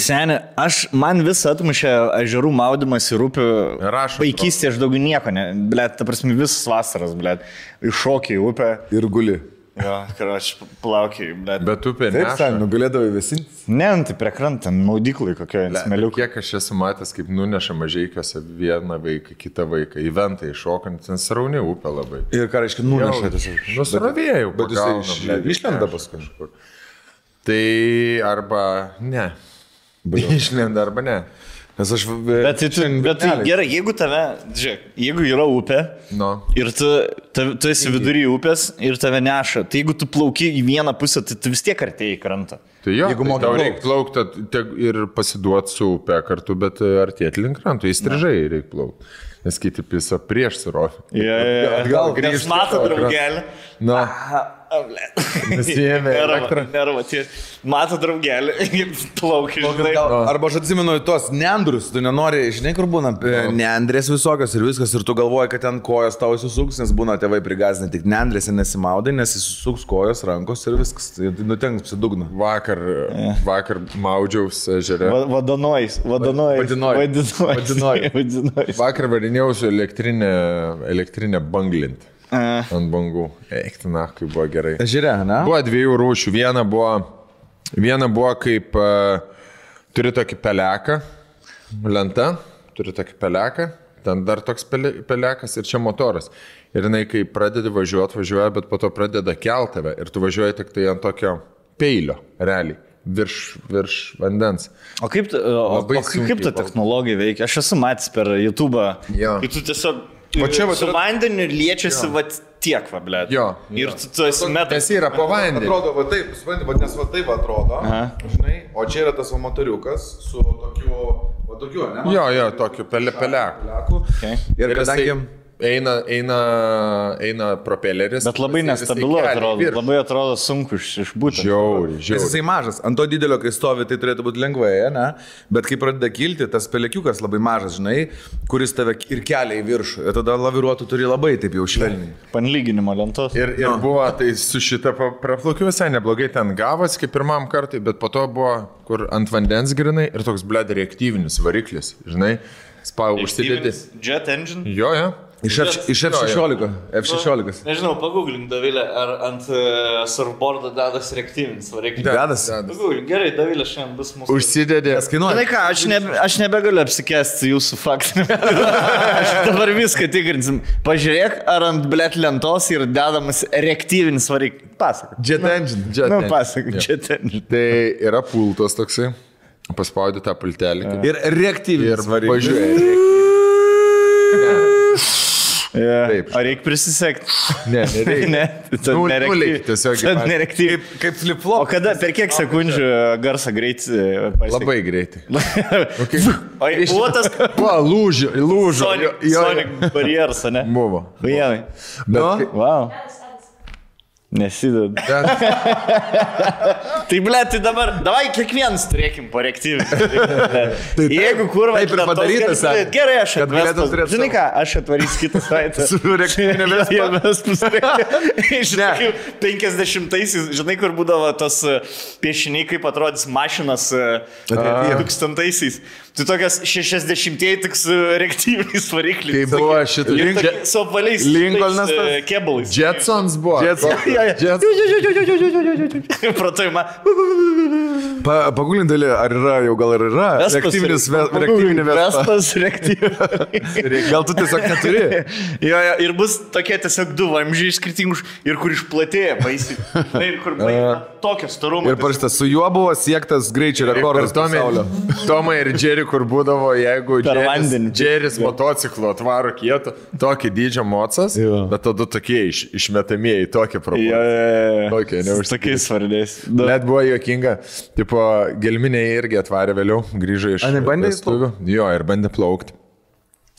Seni, man vis atmušė ežerų maudimas į upių. Vaikystėje aš daugiau nieko, blėt, ta prasme visas vasaras, blėt, iššokė į upę. Ir guli. Jo, aš plaukiai, blėt. Bet upė Taip, neša. nugalėdavai visi. Ne, tai prie krantą, maudyklai kokioje smeliukė. Kiek aš esu matęs, kaip nuneša mažeikiuose vieną vaiką, kitą vaiką, į ventą iššokant, ten srauni upė labai. Ir ką reiškia nuneša tiesiog. Nusravėjau, Bet jisai išlenda paskui. Tai arba ne. Išlenda arba ne. Nes aš... Bet tai gerai, jeigu tave, žiūrėk, jeigu yra upė ir tu esi vidury upės ir tave neša, tai jeigu tu plauki į vieną pusę, tai tu vis tiek artėjai į krantą. Tai jo, jeigu tau reikia plaukti ir pasiduoti su upė kartu, bet artėti link kranto, įstrižai reikia plaukti. Nes kiti pisa prieš surovį. Atgal grįžti. Nes mato draugelį. Na. Nesijėmė elektrą. Nerva, mato draugelį, plaukia. Arba aš atsimenu tos neandrus, tu nenori, žinai, kur būna neandrės visokios ir viskas, ir tu galvoji, kad ten kojas tau įsisuks, nes būna tėvai prigazinę tik neandrėse nesimaudai, nes įsisuks kojos, rankos ir viskas, tai nutenks psidugna. Vakar maudžiaus ežere. Vadinojus. Vakar varinėjau su elektrinė banglint. Ant bangų. Eiktina, kaip buvo gerai. Ežere, ne? Buvo dviejų rūšių. Viena buvo kaip turi tokį peleką, lenta, turi tokį peleką, ten dar toks pelekas ir čia motoras. Ir jinai, kai pradedi važiuoja, bet po to pradeda kelt tave ir tu važiuoji tik tai ant tokio peilio, realiai. Virš vandens. O kaip ta technologija veikia? Aš esu matęs per YouTube, kai tu tiesiog su vandeniu liečiasi tiek, blėt. Jo. Ir tu esi metas. Tas yra po vandeniu. Atrodo, taip, nes taip atrodo, žinai, o čia yra tas motoriukas su tokiu, ne? Jo, tokiu peleku. Ir kadangi... Eina propeleris. Bet labai nestabilu atrodo, labai atrodo sunku išbūti. Žiauri. Nes jisai mažas, ant to didelio, kai stovi, tai turėtų būti lengvai, ne? Bet kai pradeda kilti, tas pelekiukas labai mažas, žinai, kuris tave ir kelia į viršų. Ir tada laviruotų turi labai taip jau švelniai. Panlyginimo lentos. Ir buvo, tai su šitą praplaukiu visai neblogai ten gavas, kaip pirmam kartui, bet po to buvo, kur ant vandens grinai ir toks bled reaktyvinis variklis, žinai, užsidėti. Jet engine? Jo. Iš F16. Nežinau, pagooglink, Davilė, ar ant surfboardo dedas reaktyvinis variklis. Dedas. Pagooglink, gerai, Davilė šiandien bus mūsų. Užsidėdė. Žinai ką, aš nebegaliu apsikesti jūsų faktą. Aš dabar viską tikrinsim. Pažiūrėk, ar ant blėt lentos yra dedamas reaktyvinis variklis. Pasak. Jet engine. Pasak, jet engine. Tai yra pultas toksai. Paspaudė tą pultelį. Ir reaktyvinis variklis. Pažiūrėk. Taip. Ar reikia prisisekti? Ne, nereikia. Nereaktyviai. Kaip flip-flop. O kada, per kiek sekundžių garsą greit pasiekti? Labai greitai. O buvo tas... Lūžo. Sonic barjeras, ne? Buvo. Vienai. Wow. Nesideda. Tai blėt, tai dabar, davai kiekvienas turėkim po reaktyvinį. Jeigu kurva... Taip ir padarytas. Gerai, aš atvestu. Žinai ką, aš atvarysiu kitą savaitę. Su reaktyvinė Vespa. Iš 50-aisiais, žinai, kur būdavo tos piešiniai, kaip atrodys mašinas 2000-aisiais. Tai tokias 60-ieji tik su reaktyviniais varikliais. Kaip buvo šitą... Su apvaliais kebalais. Jetsons buvo. Pratojama. Pagulindalį, ar yra, jau gal ir yra reaktyvinė Vespas reaktyvinė. Gal tu tiesiog neturi? Ir bus tokie tiesiog du vamžiai skirtingus ir kur išplatėja baisiai. Ir kur tokio storumo. Ir parašyta, su juo buvo siektas greičio rekordas pasaulio. Tomai ir Jerry, kur būdavo, jeigu Jerry's motociklo atvaro kietų, tokį dydžio mocas, bet tada tokie išmetamieji, tokie proporcijai. Tokie, neužtikrinti. Tokiais svardiais. Net buvo juokinga. Tipo, gelminė irgi atvarė vėliau, grįžo iš vestuvių. Jo, ir bandė plaukti.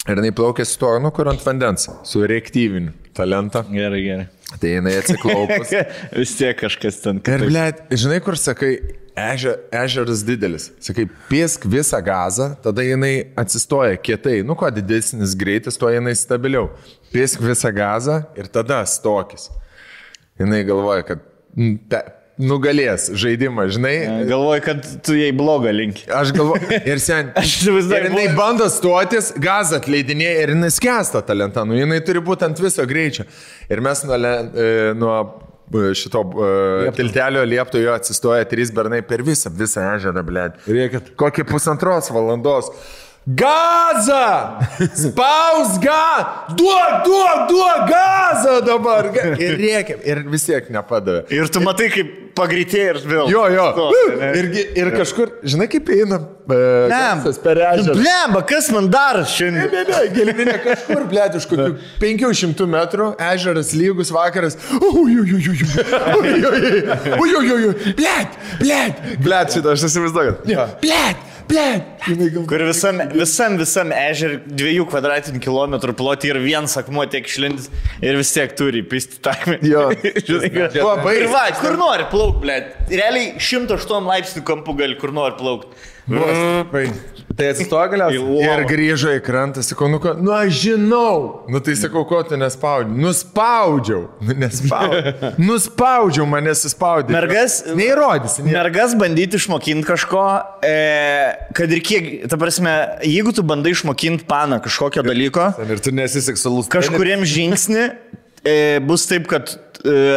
Ir jinai plaukė su to, kur ant vandens, su reaktyviniu talentą. Gerai. Tai jinai atsiklaupus. Vis tiek kažkas ten. Ir, blėt, žinai, kur sakai, ežeras didelis. Sakai, piesk visą gazą, tada jinai atsistoja kietai. Nu, kuo didesnis greitis, tuo jinai stabiliau. Piesk visą gazą ir tada stokis. Jinai galvoja, kad nugalės žaidimą, žinai. Galvoju, kad tu jai blogą linki. Aš galvoju, ir ir jinai bando stotis, gazą atleidinėja ir jinai skęsta tą lentą, nu jinai turi būti ant viso greičio. Ir mes nuo šito tiltelio liepto jo atsistoja 3 bernai per visą ežerą, blėt. Rėkit. Kokį 1,5 valandos. Gazą! Spaus duok gazą dabar! Ir rėkiam, ir vis tiek nepadavė. Ir tu matai, kaip pagreitėjai ir vėl. Jo. Ir kažkur, žinai, kaip einam. Gazas per ežerą. Blemba, kas man dar šiandien? Ne, gelminė kažkur, blėt, už kokių 500 metrų, ežeras lygus vakaras. Blėt, šitą aš įsivaizduoju. Blėt. Kur visam ežer 2 kvadratinių kilometrų plotį ir vienas akmuo tiek išlindis ir vis tiek turi pisti takmę. Jo. Ir va, kur nori plauk, blėt. Realiai 108 laipsnių kampų gali kur nori plaukti. Tai atsistoja galiausiai. Ir grįžo į krantą, sakau, nu aš žinau. Nu tai sakau, ko tu nespaudžiau. Nuspaudžiau, man nesispaudė. Neįrodysi. Mergas bandyti išmokinti kažko, kad ir kiek, ta prasme, jeigu tu bandai išmokinti paną kažkokio dalyko, ir tu nesi seksualus. Kažkuriem žingsnį bus taip, kad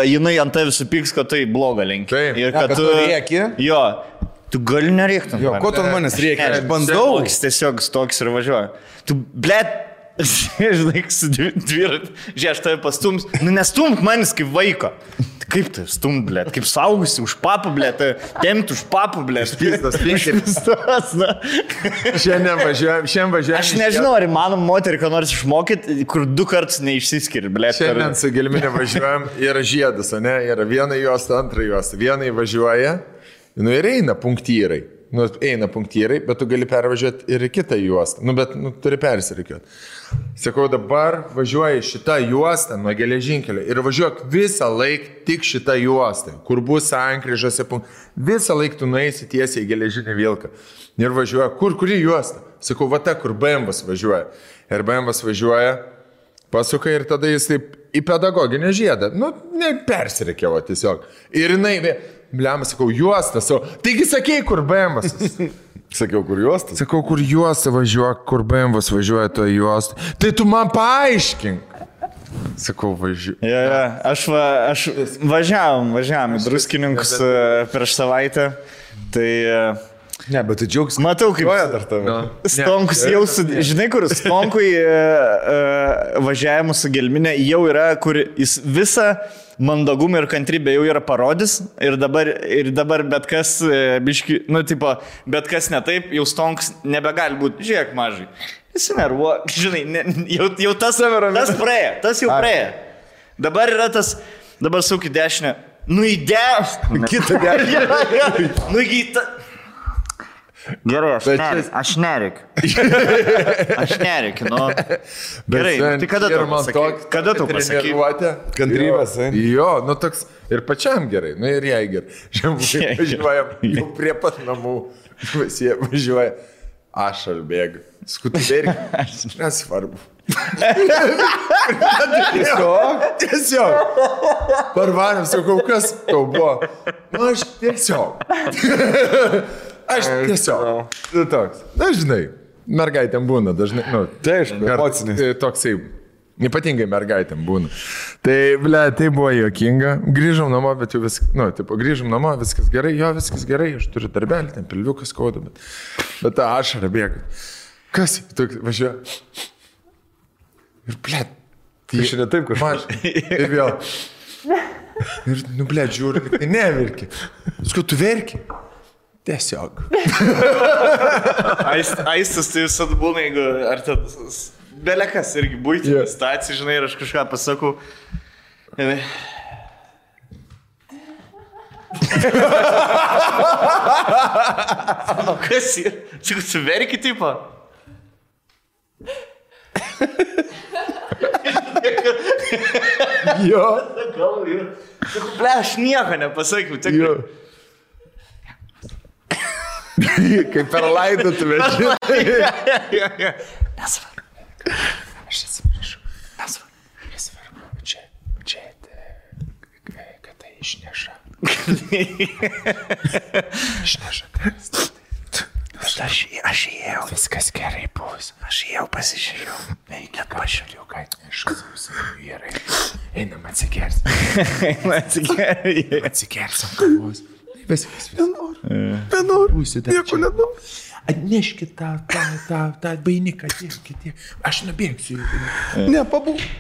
jinai ant tavęs supyks, kad tai bloga link. Ir kad tu rėki. Jo. Tu gali nerėkti. Jo, ko tu manęs reikia? Aš bandau. Tiesiog stoks ir važiuoju. Tu, blėt, žinai, su dviratį. Žiūrėk, aš tave pastums. Nu, nestumk manis kaip vaiko. Kaip tai stumt, blėt? Kaip saugusi už papą, blėt? Temti už papą, blėt? Pistas. Šiandien važiuojam. Aš nežinau, ar įmanom moterį, ką nors išmokyti, kur 2 kartus neišsiskiri, blėt. Šiandien su Gelminė važiuojam, yra žiedas, o ne? Yra viena juosta, antra juosta. Viena važiuoja. Nu ir eina punktyrai, bet tu gali pervažiuoti ir į kitą juostą, bet turi persirikiuoti. Sakau, dabar važiuoji šitą juostą nuo geležinkelio ir važiuok visą laiką tik šitą juostą, kur bus sankryžose punktai. Visą laiką tu nueisi tiesiai į geležinį vilką ir važiuoja, kuri juosta? Sakau, va ta, kur BMW'as važiuoja. Ir BMW'as važiuoja, pasuka ir tada jis taip į pedagoginę žiedą, persirikiavo tiesiog. Ir jinai... Bliamas, sakau, juostas, taigi sakei, kur BMW'as. Sakiau, kur juostas? Sakau, kur juosta važiuoja, kur BMW'as važiuoja to juostą. Tai tu man paaiškink. Sakau, važiuoju. Aš važiavom į Druskininkus prieš savaitę. Tai... Ne, bet tu džiaugs. Matau, kaip... Stonkus jau žinai, kur Stonkui važiavimu su Gelminė jau yra, kur jis visą mandagumą ir kantrybę jau yra parodys ir dabar bet kas, biški, bet kas ne taip, jau Stonkus nebegali būti. Žiūrėk, mažai. Jis nervuo, žinai, jau tas praėjo, tas jau praėjo. Dabar yra tas, dabar suk į dešinę. Nu į dešinę. Kitą dešinę. Nu į tą. Gerai, aš nerikiu. Nu. Gerai, tai kada tu pasakai? Kantrybės, jo, toks ir pačiam gerai, ir jai gerai. Važiuojam jau prie pat namų, važiuoja, aš albėgiu, skutubėriu, nesvarbu. Tiesiog. Parvarėm, sakau, kas tau buvo? Aš tiesiog. Aš tiesiog. Toks. Dažnai. Mergaitėm būna, dažnai. Tai aišku, emocinis. Toksai. Ypatingai mergaitėm būna. Tai buvo juokinga. Grįžom namo, bet jau viskas, grįžom namo, viskas gerai, viskas gerai, aš turiu darbelį, ten pilviukas skauda, bet ta ašara bėga. Kas? Toks važiuoja. Ir tai šiandien taip kažkaip. Ir vėl. Ir, žiūri, tai neverki. Skau, tu verki? Tiesiog. Aistas tai visada būna, jeigu ar tas belekas irgi būtinė situacija, žinai, ir aš kažką pasakau. Kas yra? Sakau, tu verki tipo? Jo. Sakau, aš nieko nepasakiau. Jo. Kaip per laidotuvę. Nesvarbu. Aš atsiprašau. Nesvarbu. Čia, kad tai išneša. Aš įėjau. Viskas gerai bus. Aš įėjau pasižiūrėjau. Net pažiūrėjau, ką neškas gerai. Einam atsigersim. Atsigersim kavos. Viskas. Vienur. Nieko nenoriu. Atneškit tą bainiką tiek. Aš nubėgsiu. Ne, pabūsiu.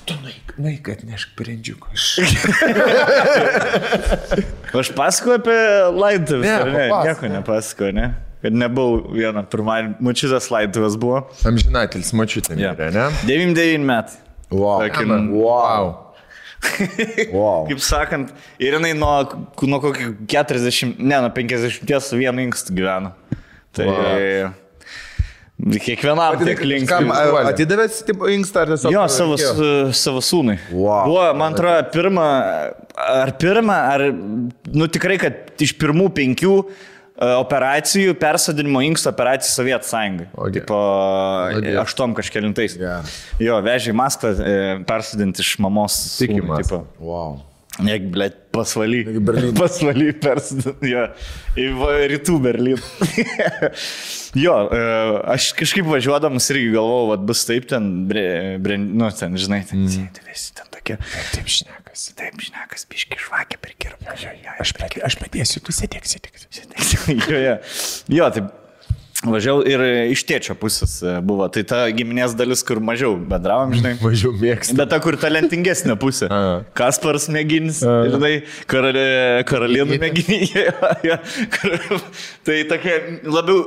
Tu nueik atnešk brendžiuką. Aš pasakoju apie laidotuvės, ne? Nieko nepasakoju, ne? Kad nebuvau vieną pirmąjį, močiutės laidotuvės buvo. Amžinatelis močiutė, ne? 99 metai. Wow. Kaip sakant, ir jinai nuo kokio 40, nuo 50 su vienu inkstu gyvena. Tai kiekvienam tiek linksmai. Atidavėt inkstą ar tiesiog? Jo, savo sūnui. Buvo, man atrodo, pirmą, tikrai, kad iš pirmų 5 operacijų, persodinimo inksto operacijų Sovietų Sąjungai. Tipo, 8 kažkelintais. Jo, vežė į Maskvą persodinti iš mamos. Tikimas. Wow. Negi, blėt, pasvaly persodinti. Jo, į rytų Berlyną. Jo, aš kažkaip važiuodamas irgi galvojau, vat bus taip ten, ten, žinai, ten sėdėsi, ten tokia. Taip šnekas, biški žvakė prikirpa. Aš padėsiu, tu sėdėk. Jo, taip važiavau ir iš tėčio pusės buvo. Tai ta giminės dalis, kur mažiau bendravom, žinai. Mažiau mėgsti. Bet ta, kur talentingesnė pusė. Kasparas Mėginis, žinai, Karalienų Mėginį. Tai tokia labiau,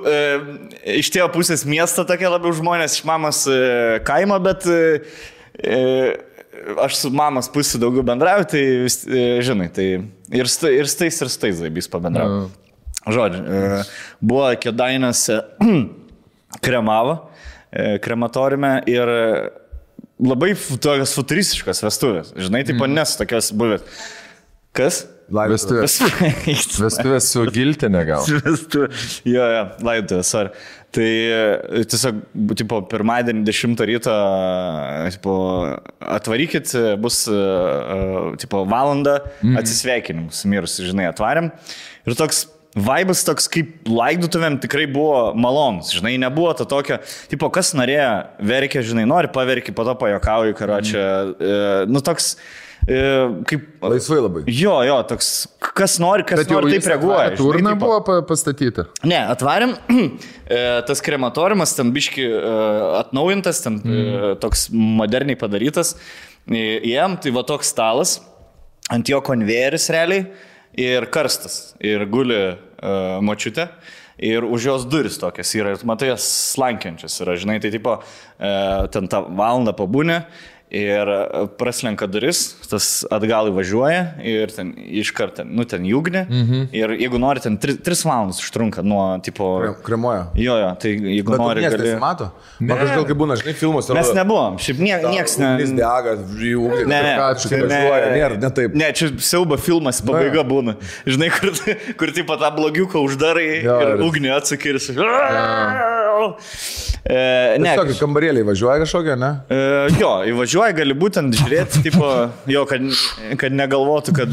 iš tėvo pusės miesto tokia labiau žmonės, iš mamos kaimo, bet aš su mamos pusė daugiau bendrauju, tai, žinai, tai ir stais zaibys pabendrauju. Žodžiu, buvo Kėdainiuose kremavo, krematoriume ir labai tokios futuristiškos vestuvės. Žinai, taip nes tokios buvęs. Kas? Vestuvės su giltinė gal. Jo, laidotuvės, sorry. Tai tiesiog, tipo, pirmadienį 10 ryto atvarykit, bus, tipo, valandą atsisveikinimų su mirusiu, žinai, atvarėm. Ir toks vaibas toks kaip laidotuvėm tikrai buvo malonus, žinai, nebuvo to tokio, tipo, kas norėjo, verkia, žinai, nori paverki, po to pajokauji, karočią, toks, kaip... Laisvai labai. Jo, toks, kas nori, taip reaguoja. Turna buvo pastatyta? Ne, atvarėm, tas krematoriumas, ten biški atnaujintas, ten toks moderniai padarytas, jiem, tai va toks stalas, ant jo konvejeris realiai, ir karstas, ir guli močiutė, ir už jos duris tokias yra, ir matai, jas slankiančias yra, žinai, tai tipo, ten tą valandą pabūnė, ir praslenka duris, tas atgal įvažiuoja ir ten iškart, ten jūgnė ir jeigu nori, ten 3 valandas užtrunka nuo, tipo... Kremuoja. Jo, tai jeigu nori... Bet gali... nesimato? Man kažkaip kaip būna, žinai, filmuose... Mes nebuvom, šiaip nieks ne... Ugnis dega, jūgnė, ne taip. Ne, čia siaubo filmas, pabaiga būna. Žinai, kur tipo tą blogiuką uždarai ir ugnį atsakė ir sakai... Tiesiog kambarėliai važiuoja kažkokia, ne? Jo, įvažiuoja, gali būtent žiūrėti, tipo, jo, kad negalvotų, kad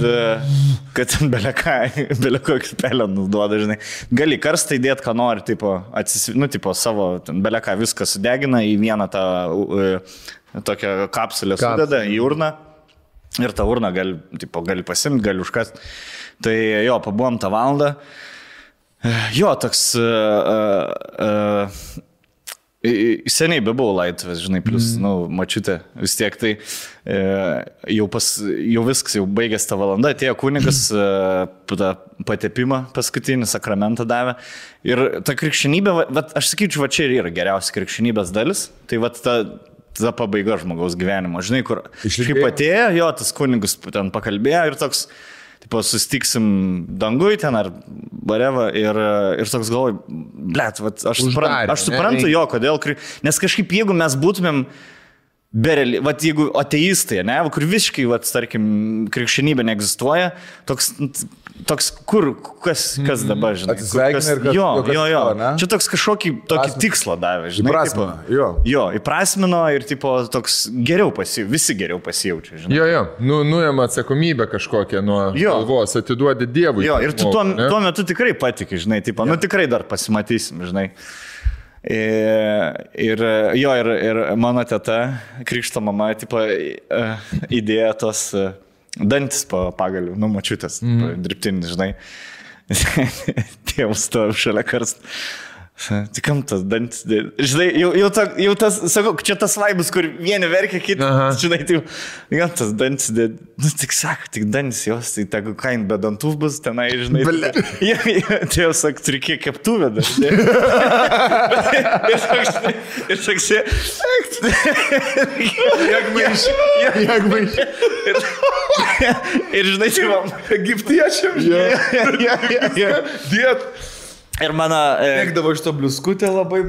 ten belekokį pelenus duoda, žinai. Gali karstą įdėti, ką nori, tipo, tipo savo, beleką viską sudegina į vieną tą tokią kapsulę sudeda į urną ir tą urną gali pasimti, gali užkasti. Tai jo, pabuvom tą valandą. Jo, toks... Seniai bebuvau laidotuvės, žinai, plus, mačiutė, vis tiek tai jau viskas, jau baigęs tą valandą, atėjo kunigas, patepimą paskutinį sakramentą davė. Ir ta krikščionybė, aš sakyčiau, čia ir yra geriausia krikščionybės dalis, tai ta pabaiga žmogaus gyvenimo, žinai, kur kaip atėjo, jo, tas kunigas ten pakalbėjo ir toks... Tipo, sustiksim dangui ten ar bareva ir toks galvoju, blet, aš suprantu jo, kodėl, nes kažkaip jeigu mes būtumėm jeigu ateistai, ne, kur visiškai, tarkim, krikščionybė neegzistuoja, toks toks, kas dabar, žinai. Atsisveikina ir kas. Jo. Čia toks kažkokį tokį tikslą davė, žinai. Įprasmino, jo, įprasmino ir tipo toks geriau visi geriau pasijaučia, žinai. Jo, nuėma atsakomybę kažkokią nuo galvos, atiduodi Dievui. Jo, ir tu tuo metu tikrai patiki, žinai, tipo, tikrai dar pasimatysim, žinai. Ir mano teta, krikšto mama, tipo, įdėjo tos dantis pagalių, močiutės, dirbtinis, žinai. Tėvus to šalia karst. Tai kam tas dantis, žinai, jau tas, sakau, čia tas vaibus, kur vieni verkia, kiti, žinai, tai jau tas dantis, tik sako, tik dantis jos, tai tegu kain be dantų bus tenai, žinai. Tai jau sak, turi kiek keptuvę dar. Ir saksė, ir žinai, tai man, egiptiečiam, diet. Ir mano... Mėgdavo iš to bliuskutę labai.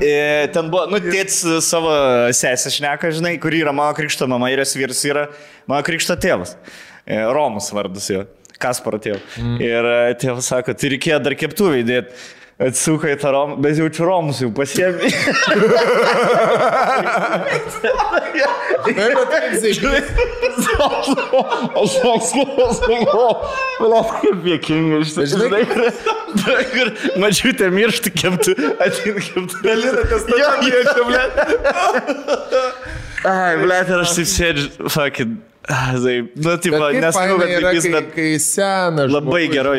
Ten buvo, tėtis savo sesę šneka, žinai, kuri yra mano krikšto mama ir jos vyras yra mano krikšto tėvas. Romus vardas jo, Kasparo tėvas. Ir tėvas sako, tai reikėjo dar keptuvę įdėti. Atsuka į tą romą, bet jaučiu romus jau pasiemi. Aš kaip jėkingai žinai, kur mačiutė mirštų keptų, atin keptų. Galinatės tą jėčią, Ai, blėt, ir aš taip sėdžiu, fucking... tipo, nesakau, kad vaikys, bet kai senas labai gerai.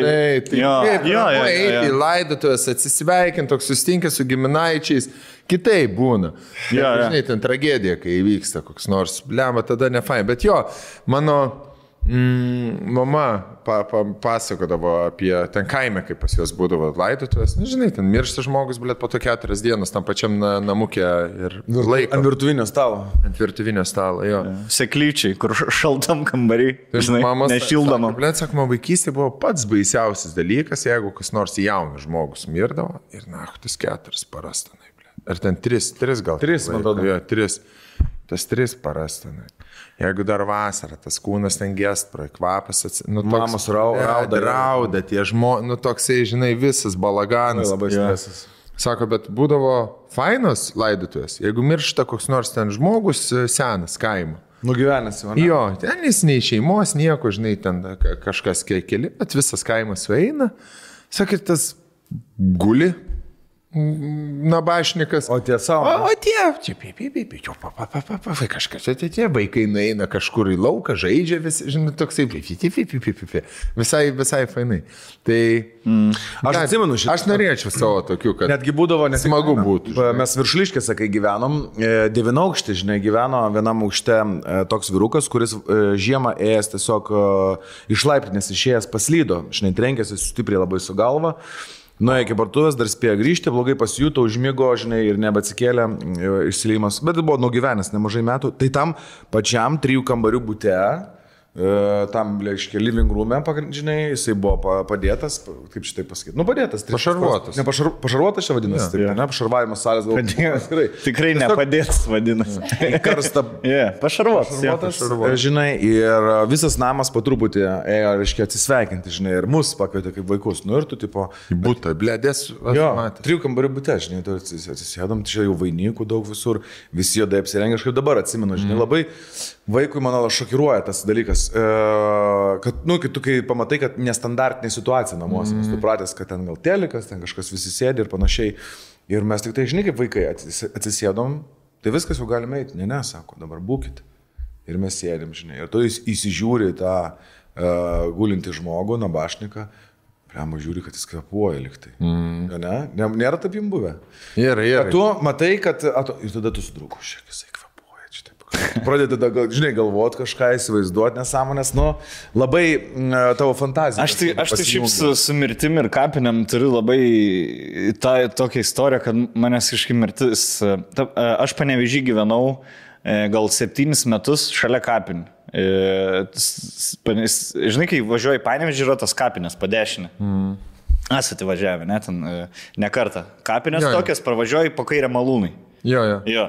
Jo, eiti į laidotuvės, atsisveikinti, toks sustinkęs su giminaičiais, kitaip būna. Žinai, ten tragedija, kai įvyksta koks nors, blema, tada ne fain. Bet jo, mano mama pasakodavo apie ten kaime, kaip pas jos būdavo laidotuvės. Žinai, ten miršta žmogus, blėt, po to 4 dienas tam pačiam namukė ir laiko. Ant virtuvinio stalo. Ant virtuvinio stalo, jo. Seklyčiai, kur šaltam kambarį, žinai, nešildama. Blėt, sakoma, vaikystė buvo pats baisiausias dalykas, jeigu kas nors jaunas žmogus mirdavo ir tas 4 paras tenai, blėt. Ar ten 3 gal? 3, man atrodo. Jo, 3. Tas 3 paras tenai. Jeigu dar vasara, tas kūnas ten gest, kvapas, mamos rauda, tie žmonės, toksai, žinai, visas balaganas. Labai stresas. Sako, bet būdavo fainos laidotuvės, jeigu miršta koks nors ten žmogus senas kaimo. Nugyvenęs jau, ne? Jo, ten jis nei šeimos, nieko, žinai, ten kažkas keli, bet visas kaimas sueina. Sakai, tas guli. Nabašnikas. O tie savo. O tie, kažkas, tie vaikai nueina kažkur į lauką, žaidžia, žinai, toksai, visai fainai. Tai, aš atsimenu šitą. Aš norėčiau savo tokių, kad netgi būdavo, smagu būtų. Mes Viršuliškėse, kai gyvenom, 9 aukštė, žinai, gyveno vienam aukšte toks vyrukas, kuris žiemą ėjęs tiesiog iš laiptinės išėjęs paslydo, žinai, trenkėsi stipriai labai su galva. Nuėjo iki parduotuvės, dar spėjo grįžti, blogai pasijuto, užmigo, žinai, ir nebeatsikėlė išsileimas, bet buvo nugyvenęs nemažai metų. Tai tam pačiam 3 kambarių bute, tam, reiškia, living room'e, žinai, jisai buvo padėtas, kaip šitai pasakyti, padėtas. Pašarvuotas. Ne, pašarvuotas čia vadinasi, taip, ne, pašarvavimas salės galbūt. Tikrai nepadėtas vadinasi. Karsta. Pašarvuotas. Žinai, ir visas namas po truputį ėjo, reiškia, atsisveikinti, žinai, ir mus pakvietė kaip vaikus. Nu ir tu, tipo... Į butą, blėdės. Jo, 3 kambarių bute, žinai, tu atsisėdom, čia jau vainikų daug visur, visi juodai apsirengę, aš kaip dabar atsimenu, žinai, labai vaikui, mano, šokiruoja tas dalykas, kad, kai tu pamatai, kad nestandartinė situacija namuose, nes tu pratęs, kad ten gal telikas, ten kažkas visi sėdi ir panašiai. Ir mes tik tai, žinai, kaip vaikai atsisėdom, tai viskas jau galime eiti. Ne, sako, dabar būkit. Ir mes sėdim, žinai. Ir tu įsižiūri tą gulintį žmogų, nabašniką, priamo žiūri, kad jis kvepuoja liktai. Ne? Nėra taip jums buvę? Yra. Tu matai, kad... Ir tada tu sudrūku, šiek jisai kvepuoja. Pradedi, žinai, galvoti kažką, įsivaizduoti nesąmonės, labai tavo fantazija. Aš tai šiaip su mirtim ir kapiniam turiu labai tokią istoriją, kad manęs kažkaip mirtis... Aš Panevėžy gyvenau gal 7 metus šalia kapinių. Žinai, kai važiuoji į Panevėžį, yra tos kapinės padešinė. Esate važiavę, ne, ten ne kartą. Kapinės tokias, pravažiuoji po kairę malūnai. Jo.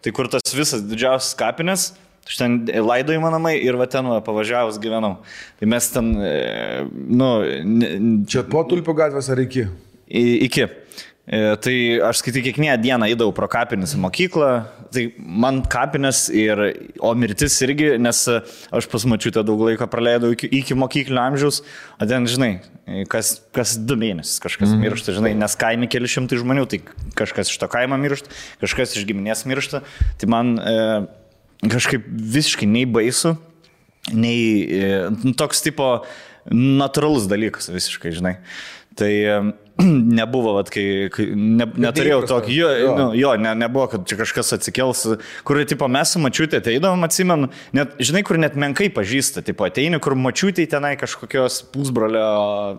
Tai kur tas visas didžiausias kapinės, Aš ten laidojimo namai ir va ten pavažiavus gyvenau. Tai mes ten, Čia po Tulpių gatvės ar iki? Iki. Tai aš skaitai kiekvieną dieną įdavau pro kapines į mokyklą, tai man kapines o mirtis irgi, nes aš pas mačiutę daug laiko praleidau iki mokyklinio amžiaus, o ten, žinai, kas 2 mėnesius kažkas miršta, žinai, nes kaime keli šimtai žmonių, tai kažkas iš to kaimo miršta, kažkas iš giminės miršta, tai man kažkaip visiškai nei baisu, nei toks tipo natūralus dalykas visiškai, žinai. Tai nebuvo, kai neturėjau tokį, nebuvo, kad čia kažkas atsikels, kur, tipo, mes su mačiutė ateidavom, atsimenu, net, žinai, kur net menkai pažįsta, tipo, ateini, kur mačiutė tenai kažkokios pusbrolio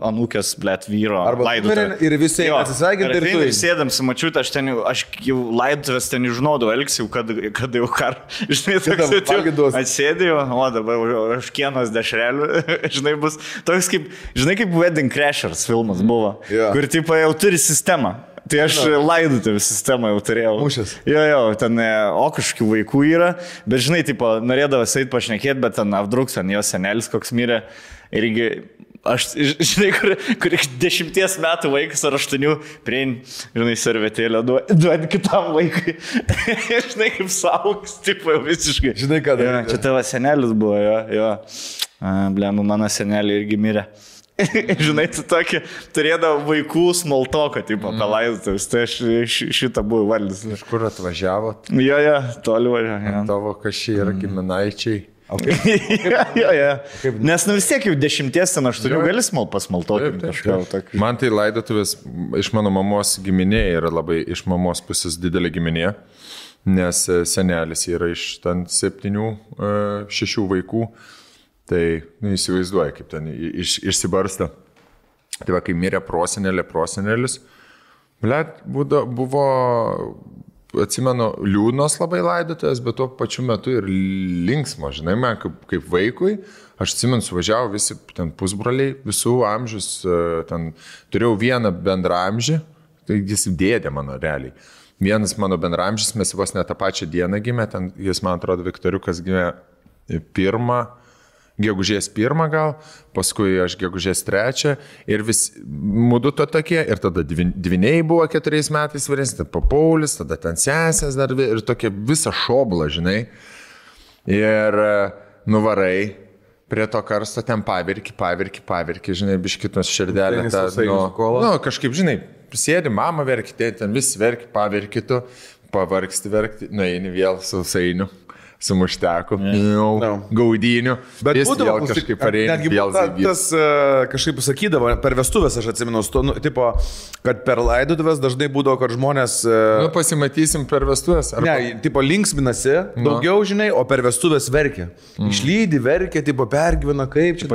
anūkės, blėt, vyro laidotuvė. Ir visi atsisveikinti ir tu. Ir sėdam su mačiutė, aš jau laidotuvės ten žinodavau, elgsiu, kad jau žinai, toks atsėdėjau, o dabar aš kienos dešrelių, žinai, bus toks kaip, žinai, kaip Wedding Crashers filmas buvo, kur tipo jau turi sistemą. Tai aš laidotuvę sistemą jau turėjau. Mūšės. Jo, ten kažkokių vaikų yra, bet žinai, tipo, norėdavas eit pašnekėti, bet ten apdruks, ten jo senelis koks mirė. Irgi, aš, žinai, kur 10 metų vaikas ar 8 priein, žinai, servetėlę duodi kitam vaikui. Žinai, kaip saugs, tipo, jau visiškai. Žinai, ką dar. Čia tavo senelis buvo, jo. Blemu, mano senelį irgi mirė. Žinai, tu tokį turėdavo vaikų smoltoką, tipo, palaidotuvės, tai aš šitą buvau valdys. Iš kur atvažiavot? Jo, toli važiavo. Tavo kažkai yra giminaičiai. Jo. Nes vis tiek jau 10-8 gali pasmaltoti kažką. Man tai laidotuvės iš mano mamos giminė yra labai, iš mamos pusės didelė giminė, nes senelis yra iš ten 7-6 vaikų. Tai įsivaizduoja, kaip ten išsibarsta. Tai va, kai mirė prosenelis, buvo, atsimenu, liūdnos labai laidotuvės, bet tuo pačiu metu ir linksmo, žinai, man kaip vaikui. Aš atsimenu, suvažiavo visi ten pusbroliai, visų amžius, ten turėjau vieną bendramžį, tai jis dėdė mano realiai. Vienas mano bendramžis, mes vos ne tą pačią dieną gimė, ten jis, man atrodo, Viktoriukas gimė gegužės 1 gal, paskui aš gegužės 3 ir vis mudu to tokie, ir tada dviniai buvo 4 metais vyresni, tada Paulius, tada ten sesės dar ir tokia visa šobla, žinai. Ir nuvarai prie to karsto ten pavirki, žinai, biškitos širdelė. Kažkaip, žinai, sėdi, mama verki, ten vis verki, pavirki tu, pavargsti verkti, nueini vėl sausainiu. Su mušteku, gaudyniu, bet jis vėl kažkaip pareina. Netgi tas kažkaip sakydavo, per vestuvės aš atsimenu, tipo, kad per laidotuvės dažnai būdavo, kad žmonės... pasimatysim per vestuvės. Ne, tipo, linksminasi daugiau, žinai, o per vestuvės verkia. Išlydi, verkia, tipo, pergyvena, kaip čia...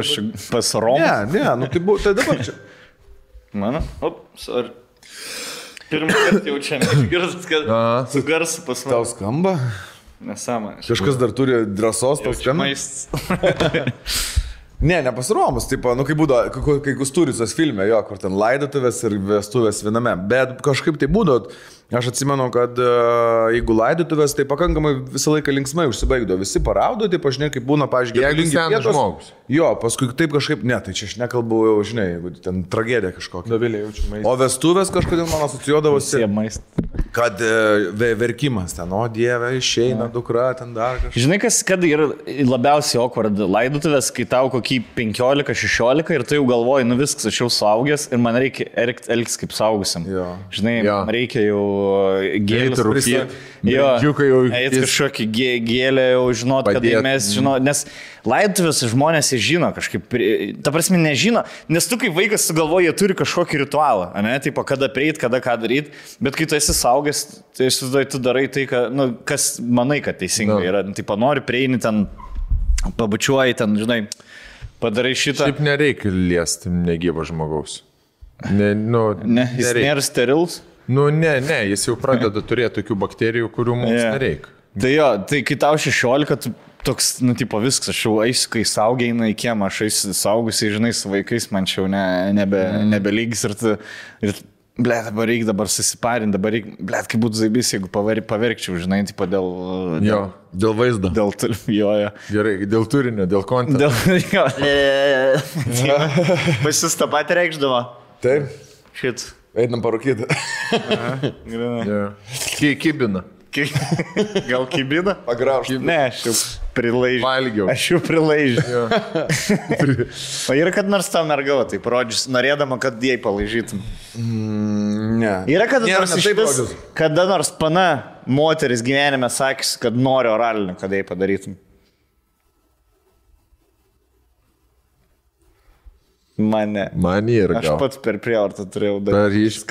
Pasirom? Ne, tai dabar čia. Mano? Sorry. Pirmą kartą jau čia išgirdus, kad su garsu pas mane. Tau skamba? Nesąmonė. Kažkas dar turi drąsos paskambinti. Nepasiromus, tipo, kai būdavo, kai Kusturicos filme, jo, kur ten laidotuvės ir vestuvės viename, bet kažkaip tai būdavo, aš atsimenu, kad jeigu laidotuvės, tai pakankamai visą laiką linksmai užsibaigdavo, visi paraudo, tai pažinai, kaip būna, pažiūrėjau, jeigu senas žmogus. Jo, paskui taip kažkaip, tai čia aš nekalbu jau, žinai, jeigu ten tragedija kažkokia. Dovilė jaučiu maistą. O vestuvės kažkodėl man asocijuodavosi, kad verkimas ten, o Dieve, išeina dukra, ten dar kažkas. Žinai, kad yra labiausiai awkward laidotuvės, kai tau kokį 15-16 ir tu jau galvoji, viskas, aš jau suaugęs ir man reikia elgtis kaip suaugusiam. Žinai, man reikia jau gėlės rūpėti. Eit kažkokį gėlę jau žinot, kad mes žinot, nes laidotuvės žmonės žino kažkaip, ta prasme nežino, nes tu kaip vaikas sugalvoji, jie turi kažkokį ritualą, ne, tipo, kada prieit, kada ką daryti, bet kai tu esi saugęs, tai aš susidai, tu darai tai, kas manai, kad teisingai yra, tipo, nori prieini ten, pabučiuoji ten, žinai, padarai šitą. Šiaip nereikia liesti negyvo žmogaus. Jis nėra sterils? Ne, jis jau pradeda turėti tokių bakterijų, kurių mums nereikia. Tai jo, tai kai tau 16, toks, tipo viskas, aš jau eisiu, kai saugiai eina į kiemą, aš eisiu saugusiai, žinai, su vaikais, man čia jau nebelygis ir Blet, dabar reikia susiparinti, blet, kaip būtų zaibys, jeigu paverkčiau, žinai, tipo Dėl vaizdo. Gerai, dėl turinio, dėl konto. Pasis tą patį reikšdavo. Taip. Šit. Einam parūkyti. Kibina. Gal kibina? Pagraužti. Ne, aš jau prilaižiu. Valgiau. Aš jau prilaižiu. O yra kad nors tau mergavo, tai parodžius, norėdama, kad jai palaižytum. Ne. Yra kada nors pana moteris gyvenime sakys, kad nori oralinį, kad jai padarytum. Mane ir gal. Aš pats per prievartą turėjau daryti.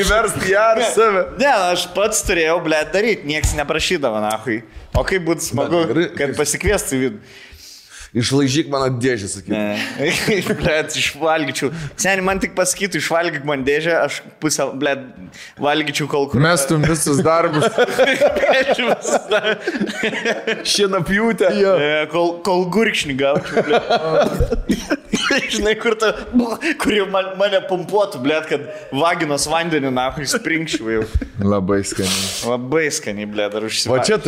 Įversti ją ar save. Ne, aš pats turėjau, blet, daryti, nieks neprašydavo, nahui. O kaip būtų smagu, kad pasikviestų vidų. Išlaižyk mano dėžę, sakyk. Ne, blet, išvalgyčiau. Seniai, man tik pasakytų, išvalgyk man dėžę, aš pusę, blet, valgyčiau kol kur. Mestum visus darbus. Šienapjūtę. Kol gurkšnį gaučiau, blet. Žinai, kur jau mane pumpuotų, blet, kad vaginos vandenį, nahui, sprinkščiau jau. Labai skaniai. Labai skaniai, blet, ar užsivalgyčiau.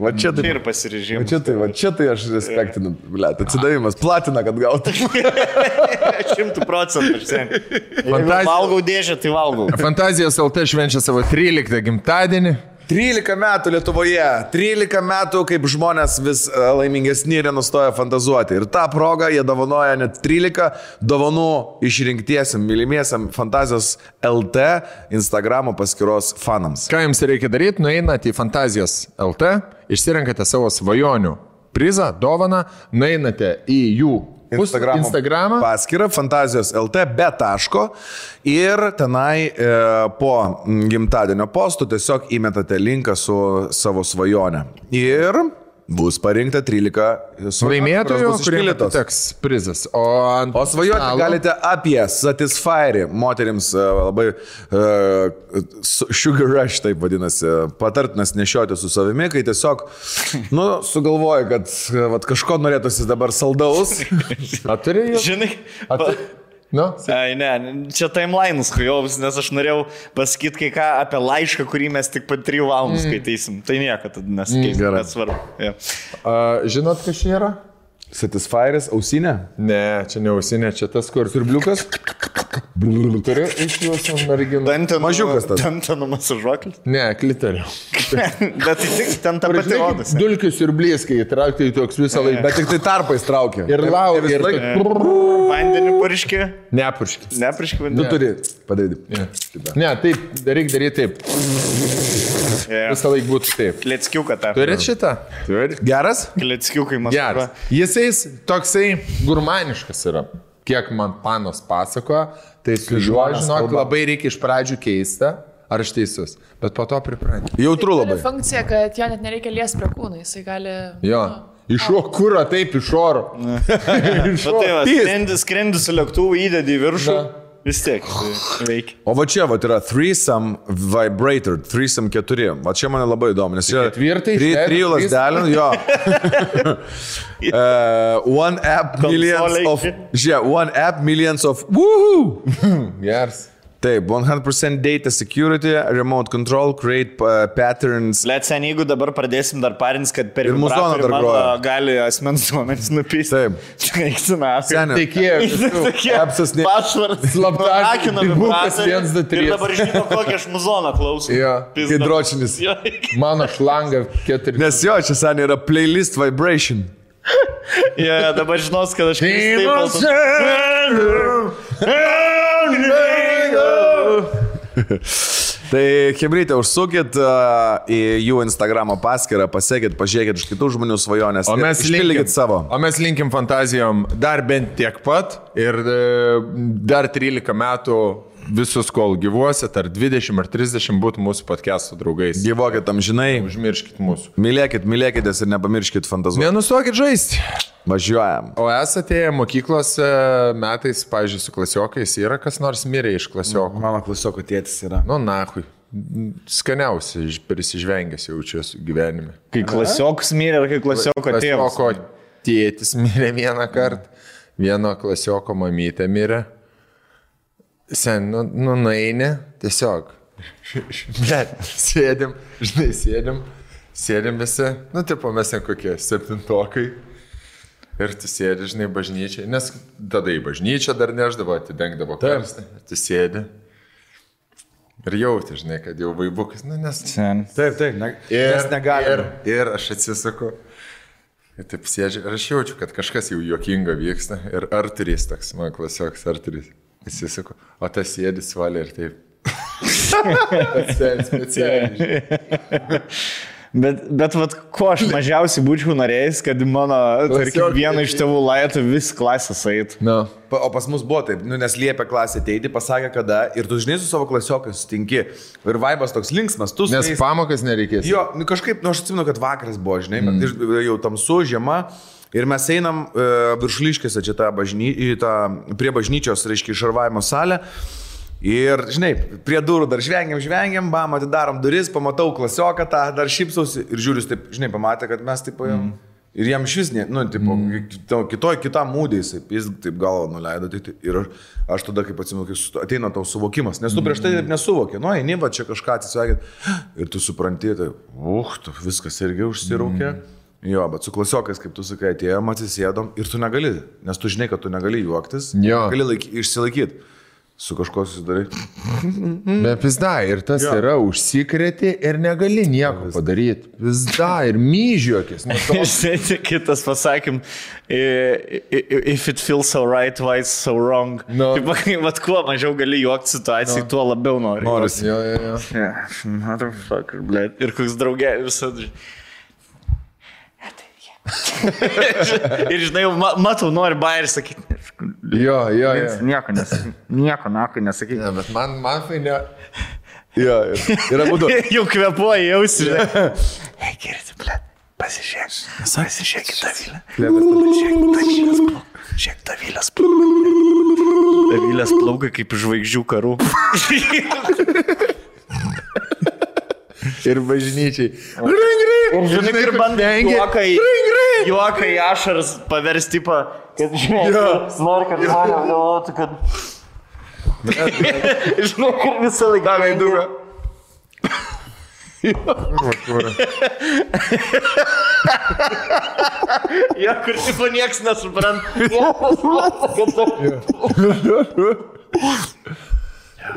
Va čia tai. Ir pasirežimas. Va čia tai aš respektinu, blet, atsidavimas, platina, kad gautų. 100%. Jeigu valgau dėžę, tai valgau. Fantazijos LT švenčia savo 13 gimtadienį. 13 metų Lietuvoje, 13 metų, kaip žmonės vis laimingesni ir nenustoja fantazuoti. Ir tą progą jie dovanoja net 13 dovanų išrinktiesiam, mylimiesiam Fantazijos LT Instagramo paskyros fanams. Ką jums reikia daryti? Nueinate į Fantazijos LT, išsirenkate savo svajonių prizą, dovaną, nueinate į jų Instagramą paskyrą Fantazijos LT be taško ir tenai po gimtadienio postų tiesiog įmetate linką su savo svajone. Ir bus parinkta 13 laimėtojų, kuriems teks prizas. O svajoti galite apie Satisfyer, moterims labai sugar rush, taip vadinasi, patartinas nešioti su savimi, kai tiesiog, sugalvoji, kad kažko norėtųsi dabar saldaus. Aturi jau? Žinai, Ai, ne, čia timeline'us kujovus, nes aš norėjau pasakyti kai ką apie laišką, kurį mes tik po 3 valandų skaitysim. Tai nieko tada nesakeisim, bet svarbu. Žinot, kas čia yra? Satisfyeris, ausinė? Ne, čia ne ausinė, čia tas kur. Siurbliukas? Turiu iš jūsų merginų. Mažiukas tas. Dantenų masažuoklis? Ne, kliterio. Bet tai tik ten ta pati odas. Dulkių siurblys, kai įtraukti į toks visą laiką. Bet tik tai tarpais traukia. Ir laukia. Vandenį purškė? Nepurškė. Nepurškė vandenį? Tu turi padaryti. Ne, taip, reikia daryti taip. Visą laiką būtų taip. Kleckiuką tą. Turit šitą? Turit. Geras? Kleckiukai masažuoja. Jisais toksai gurmaniškas yra. Kiek man panos pasakoja, tai su juo, žinok, labai reikia iš pradžių keista, ar aš teisus, bet po to priprantį. Jautru labai. Tai funkcija, kad jo net nereikia liesti prie kūno, jisai gali... Jo, iš kūro, taip, iš oro. Skrendi su lėktuvu, įdedi į viršų. Vis tiek veikia. O va čia yra Threesome Vibrator, Threesome 4. Va čia mane labai įdomu, nes čia 3 lasdelių, jo. One app millions of woohoo! Yes. Taip, 100% data security, remote control, create patterns. Let's say, jeigu dabar pradėsim dar parins, kad per vibratorių mano gali asmens duomenys nupysti. Taip. Tikėjau. Apsas ne. Pašvardas. Slaptakina vibratorių. Ir dabar žinau, kokią aš muzoną klausau. Jo, hidročinis. Mano šlanga 4. Nes jo, čia seniai yra playlist vibration. Dabar žinos, kad aš Tai chebrytė, užsukit į jų Instagramo paskyrą, pasiekit, pažiūrėkit iš kitų žmonių svajonės ir išpildykit savo. O mes linkim fantazijom dar bent tiek pat ir dar 13 metų visus, kol gyvuosit, ar 20 ar 30 būtų mūsų podcast'o draugais. Gyvokit amžinai. Užmirškit mūsų. Mylėkitės ir nepamirškit fantazuoti. Nenustokit žaisti. Važiuojam. O esate mokyklose metais, pavyzdžiui, su klasiokais, yra kas nors mirė iš klasiokų? Mano klasioko tėtis yra. Nahui. Skaniausiai prisižvengęs jaučiuosi gyvenime. Kai klasiokas mirė, ar kai klasioko tėvas? Klasioko tėtis mirė vieną kartą, vieno klasioko mamytė mirė. Sen, nueini, tiesiog. Bet, sėdim visi, tipo mes ten kokie 7-tokai. Ir tu sėdi, žinai, bažnyčiai, nes tada į bažnyčią dar neždavo, atidengdavo karstą, tu sėdi. Ir jauti, žinai, kad jau vaibukas, nes... Taip, nes negalime. Ir aš atsisuku. Ir taip sėdžiu, ir aš jaučiu, kad kažkas jau juokinga vyksta. Ir Arturys toks, man klasioks Arturys. Atsisuku, o tas sėdi svalė ir taip. Specialiai. Bet vat, ko aš mažiausiai būčiau norėjęs, kad mano, tarkim, vieną iš tėvų laitų vis klasės eitų. No. O pas mus buvo taip, nes liepia klasė ateiti, pasakė kada, ir tu žinai su savo klasiokai sutinki. Ir vaibas toks linksmas, tu nes pamokas nereikės. Jo, kažkaip, aš atsimenu, kad vakaras buvo, žinai, jau tamsu, žiema. Ir mes einam Viršuliškėse čia prie bažnyčios, reiškia, šarvavimo salę. Ir, žinai, prie durų dar žvengiam, bam, atidarom duris, pamatau klasioką tą, dar šypsausi ir žiūriu, taip, žinai, pamatė, kad mes taip paėjom. Ir jam šis, kitam mūdė jis taip galvo nuleido. Ir aš tada, kaip atsimenu, kai ateina tau suvokimas, nes tu prieš tai taip nesuvokė. Nu, eini, va čia kažką atsisveikinti. Ir tu supranti, tai, viskas irgi užsiraukė. Jo, bet su klasiokais, kaip tu sakai, atėjom, atsisėdom ir tu negali, nes tu žinai, kad tu negali juoktis, gali išsilaikyti. Su kažko susidarai. Bet pizda, ir tas yra užsikrėti ir negali nieko padaryti. Pizda, ir myžiuokis. Kitas pasakym, if it feels so right, why it's so wrong. No. Vat kuo mažiau gali juokti situacijai, tuo labiau nori. Norisi. Jo. Motherfucker, blėt. Ir koks draugė visada. Ir žinai, matau, nori bairį sakyti. Jo. Nieko nesakyti. Ne, bet man fainė. Jo, yra būdu. Jau kvepuoji, jausi. Hei, girti, blėt, pasižiūrėkit Davilę. Žiūrėk, Davilės plaukai kaip žvaigždžių karų. Ir bažnyčiai. Ir žinai, ir bandai juoką į ašaras paversti, kad žinai, nori, kad žmonės galvotų, kad... Žinai, ir visą laiką... Davai durą. Jo, kur tipo nieks nesupranta.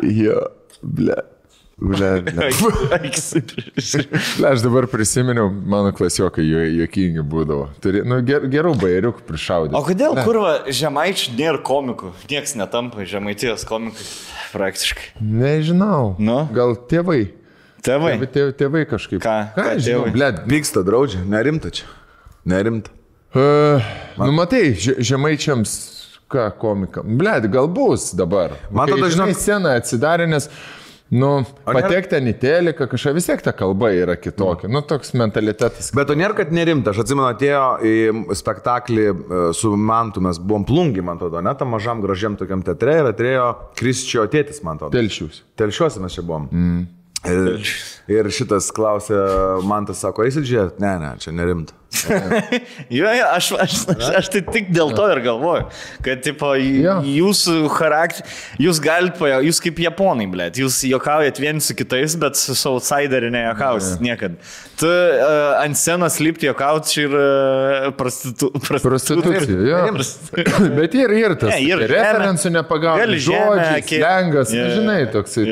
Jo, ble. Aš dabar prisiminiau, mano klasiokai juokingi būdavo. Gerų bairiukų prišaudė. O kodėl, kurva, žemaičių nėra komikų? Nieks netampa žemaitijos komikai praktiškai. Nežinau. Gal tėvai? Tėvai kažkaip. Ką žinau, blėt. Pyksta, draudžia, nerimta čia. Nerimta. Matai, žemaičiams ką komika. Blėt, gal bus dabar. Man tada žinai sceną atsidarė, nes patekti ten į teliką, kažką vis tiek ta kalba yra kitokia. Toks mentalitetas. Bet to nėra, kad nerimta. Aš atsimenu, atėjo į spektaklį su Mantu, mes buvom Plungi, man atrodo, ne, tam mažam gražiam tokiam teatre ir atėjo Krisčio tėtis, man atrodo. Telšiuose mes čia buvom. Ir šitas klausė, Mantas sako, eisit žiūrėti? Ne, čia nerimta. Jo, aš tai tik dėl to ir galvoju, kad tipo, jūsų charakterį, jūs galite, jūs kaip japonai, blėt, jūs juokaujat vieni su kitais, bet su outsideriu nejuokausit niekad. Tu ant scenos lipti juokauti čia ir prostitucija. Bet ir tas referencų nepagauni, žodžiai, slengas, žinai, toksai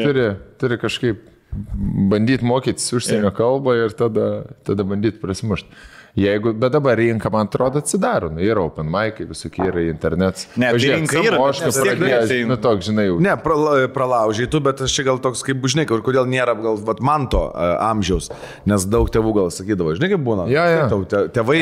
turi kažkaip bandyti mokytis užsienio kalbą ir tada bandyti prasimušti. Bet dabar rinka, man atrodo, atsidaro. Yra open mic'ai, visokie yra internetas. Ne, tai rinka yra, toks, žinai, jau. Ne, pralaužiai tu, bet aš čia gal toks, kaip, žinai, kodėl nėra gal Manto amžiaus, nes daug tėvų gal sakydavo, žinai, kaip būna. Tėvai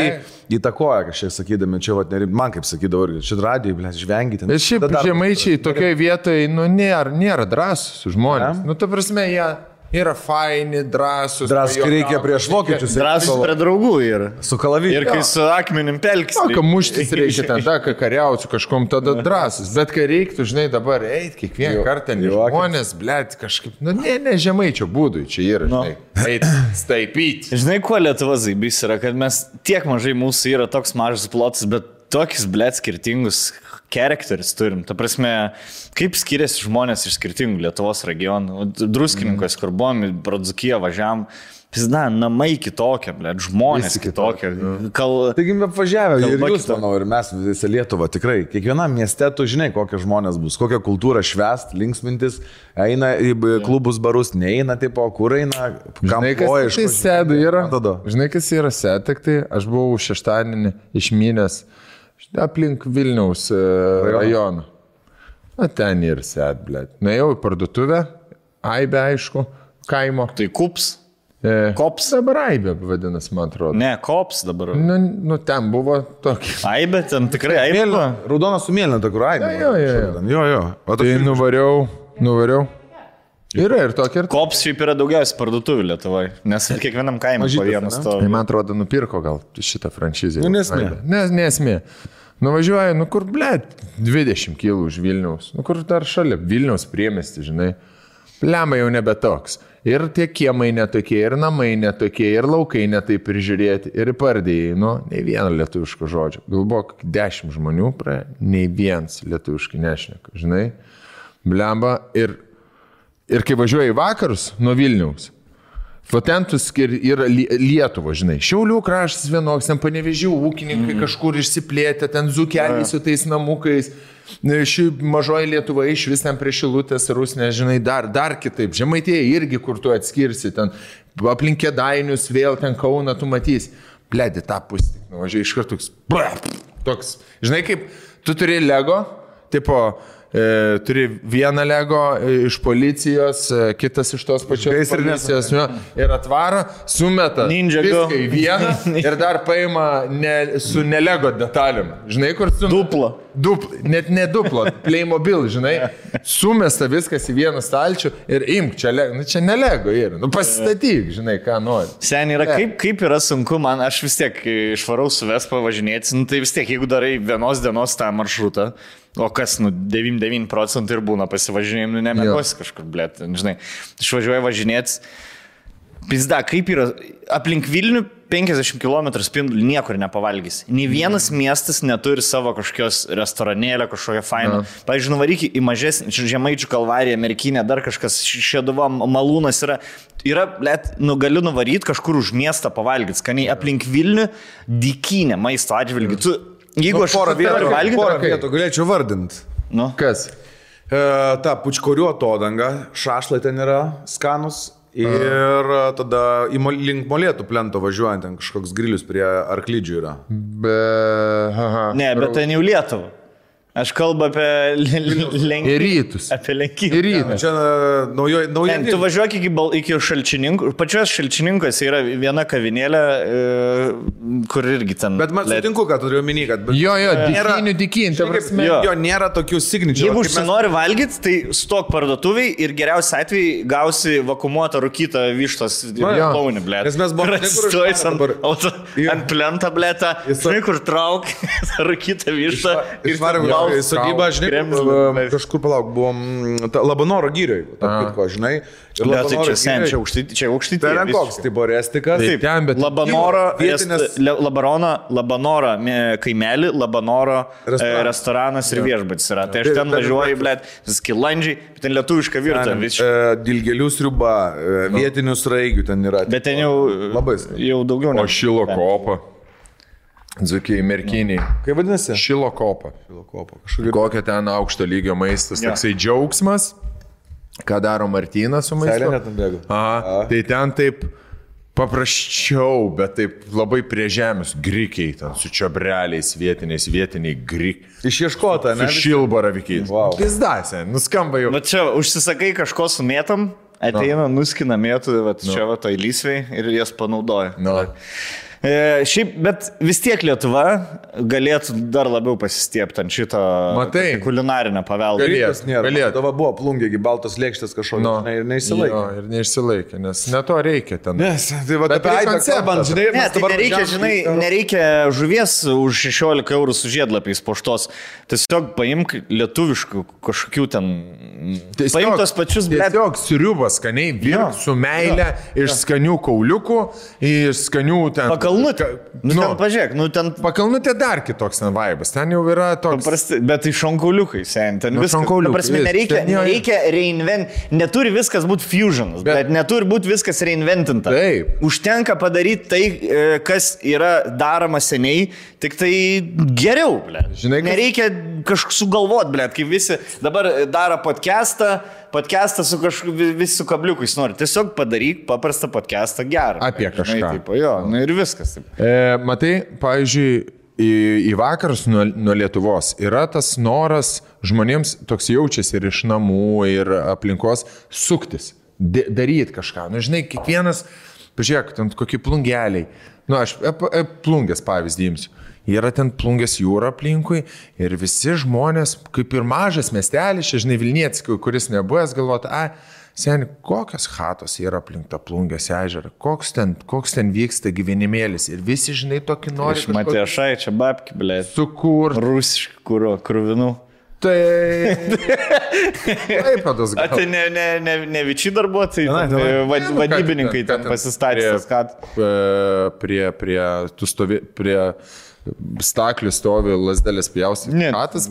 įtakoja kažkiek sakydami, čia man kaip sakydavo, čia radijai, blės, žvengite. Bet šiaip žemaičiai tokioje vietoje, nėra drąsus žmonės. Ta prasme, jie yra faini, drąsus. Drąsus, kai reikia prieš vokiečius. Drąsus prie draugų yra. Su kalaviu. Ir kai su akmenim pelkis. Kai muštis reikia tada, kai kariausiu kažkom, tada drąsus. Bet kai reiktų, žinai, dabar eiti kiekvieną kartą, žmonės, blėt, kažkaip, ne žemaičio būdui čia yra, žinai. Eiti, staipyti. Žinai, kuo Lietuvos zaibys yra, kad mes tiek mažai mūsų yra toks mažas plotas, bet tokius, blėt, skirtingus charakteris turim. Ta prasme, kaip skiriasi žmonės iš skirtingų Lietuvos regionų. Druskininkos, kur buvom, Dzūkiją važiavam. Pizda, namai kitokie, žmonės kitokie. Taigi mes apvažiavę ir jūs, manau, ir mes visą Lietuvą tikrai. Kiekvienam mieste tu žinai, kokie žmonės bus, kokią kultūrą švęst, linksmintis, eina į klubus, barus, neina, tipo, kur eina, kam koja iš tai sėdu yra. Žinai, kas yra sėd, tai aš buvau šeštadienį išmynęs aplink Vilniaus rajoną. Na, ten ir sėd, blėt. Nuėjau į parduotuvę, Aibė, aišku, kaimo. Tai kups. Kops. Dabar Aibė vadinasi, man atrodo. Ne, kops dabar. Nu, ten buvo tokia. Aibė, ten tikrai Aibė. Raudona su mėlyna, ta kur Aibė. Jo. Tai nuvariau. Yra ir tokia. Kops šiaip yra daugiausiai parduotuvių Lietuvoje, nes kiekvienam kaimui po vieną stovį. Man atrodo, nupirko gal šitą franšizę. Nesmė. Nesmė. Nuvažiuoju, kur, blėt, 20 kg už Vilniaus. Kur dar šalia Vilniaus priemiestį, žinai. Lemai jau nebe toks. Ir tie kiemai netokie, ir namai netokie, ir laukai netaip prižiūrėti, ir pardėjai, nei vieno lietuviško žodžio. Galbūt 10 žmonių praėjo, nei vienas lietuviškai nešneka, žinai. Blemba, ir kai važiuoji į vakarus nuo Vilniaus, ten tu yra Lietuva, žinai. Šiaulių kraštas vienoks, ten Panevėžių ūkininkai kažkur išsiplėtė, ten dzūkeliai su tais namukais. Ši mažoji Lietuva iš vis ten prie Šilutės, Rusnė, žinai, dar kitaip. Žemaitėje irgi, kur tu atskirsi, ten aplink Kėdainius, vėl ten Kauną tu matysi. Bledi, tą pusę, nuvažiuoji iš karto toks. Žinai, kaip tu turi Lego, tipo, turi vieną Lego iš policijos, kitas iš tos pačios policijos ir atvaro, sumeta viską į vieną ir dar paima su nelego detalėm. Žinai, kur su... Net ne duplo, Playmobil, žinai, sumesta viskas į vieną stalčių ir imk, čia nelego yra. Pasistatyk, žinai, ką nori. Seniai yra, kaip yra sunku, man, aš vis tiek išvarau su Vespa važinėti, tai vis tiek, jeigu darai vienos dienos tą maršrutą, o kas, 99% ir būna pasivažinėjim, nemėgosi kažkur, blėt, žinai, išvažiuoju važinėti. Pizda, kaip yra, aplink Vilnių 50 km spindulį niekur nepavalgys. Nė vienas miestas neturi savo kažkokios restoranėlio, kažkokią fainą. Pavyzdžiui, nuvaryk į mažesnį, Žemaičių kalvariją, Merkinę, dar kažkas, Šeduva, Malūnas yra, blėt, galiu nuvaryti kažkur už miestą pavalgyti, skaniai aplink Vilnių dykynę maisto atžvilgių. Jeigu aš porą vietų galėčiau vardinti. Kas? Ta pučkorių atodanga, šašlai ten yra skanus. Ir tada link Molėtų plento važiuojant, ten kažkoks grilius prie Arklidžių yra. Ne, bet ten jau Lietuva. Aš kalbu apie rytus. Apie Lenkiją. Čia nauja. Tu važiuok iki Šalčininkų. Pačios Šalčininkuose yra viena kavinėlė, kur irgi ten. Bet man sutinku, kad turiu omeny, kad... Jo, dykynį. Jo, nėra tokių signature. Jeigu užsinori valgyti, tai stok parduotuviai ir geriausiai atveju gausi vakuumuotą rūkytą vištos launį, blėt. Nes mes buvome ant plentą, blėtą, žinai, kur trauk rūkytą vištą. Sodybą, žinai, kažkur palauk, buvom Labanoro gyrioje, žinai. Čia aukštyti. Tai yra koks, tai buvo Restikas. Labanoro kaimelį, Labanoro restoranas ir viešbutis yra. Tai aš ten važiuoju, blėt, skilandžiai, ten lietuviška virtuvė. Dilgėlių sriuba, vietinių sraigių ten yra. Bet ten jau daugiau. O Šilo kopa. Dzūkiai, Merkiniai. Kaip vadinasi? Šilo kopa. Kokia ten aukšto lygio maistas, toksai džiaugsmas, ką daro Martynas su maistu. Seilė net nubėgo. Tai ten taip paprasčiau, bet taip labai prie žemės, grikiai ten, su čiobreliais vietiniai grikiai. Išieškota, ne? Su šilbaravikiais. Wow. Pizdasė, nuskamba jau. Bet čia užsisakai kažko su mėtam, ateina, nuskina mėtų, čia va tai lysviai ir jas panaudoja. Šiaip, bet vis tiek Lietuva galėtų dar labiau pasistiepti ant šito kulinarinio paveldo. Galėtų. Tava buvo plungėgi, baltos lėkštės kažkokio ir neišsilaikė. Ir neišsilaikė, nes ne to reikia ten. Tai va, apie Aibę kalbant, žinai, nereikia žuvies už 16 eurų su žiedlapiais poštos. Tiesiog paimk lietuviškų kažkokių ten... Paimk tos pačius, blėt. Tiesiog sriubas skaniai, virk su meilė iš skanių kauliukų, iš skanių ten... Pakalnutė. Ten pažiūrėk, ten... Pakalnutė dar kitoks ten vaibas. Ten jau yra toks... Paprasti, bet tai šonkauliukai, sen. Ten viskas. Prasme, nereikia reinvent. Neturi viskas būti fusionas, bet neturi būti viskas reinventinta. Taip. Užtenka padaryti tai, kas yra daroma seniai, tik tai geriau, ble. Žinai, nereikia kažkaip sugalvoti, ble, kai visi dabar daro podcastą su visi su kabliukais nori. Tiesiog padaryk paprastą podcastą gerą. Apie kažką. Žinai, taip, jo, ir viskas. Taip. Matai, pavyzdžiui, į vakarus nuo Lietuvos yra tas noras žmonėms toks jaučiasi ir iš namų, ir aplinkos suktis, daryti kažką. Žinai, kiekvienas, pažiūrėk, ten kokie plungeliai. Aš plungės pavyzdį imsiu. Yra ten Plungės jūra aplinkui ir visi žmonės, kaip ir mažas miestelis, žinai, Vilnietis, kuris nebuvęs, galvoti, seni, kokios chatos yra aplink tą Plungės ežerą, koks ten vyksta gyvenimėlis ir visi, žinai, tokį nori. Aš matė šai, čia babki, blė. Sukur. Rusiškų kruvinų. Tai... Taip, padas gal. Tai ne vičiai darbuotojai, vadybininkai ten pasistatė. Prie staklių stovi lasdelės pjausti. Katas.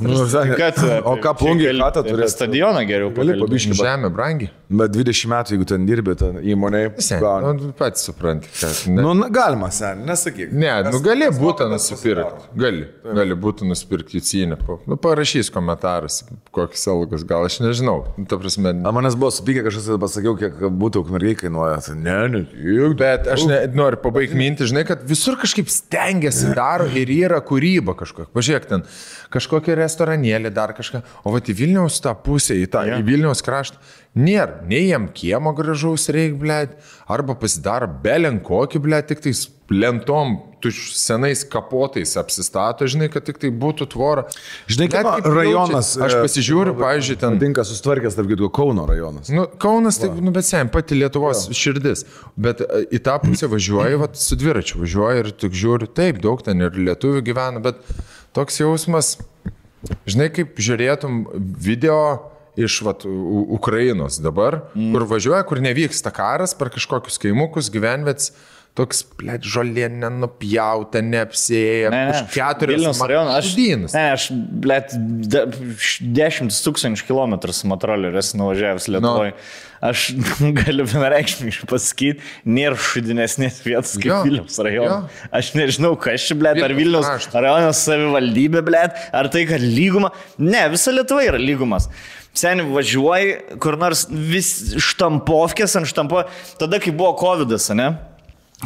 O ką plungiai katą turi? Stadioną geriau. Gali pabiškį. Žemė brangi. Bet 20 metų, jeigu ten dirbi, ten įmonėje. Pats supranti, kad... Galima, sen, nesakyk. Ne, gali būtų nusipirkti. Gali būtų nusipirkti jūcinę. Parašys komentaras, kokius algas, gal aš nežinau. Ta prasme... Manęs buvo supykę, kažkas pasakiau, kiek būtų ukmergiai kainuoja. Ne. Bet aš noriu pabaigti mintį, žinai, kad visur kažkaip stengiasi daro ir yra kūryba kažkokia. Pažiūrėk, ten kažkokia restoranėlė, dar kažką. O va į Vilniaus tą pusę, į Vilniaus kraštą, nėra. Nei jam kiemo gražaus reik, blėt, arba pasidaro belenkokį, blėt, tik tais lentom, senais kapotais apsistato, žinai, kad tik tai būtų tvora. Žinai, kaip rajonas. Aš pasižiūriu, pavyzdžiui, ten... Tinka sustvarkęs, tarp kitų, Kauno rajonas. Kaunas, tai, bet sen, pati Lietuvos širdis. Bet į tą pusę važiuoju, su dviračiu važiuoju ir tik žiūriu, taip, daug ten ir lietuvių gyvena, bet toks jausmas, žinai, kaip žiūrėtum video iš Ukrainos dabar, kur važiuoja, kur nevyksta karas, per kažkokius kaimukus, gyvenvets, toks, blėt, žolė nenupjauta, neapsėja, už 4 Vilniaus rajonas. Aš, blėt, 10 000 kilometrų su motoroleriu esu nuvažiavęs Lietuvoje. Aš galiu vienareikšmiškai pasakyti, nėra šudinesnės vietos kaip Vilniaus rajonas. Aš nežinau, kas čia, blėt, ar Vilniaus rajonas savivaldybė, blėt, ar tai, kad lyguma. Ne, visa Lietuva yra lygumas. Seniai važiuoji, kur nors vis štampovkės ant štampo, tada, kai buvo Covidas, ne?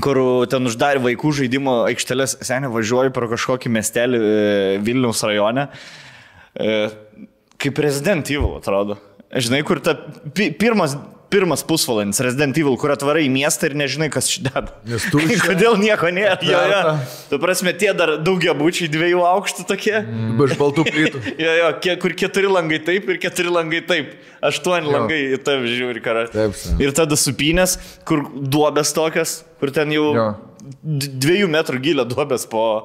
Kur ten uždarė vaikų žaidimo aikštelės, seniai važiuoju pro kažkokį miestelį Vilniaus rajone, kaip Resident Evil atrodo. Žinai, kur ta pirmas pusvalandis Resident Evil, kur atvarai į miestą ir nežinai, kas čia deda. Kodėl nieko nėra. Tu prasme, tie dar daugiabučiai 2 aukštų tokie. Iš baltų plytų. Kur 4 langai taip ir 4 langai taip. 8 langai į tave žiūri, karą. Ir tada supynės, kur duobės tokias, kur ten jau 2 metrų gilio duobės po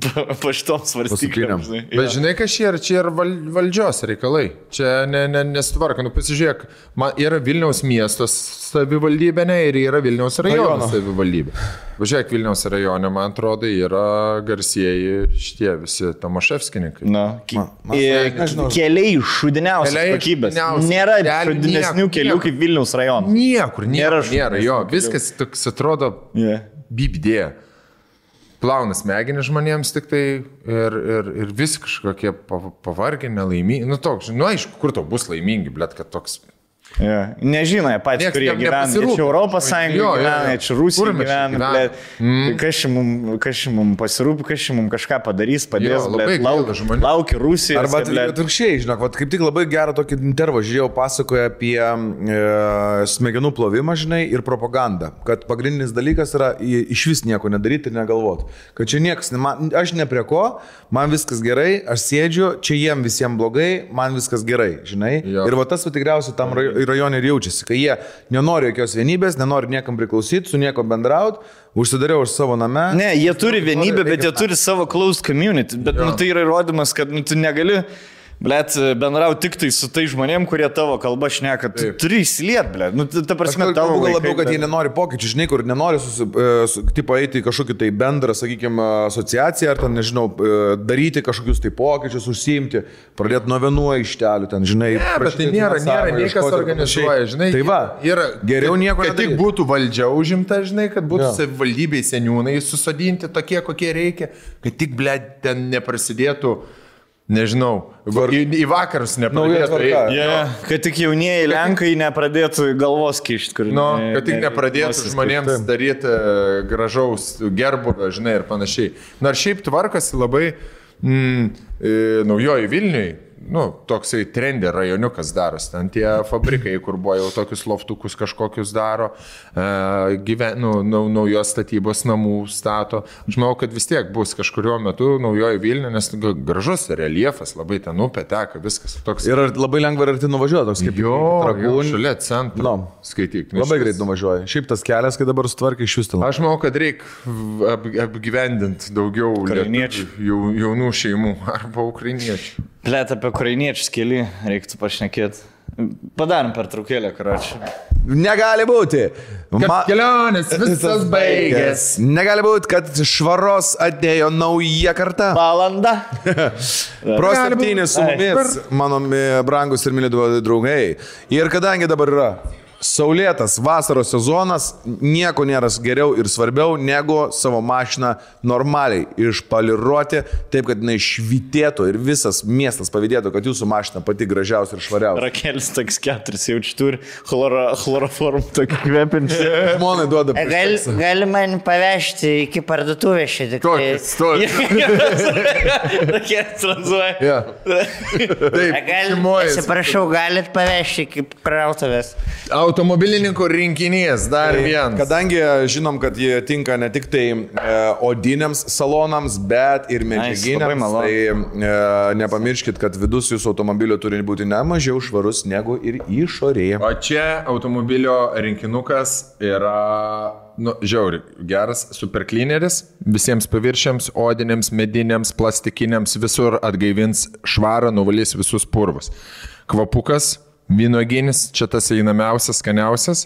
šitom svarstyklėm. Bet žinai, kas čia yra valdžios reikalai. Čia nesutvarka. Pasižiūrėk, yra Vilniaus miestos savivaldybė, ir yra Vilniaus rajono savivaldybė. Važiuok, Vilniaus rajone, man atrodo, yra garsieji šitie visi Tomaševskininkai. Keliai šudiniausios kokybės. Nėra šudinesnių kelių kaip Vilniaus rajonas. Niekur nėra. Jo, viskas toks atrodo bibdė. Plauna smegenį žmonėms tik tai ir visi kažkokie pavargę, nelaimingi. Aišku, kur to bus laimingi, blėt, kad toks... Nežinai, patys, kurie gyvena. Čia Europos Sąjunga gyvena, čia Rusija gyvena. Kas čia mums pasirūpi, kas čia mums kažką padarys, padės, laukia Rusija. Arba atvirkščiai, žinok, kaip tik labai gerą tokį intervą žiūrėjau, pasakoja apie smegenų plovimą, žinai, ir propagandą. Kad pagrindinis dalykas yra iš vis nieko nedaryti ir negalvoti. Kad čia niekas, aš ne prie ko, man viskas gerai, aš sėdžiu, čia jiem visiems blogai, man viskas gerai, žinai. Ir va tas tikriausiai tam rajone ir jaučiasi, kai jie nenori jokios vienybės, nenori niekam priklausyti, su nieko bendrauti, užsidariau už savo name. Ne, jie turi vienybę, bet jie turi savo closed community, bet tai yra įrodymas, kad tu negali Blet, bendrau tik tai su tai žmonėm, kurie tavo kalbą šneka. Tu turi įsiliet, blet. Nu, ta prasme, tavo gal labiau, kad bet... jie nenori pokyčių, žinai, kur nenori tipo eiti į kažkokį tai bendrą, sakykime, asociaciją, ar ten, nežinau, daryti kažkokius tai pokyčius, užsiimti, pradėti nuo vienų aikštelių, ten, žinai. Ne, bet tai nėra niekas organizuoja, žinai. Tai va, yra geriau nieko kad tik būtų valdžia užimta, žinai, kad būtų savivaldybei seniūnai susodinti tokie, kokie reikia, kad tik, blet, ten neprasidėtų. Nežinau, į vakarus nepradėtų. Kad tik jaunieji Lenkai nepradėtų galvos kišti, kur... Kad tik nepradėtų žmonėms daryti gražaus gerbuvio, žinai, ir panašiai. Nors šiaip tvarkasi labai Naujoji Vilniui. Toksai trendė rajoniukas daros, ten tie fabrikai, kur buvo jau tokius loftukus kažkokius daro, naujos statybos namų stato. Aš manau, kad vis tiek bus kažkurio metu Naujoji Vilnių, nes gražus reliefas, labai ten upė teka, viskas toks. Ir labai lengva ir arti nuvažiuoja, toks kaip Trakūnų. Šalia centro. Skaityk. Labai greit nuvažiuoja. Šiaip tas kelias, kai dabar sutvarkai iš vis. Aš manau, kad reikia apgyvendinti daugiau jaunų šeimų arba ukrainiečių. Plėt apie ukrainiečius keli, reiktų pašnekėti. Padarom pertraukėlę, karočią. Negali būti. Kelionės visas baigės. Negali būti, kad švaros atėjo nauja karta. Valanda. Pro 7 su mumis, mano brangus ir myli draugai. Ir kadangi dabar yra saulėtas vasaros sezonas, nieko nėra geriau ir svarbiau negu savo mašiną normaliai išpoliruoti, taip kad jinai švytėtų ir visas miestas pavydėtų, kad jūsų mašina pati gražiausia ir švariausia. Rakelis toks 4 jaučiu turi chloroformų tokį kvepinčią. Žmonai duoda. Gali man pavežti iki parduotuvės šiek tiek. Rakelis tranzuoja. Atsiprašau, galit pavežti iki krautuvės. Automobilininkų rinkinys, dar vienas. Kadangi žinom, kad jie tinka ne tik tai odiniams salonams, bet ir medžiaginiams, tai nepamirškit, kad vidus jūsų automobilio turi būti ne mažiau švarus negu ir išorėje. O čia automobilio rinkinukas yra, žiauri, geras superklineris, visiems paviršiams, odiniams, mediniams, plastikiniams, visur atgaivins švarą, nuvalys visus purvus. Kvapukas. Vynuoginis, čia tas einamiausias, skaniausias,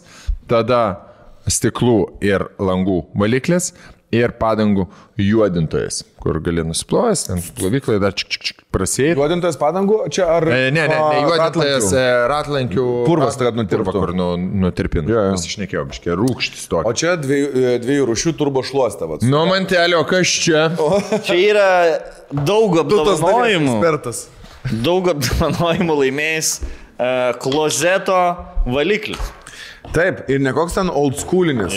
tada stiklų ir langų valiklis ir padangų juodintojas, kur gali nusiplojęs, ten plovyklai dar prasėjai. Juodintojas padangų, čia ar... Ne, juodintojas ratlankių purvas, tai nutirptų. Kur nutirpintų, mes išnekėjom, biškiai, rūkštis tokį. O čia dviejų rūšių turbo šluostą. Mantelio, kas čia? Čia yra daug apdovanojimų. Daug apdovanojimų laimėjęs klozeto valiklis. Taip, ir ne koks ten old schoolinis.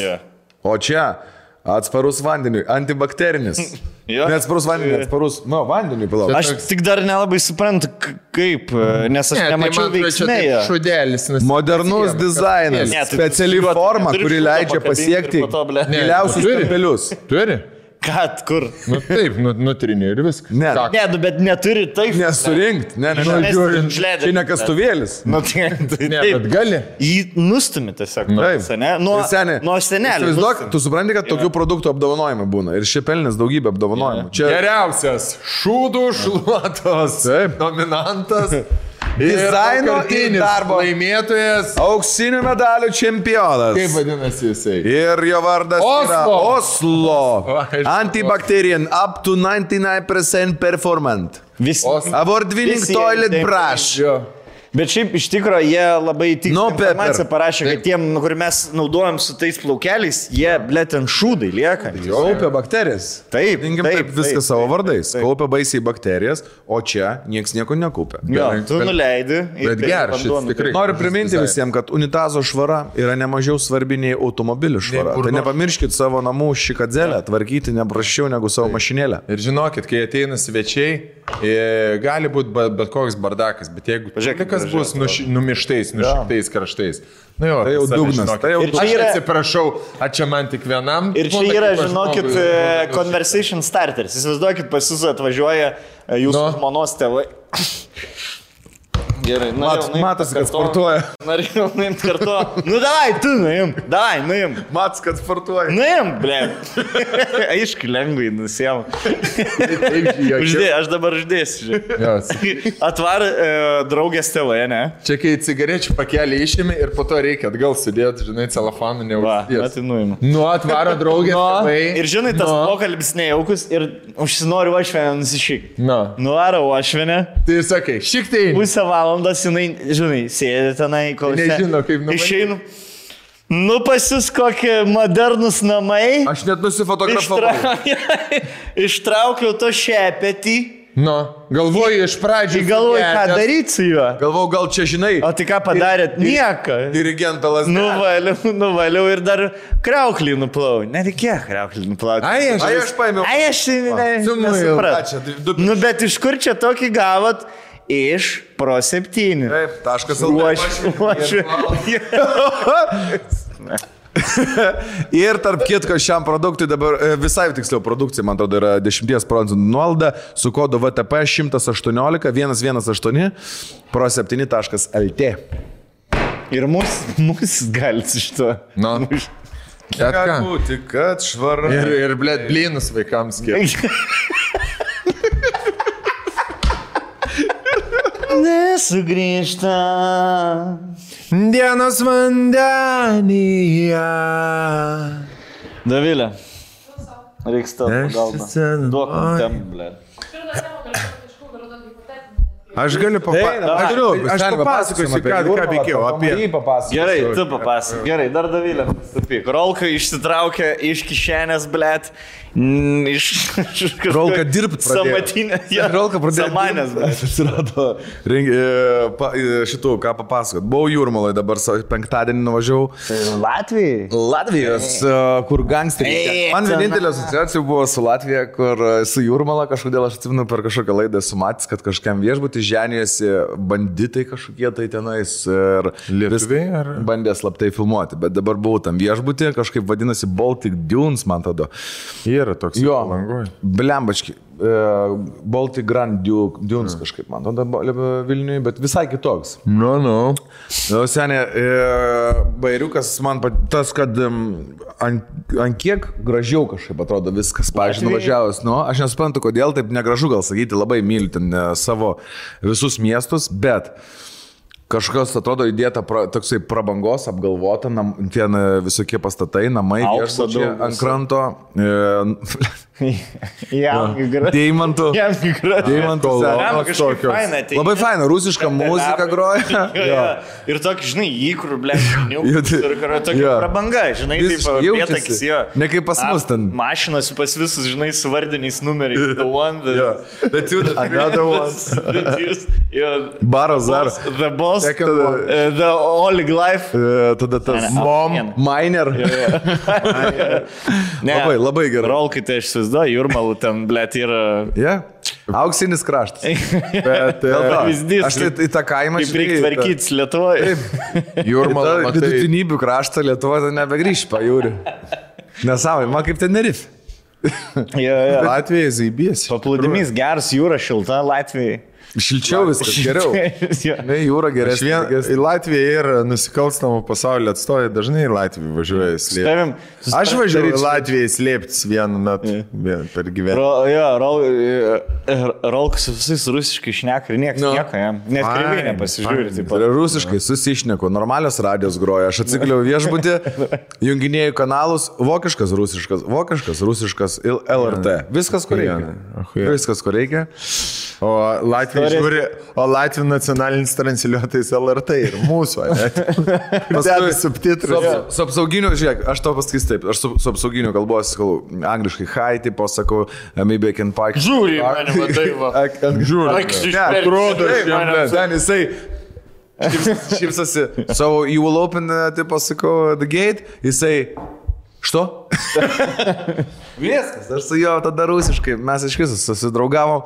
O čia atsparus vandeniui, antibakterinis. Neatsparus vandeniui, atsparus vandeniui pilau. Aš tik dar nelabai suprantu, kaip, nes aš nemačiau veiksmėje. Šudelis. Modernus dizainas, speciali forma, kuri leidžia pasiekti giliausius kampelius. Turi? Kad, kur? Taip, nutrinė ir viskas. Ne, bet neturi taip. Nesurinkti. Čia ne kastuvėlis. Bet gali. Jį nustumi tiesiog. Nuo senelio. Tu supranti, kad tokių produktų apdovanojimai būna. Ir šie pelnės daugybė apdovanojimų. Geriausias šūdų šluotos nominantas. Dizaino ir darbo laimėtojas. Auksinių medalių čempionas. Kaip vadinasi jisai? Ir jo vardas yra Oslo. Antibacterian up to 99% performant. Award winning toilet brush. Bet šiaip iš tikrųjų jie labai tikslą informaciją parašė, kad tiem, kur mes naudojam su tais plaukeliais, jie, blėt, ant šūdai lieka. Kaupia bakterijas. Taip, viskas savo vardais. Kaupia baisiai bakterijas, o čia nieks nieko nekaupia. Tu nuleidi. Bet geras šis tikrai. Noriu priminti visiems, kad unitazo švara yra nemažiau svarbi nei automobilių švara. Tai nepamirškit savo namų šikadzelę tvarkyti neprašiau negu savo mašinėlę. Ir žinokit, kai ateina svečiai, gali būti bet koks bardakas, bet jeigu kas bus numištais, nušiktais kraštais. Tai jau dugnas. Aš atsiprašau, čia man tik vienam. Ir čia yra, žinokit, conversation starters. Įsivaizduokit, pas jūs atvažiuoja jūsų žmonos tėvai. Gerai, Matas, kad sportuoja. Norėjau nuimt kartu. Nu, davai, tu nuim. Matas, kad sportuoja. Nuim, ble. Aišku, lengvai nusėjau. Uždėjau, aš dabar uždėsiu. Atvar draugės tėvai, ne? Čia kai cigarečių pakelį išėmė ir po to reikia atgal sudėti, žinai, celofaną neužsidės. Tai nuimu. Nu, atvaro draugės tėvai. Ir žinai, tas pokalbis nejaukus ir užsinoriu ošvenę nusišyk. Nuvarau ošvenę. Tai sakai, šik tai. Pusę valandos jinai, žinai, sėdė tenai, kol nežino, kaip numanyti. Išeinu. Nu, pas jūs kokie modernus namai. Aš net nusifotografavau. Ištraukiau to šepetį. Nu, galvoju iš pradžių. Galvoju, ką daryti su juo. Galvoju, gal čia žinai. O tai ką padarėt? Nieko. Dirigentą lasdelę. Nuvaliau ir dar krauklį nuplau. Nereikėjo krauklį nuplauti. Ai, aš paėmiau. Ai, aš nesupratau. Nu, bet iš kur čia tokį gavot? Iš Pro 7. Taip, taškas. Ir tarp kitko šiam produktui dabar, visai tiksliau produkcija, man atrodo, yra 10% nuolaida su kodu VTP 118 118 pro7.lt. Ir mus galit iš to. Nu. Gali būti, kad švara. Ir blėt, blynus vaikams skirti. Nesugrįžta dienos vandenyje. Davilė. Reiks tau pagalbą. Duok tem, ble. Aš galiu papasakoti. Aš papasakosiu, ką veikėjau apie. Gerai, tu papasakok. Gerai, dar Davilė. Rolka išsitraukė iš kišenės, blėt. Rolka dirbt pradėjo. Samatinė. Rolka pradėjo. Samanės, blėt. Atsirado šitų, ką papasakot. Buvau Jūrmalai, dabar penktadienį nuvažiavau. Latvijos, kur gangsteriai. Man vienintelė asociacija buvo su Latvija, kur su Jūrmala kažkodėl aš atsimenu per kažkokią laidą esu matęs, kad kažkam viešbutį ženijasi banditai kažkokie tai tenais ir lietuviai ar bandė slaptai filmuoti, bet dabar buvau tam viešbutį, kažkaip vadinasi Baltic Dunes, man tada. Yra toks Palangoj. Blembački. Baltic Grand Dunes kažkaip, man tada Vilniui, bet visai kitoks. Nu. Senė, bairiukas man tas, kad ant kiek gražiau kažkaip atrodo viskas. Pavyzdžiui, nuvažiavęs, aš nesuprantu, kodėl taip negražu gal sakyti, labai myliu ten savo visus miestus, bet kažkas atrodo įdėta toksai prabangos, apgalvota, ten visokie pastatai, namai, viešbučiai ant kranto. Deimantų. Labai faina, rusiška muzika groja. Ir tokį, žinai, įkrų, tokia prabanga, žinai, taip vietokis jo. Ne kaip pas mus ten. Mašinos pas visus, žinai, su vardiniais numeriais. The one, another one. Baras dar. The boss, the Oleg life. Tada tas mom, miner. Labai gerai. Rolkai, tai aš įsivaizduoju, Jūrmalų ten, blėt, yra... Auksinis kraštas. Bet aš tai į tą kaimą šiandien. Kaip reikia tvarkytis Lietuvoje. Jūrmalą, matai. Vidutinybių kraštą Lietuvoje nebegrįš pajūrį. Nesavai, man kaip Tenerifė. Latvijai zaibės. Paplūdimys geras, jūra šilta Latvijai. Šilčiau viskas geriau. Ne, jūra geresnė. Į Latviją ir nusikalstamų pasaulio atstovai dažnai į Latviją važiuoja slėpti. Aš važiuoju į Latviją slėptis vienu metu per gyvenimą. Rolkas visais rusiškai šneka ir nieko jam. Net kreivai nepasižiūri. Rusiškai susišneku, normalios radijos groja. Aš atsikliau viešbutį, junginėjau kanalus, vokiškas, rusiškas ir LRT. Viskas, kur reikia. O Latvija žiūri, o Latvijų nacionalinis transliuotojas LRT ir mūsų, paskui subtitrus. Su apsauginiu, žiūrėk, aš tau pasakysiu taip, aš su apsauginiu kalbos, angliškai hi, tipo sakau, maybe I can park. Žiūri, mane matai, va. Žiūri. Atrodo, ten jisai šypsosi. So you will open, tipo sakau, the gate, jisai, što? Viskas, aš su juo tada rusiškai, mes iš viso susidraugavom,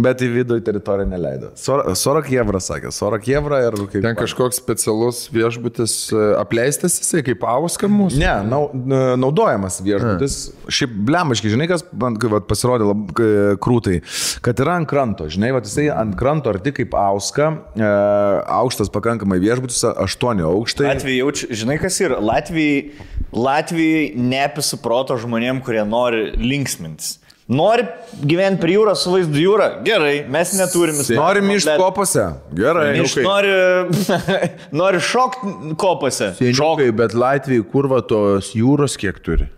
bet į vidų į teritoriją neleido. 40 eurų sakė, 40 eurų ir kaip... Ten kažkoks specialus viešbutis apleistas jisai, kaip Auska mūsų? Ne, naudojamas viešbutis. Šiaip blemaškai, žinai, kas man pasirodė krūtai, kad yra ant kranto, žinai, jisai ant kranto arti kaip Auska, aukštas pakankamai viešbutis, 8 aukštai. Latvijai jaučiu, žinai, kas yra? Latvijai neapisuproto žmonėm, kurie nori linksmintis. Nori gyventi prie jūros su vaizdu jūra? Gerai, mes neturim. Norim iš kopose? Gerai. Nori šokti kopose? Šokai, bet Latvijai kurva tos jūros kiek turi?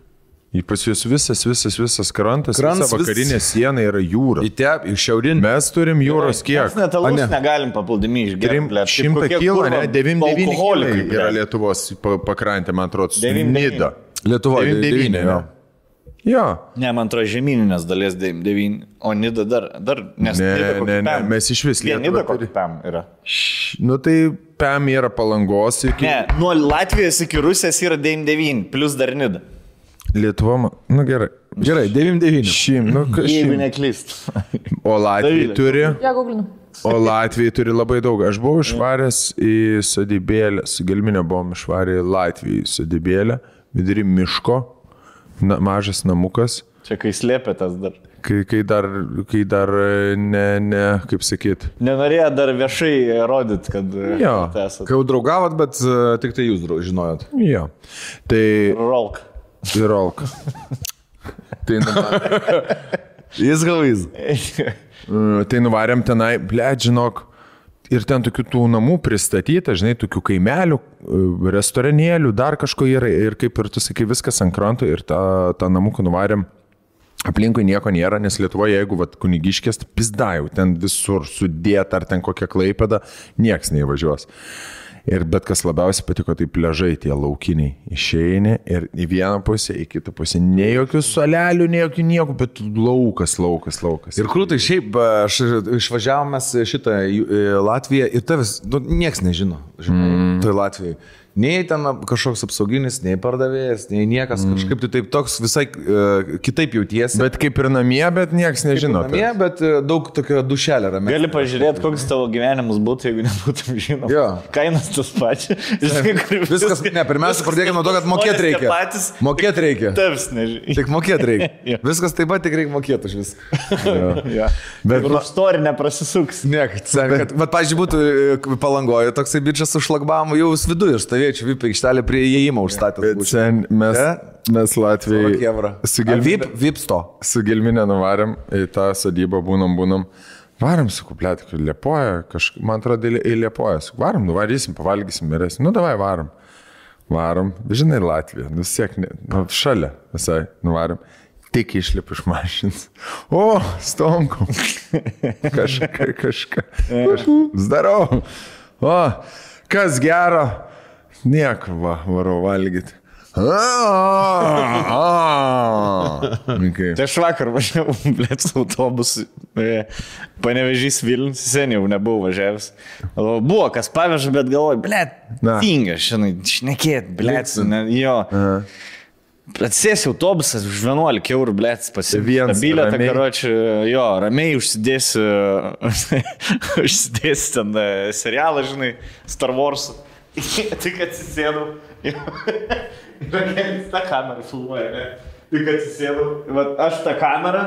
Pas jūs visas krantas, visa vakarinė siena yra jūra. Į šiaurinį. Mes turim jūros kiek? Mes net alus negalim papildami išgerti. 100 kilų, ne? 99 kilai yra Lietuvos pakrantė, man atrodo. Nida. Lietuvoje 99. Jo. Ne, man atrodo, žemyninės dalies 99, o Nida dar nes ne, mes iš vis Nida kokį PEM yra. Nu tai PEM yra Palangos iki... Ne, nuo Latvijos iki Rusijos yra 99, plus dar Nida. Lietuva, nu gerai. Gerai, 99. Jeigu neklyst. O Latvija turi... Ja, googlinu. O Latvija turi labai daug. Aš buvau išvaręs į sodybėlę, su Gelminė buvom išvarę į Latviją į sodybėlę, vidury miško. Mažas namukas. Čia kai slėpėtas dar. Kai dar ne, kaip sakyt. Nenorėjo dar viešai rodyti, kad esate. Kai jau draugavot, bet tik tai jūs žinojot. Jo. Tai... Rolk. Tai Jis galvys. Tai nuvarėm tenai, žinok, ir ten tokių tų namų pristatyta, žinai, tokių kaimelių, restoranėlių, dar kažko yra. Ir kaip ir tu sakai, viskas ant kranto ir tą namuką nuvarėm. Aplinkui nieko nėra, nes Lietuvoje, jeigu Kunigiškės, pizdajau, ten visur sudėta, ar ten kokia Klaipėda, nieks neįvažiuos. Ir bet kas labiausiai patiko, tai pliažai tie laukiniai. Išeini ir į vieną pusę, į kitą pusę. Ne jokių solelių, ne jokių nieko, bet laukas. Ir krūtai, šiaip aš išvažiavome šitą Latviją ir tavęs, nieks nežino, žinai, tai Latvijai. Nei ten kažkoks apsauginis, nei pardavėjas, nei niekas kažkaip tai taip toks visai kitaip jautiesi. Bet kaip ir namie, bet nieks nežino. Namie, bet daug tokio dušelė ramė. Gali pažiūrėti, koks tavo gyvenimas būtų, jeigu nebūtum žinoma. Jo. Kainas tas pačias. Viskas, ne, pirmiausia, pradėkime nuo to, kad mokėti reikia. Mokėti reikia. Tavs nežinai. Tik mokėti reikia. Viskas taip pat tik reikia mokėti už viską. Bet už storį neprasisuks. Ne, bet, pavyzdžiui, būtų Palangoje toksai bičias su šlagbamu jau viduje ir stovėjo. Čia VIP aikštelė prie įėjimo užstatęs. Mes Latvijai su Gelminė nuvarėm į tą sodybą, būnam. Varam su kuplėti, kad Liepoja, man atrodo, į Liepoją. Varam, nuvarysim, pavalgysim, mirėsim. Nu, davai, varam. Žinai, Latvija, nusiek, šalia visai nuvarėm. Tik išlipu iš mašins. O, stonkom. Kažką. Zdarau. O, kas gero. Nieko, varau valgyti. Tai aš vakar važiavau, blėt, su autobusu. Panevėžys Vilnius, seniai jau nebuvau važiavęs. Buvo, kas paveža, bet galvoju, blėt, tinga, šiandien šnekėt, blėt, jo. Atsėsi autobusas už 11 eurų, blėt, pasivien bilietą, karočią, jo, ramiai užsidėsi ten serialą, žinai, Star Wars. Tik atsisėdau. Rakelis tą kamerą filmuoja, ne? Tik atsisėdau. Aš tą kamerą.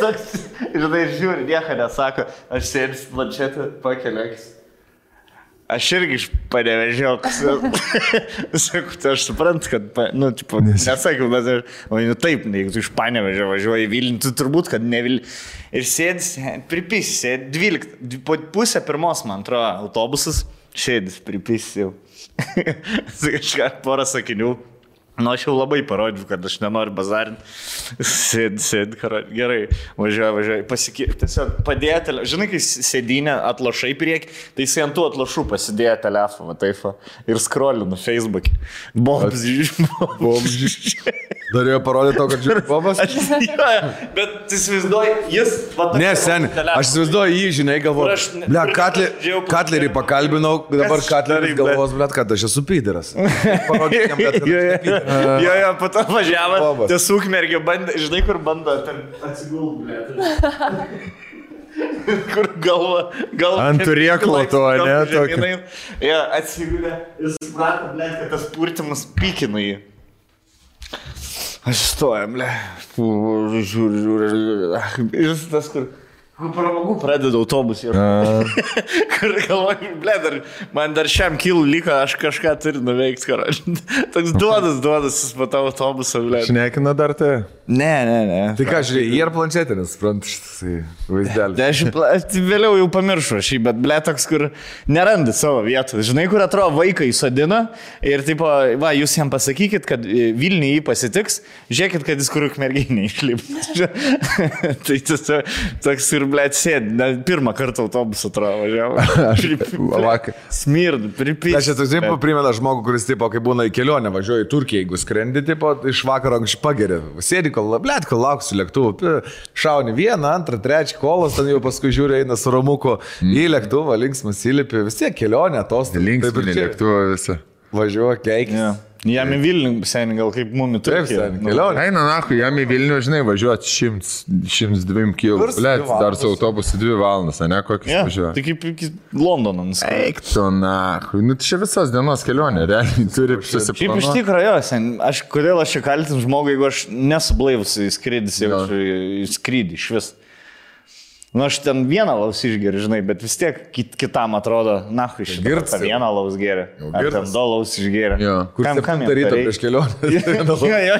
Toks, žinai, žiūri, nieko nesako. Aš sėdžiu planšetę, pakeliakis. Aš irgi iš Panevėžio. Sakau, tai aš suprantu, kad, nesakiau, bet aš, taip, jeigu tu iš Panevėžio važiuoji į Vilnių, tu turbūt, kad ne Vilnių. Ir sėdis, pripisi, 12, po pusę pirmos, man atrodo, autobusas, sėdis, pripisi jau. Kažką porą sakinių. Nu, aš jau labai parodžiu, kad aš nenoriu bazarinti. Sėdi, gerai, važiuoju, tiesiog padėjo telefoną. Žinai, kai sėdinė atlošai prieki, tai jis ant tų atlošų pasidėjo telefoną, taip, ir scrollinu Facebook'e. Bombs. Norėjo parodyti to, kad žiūri Bobas? Bet tu įsivaizduoji, jis... Ne, seni, aš įsivaizduoju jį, žinai, galvoju. Ble, Katlerį pakalbinau, dabar Katleris galvos, ble, kad aš esu pyderas. Parodyk jam, bet kad aš Jo, po to važiavo, tas ukmergė bandė, žinai, kur bando atsigulti, kur galva. Ant turėklo to, ne? Jo, atsigulė, jis suprato, kad tas purtimas pykino jį. Aš stojam, žiūriu. Ir tas, kur pramogų pradeda autobusį. Kur galvoju, man dar šiam kilų liko, aš kažką turiu nuveikti, karoči. Toks duodas, jis po tavo autobusą, Šnekina dar tai? Ne. Tai ką, žiūrėjai, jie ir planšetė, nesuprantu šitas vaizdelis. Aš vėliau jau pamiršau šį, bet toks, kur nerandi savo vietų. Žinai, kur atrodo vaiką įsodina ir tipo, va, jūs jam pasakykit, kad Vilniui jį pasitiks, žiūrėkit, kad jis kur ukmergiai neišlip. Tai tas toks ir, sėdi, pirmą kartą autobusą atrodo važiavo. Smird, pripys. Aš esu taip primena žmogų, kuris, tipo, kai būna į kelionę, važiuoja į Turkiją, jeigu skrendi, tipo, iš vakaro anksčiau pageria. Sėdi, kol lauksiu lėktuvų, šauni vieną, antrą, trečią kolos, ten jau paskui žiūri, eina su ramuku į lėktuvą, linksmas įlipi, vis tiek kelionė, atostogų. Linksminė lėktuvą visą. Važiuoja, keikis. Yeah. Jam į Vilnių, seniai, gal kaip mumi Turkija. Eina, nahu, jam į Vilnių, žinai, važiuoti 102 km. Dar su autobusu 2 valandas, ne, kokius važiuoja. Tai kaip iki Londono. Eik tu, nahu. Nu, čia visos dienos kelionė, realiai turi susiplanuoti. Šiaip iš tikrųjų, kodėl aš čia kaltinu žmogų, jeigu aš nesublaivus į skrydį iš vis. Nu, aš ten vieną laus išgeriu, žinai, bet vis tiek kitam atrodo, nahu, iš tą vieną laus geria. Ar ten 2 laus išgeria. Kur kam daryto prieš kelionę? Jo,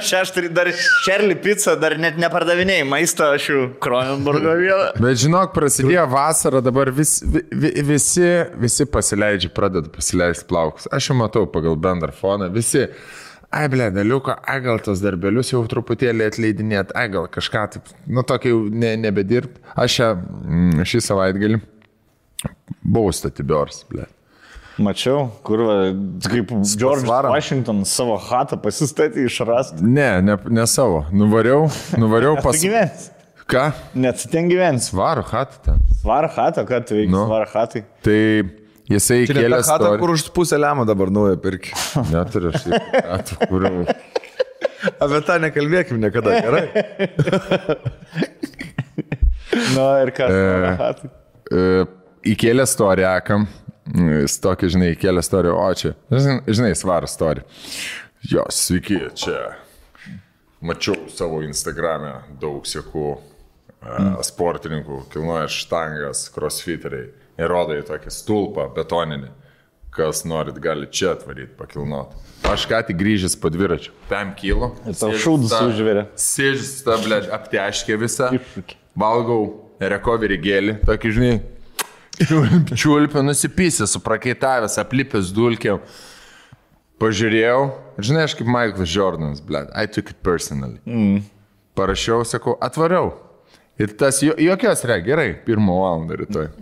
dar Šerli pica, dar net nepardavinėjai maisto, aš jau Kronenburgo vieną. Bet žinok, prasidėjo vasara, dabar visi pasileidžia, pradeda pasileisti plaukus. Aš jau matau pagal bendrą foną, visi... Ai, daliuko, gal tos darbelius jau truputėlį atleidinėt, gal kažką taip, nu tokį jau nebedirbt. Aš šį savaitgalį buvau Statibors, Mačiau, kur, kaip George Washington savo chatą pasistatė išrasti. Ne savo. Nuvariau pas... Tu gyvens? Ką? Net ten gyvens. Svaro chatą ten. Svaro chatą, ką tu veiksi svaro chatai? Tai... Jisai kėlė chatą, kur už pusę lemą dabar naują pirkį. Neturiu aš chatą, kur... Apie tą nekalbėkim niekada, gerai? Ir kas chatai? Įkėlė storiakam, tokį, žinai, įkėlė storiją, o čia, žinai, svaro storiją. Jo, sveiki, čia mačiau savo Instagram'e daug sekų sportininkų, kilnoja štangas, crossfiteriai. Ir rodo į tokį stulpą betoninį, kas norit gali čia atvaryti, pakilnoti. Aš ką tik grįžęs po dviračiu, 5 kilo. Ir tau šūdus užvirė. Sėdžius tą, apteškė visą, valgau recovery gėlį, tokį, žinai, čiulpę nusipysę, suprakaitavęs, aplipęs dulkėm. Pažiūrėjau, žinai, aš kaip Michaelas Jordanas, I took it personally. Parašiau, sakau, atvariau. Ir tas jokios gerai, 1 valandą rytoj.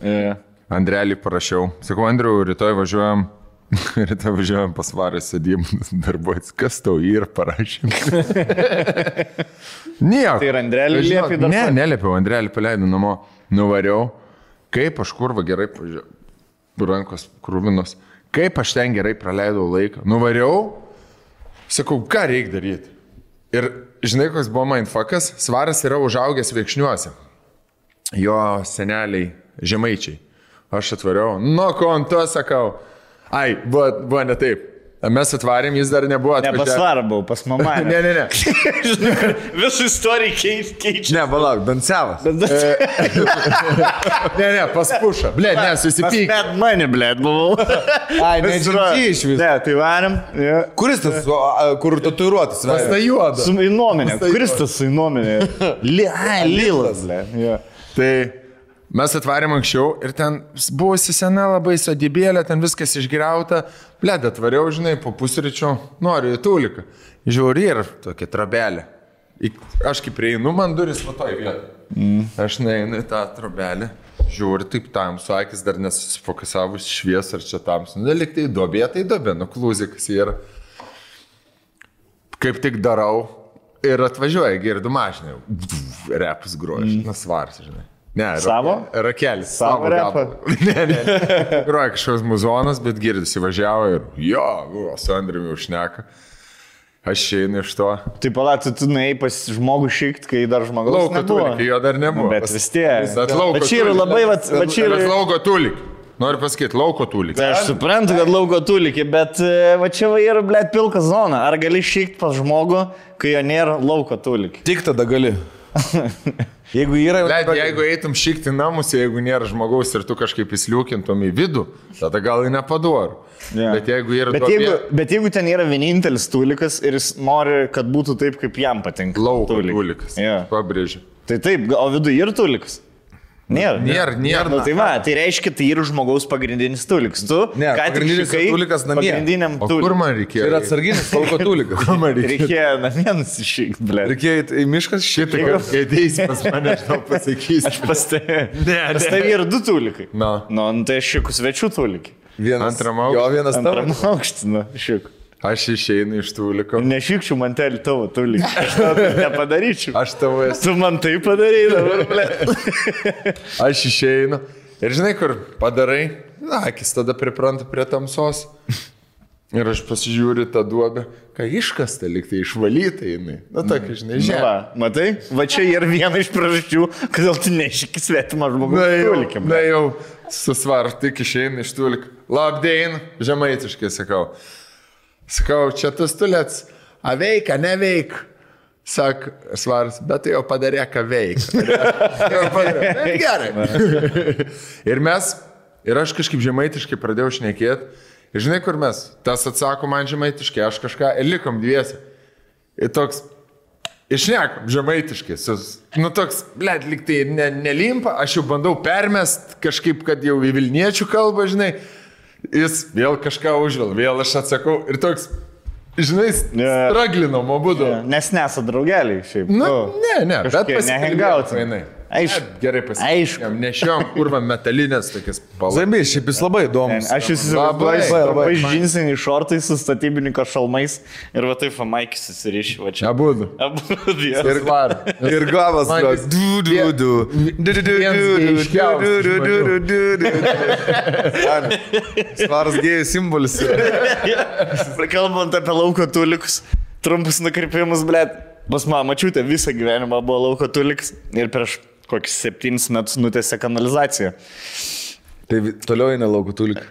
Andrelį parašiau. Sakau, Andriu, rytoj važiuojam pas Varą sėdėjim darbuotis. Kas tau jį ir parašym? Nieko. Tai ir Andrelį liepė dar? Ne, neliepiau, Andrelį paleidau namo. Nuvariau. Kaip aš kurva gerai pažiūrėjau. Rankos krūvinos. Kaip aš ten gerai praleidau laiką. Nuvariau. Sakau, ką reikia daryti? Ir žinai, koks buvo mindfuckas? Svaras yra užaugęs Viekšniuose. Jo seneliai žemaičiai. Aš atvariau. Nu, ko ant to sakau? Ai, buvo ne taip. Mes atvarėm, jis dar nebuvo atvažiavęs. Ne, pas Svarą buvau, pas mamą. Ne. Visų istorijų keičia. Ne, palauk, Dansevas. Ne, pas Pušą. Susipyk. Pas mane, buvau. Ai, nežinai iš viso. Ne, tai varėm. Kuris tas, kur tatuiruotas? Pas tą juodą. Su įnuomenė. Kuris tas su įnuomenė? Lilas. Tai mes atvarėm anksčiau ir ten buvusi sena labai sodybėlė, ten viskas išgriauta. Atvariau, žinai, po pusryčio noriu į tūliką. Žiūri ir tokia trobelė. Aš kaip prieinu, man duris va toj vietoj. Aš neinu į tą trobelę. Žiūri, taip tamsu, akis dar nesusifokusavus švies ar čia tamsu. Nelik tai dobė, nuklūzikas yra. Kaip tik darau ir atvažiuoja, girdu mašinę. Repus groja, Svaras, žinai. Ne, savo? Rakelis. Savo repą? Ne. Groja kažkoks muzonas, bet girdisi važiavo ir su Andriumi užšneka. Aš einu iš to. Tai palauk, tu nuėjai pas žmogų šikt, kai dar žmogaus Lauko nebuvo. tulikį, jo dar nebuvo. Bet vis tiek. Bet čia yra labai, čia yra... Lauko tulikį. Noriu pasakyti, lauko tulikį. Tai aš suprantu, kad lauko tulikį, bet va čia va yra, blėt, pilka zona. Ar gali šikt pas žmogų, kai jo nėra lauko tulikį? Tik tada gali. Jeigu yra... Jeigu eitum šikti namus, jeigu nėra žmogaus ir tu kažkaip įsliukintum į vidų, tada gal ir nepadoru. Yeah. Bet jeigu yra... Bet jeigu ten yra vienintelis tulikas ir jis nori, kad būtų taip, kaip jam patinka. Lauko tulikas. Yeah. Pabrėžiu. Tai taip, o viduje yra tulikas? Nėra. Nu, tai va, tai reiškia, tai yra žmogaus pagrindinis tulikas. Tu, ne, pagrindinis tulikas namie. Pagrindiniam tulikui. Kur man reikėjo? Tai yra atsarginis lauko tulikas. Kur man reikėjo? Reikėjo namie nusišykti, ble. Reikėjo į miškas šitą, kad ateis pas mane, aš tau pasakysiu. Aš pas tai yra du tulikai. Na. Nu, tai aš šiekų svečių tulikai. Antram aukštį. Jo, vienas tavo. Antram aukštį, nu, šiekų. Aš išeinu iš tuliko. Nešykčiau mantelį tavo tulikį. Aš tau nepadaryčiau. Aš tavo esu. Tu man tai padarai dabar, ble. Aš išeinu. Ir žinai, kur padarai? Na, akis tada pripranta prie tamsos. Ir aš pasižiūriu tą duobę. Ką iškasta, liktai išvalyta jinai. Na, tokia, žinai, žemė. Va, matai? Va čia yra viena iš priežasčių, kodėl tu nešyki svetimą žmogų tulikį. Na jau, susvar, tik išeinu iš tuliko. Labdien, žemaitiškai sakau. Sakau, čia tas tulėts, a veika, neveik. Sak, svaras, bet tai jau padarė, ką veika. Gerai. Ir aš kažkaip žemaitiškai pradėjau šnekėti. Ir žinai, kur mes? Tas atsako man žemaitiškai, aš kažką, ir likom dviesi. Ir toks, išnekom žemaitiškai. Nu toks, blėt, lyg tai nelimpa, aš jau bandau permest kažkaip, kad jau į vilniečių kalbą, žinai. Jis vėl kažką užvėl, vėl aš atsakau ir toks, žinai, straglinom abudu. Nes nesat draugeliai šiaip. Nu, ne, bet pasihengauti. Aišku, gerai pasiekėm. Nešiom kurva metalinės tokias palas. Zambiai, šiaip jis labai įdomus. Aš įsivaizduoju, labai džinsiniai šortai su statybininko šalmais ir va taip Maikis susirišė va čia. Abudu. Ir var. Ir gavas. Svaras gėjų simbolis. Kalbant apie lauko tulikus, trumpus nukrypimus, blėt. Pas mano mačiutė visą gyvenimą buvo lauko tulikas ir prieš kokius 7 metus nutėsė kanalizaciją. Tai toliau eina lauko tuliką.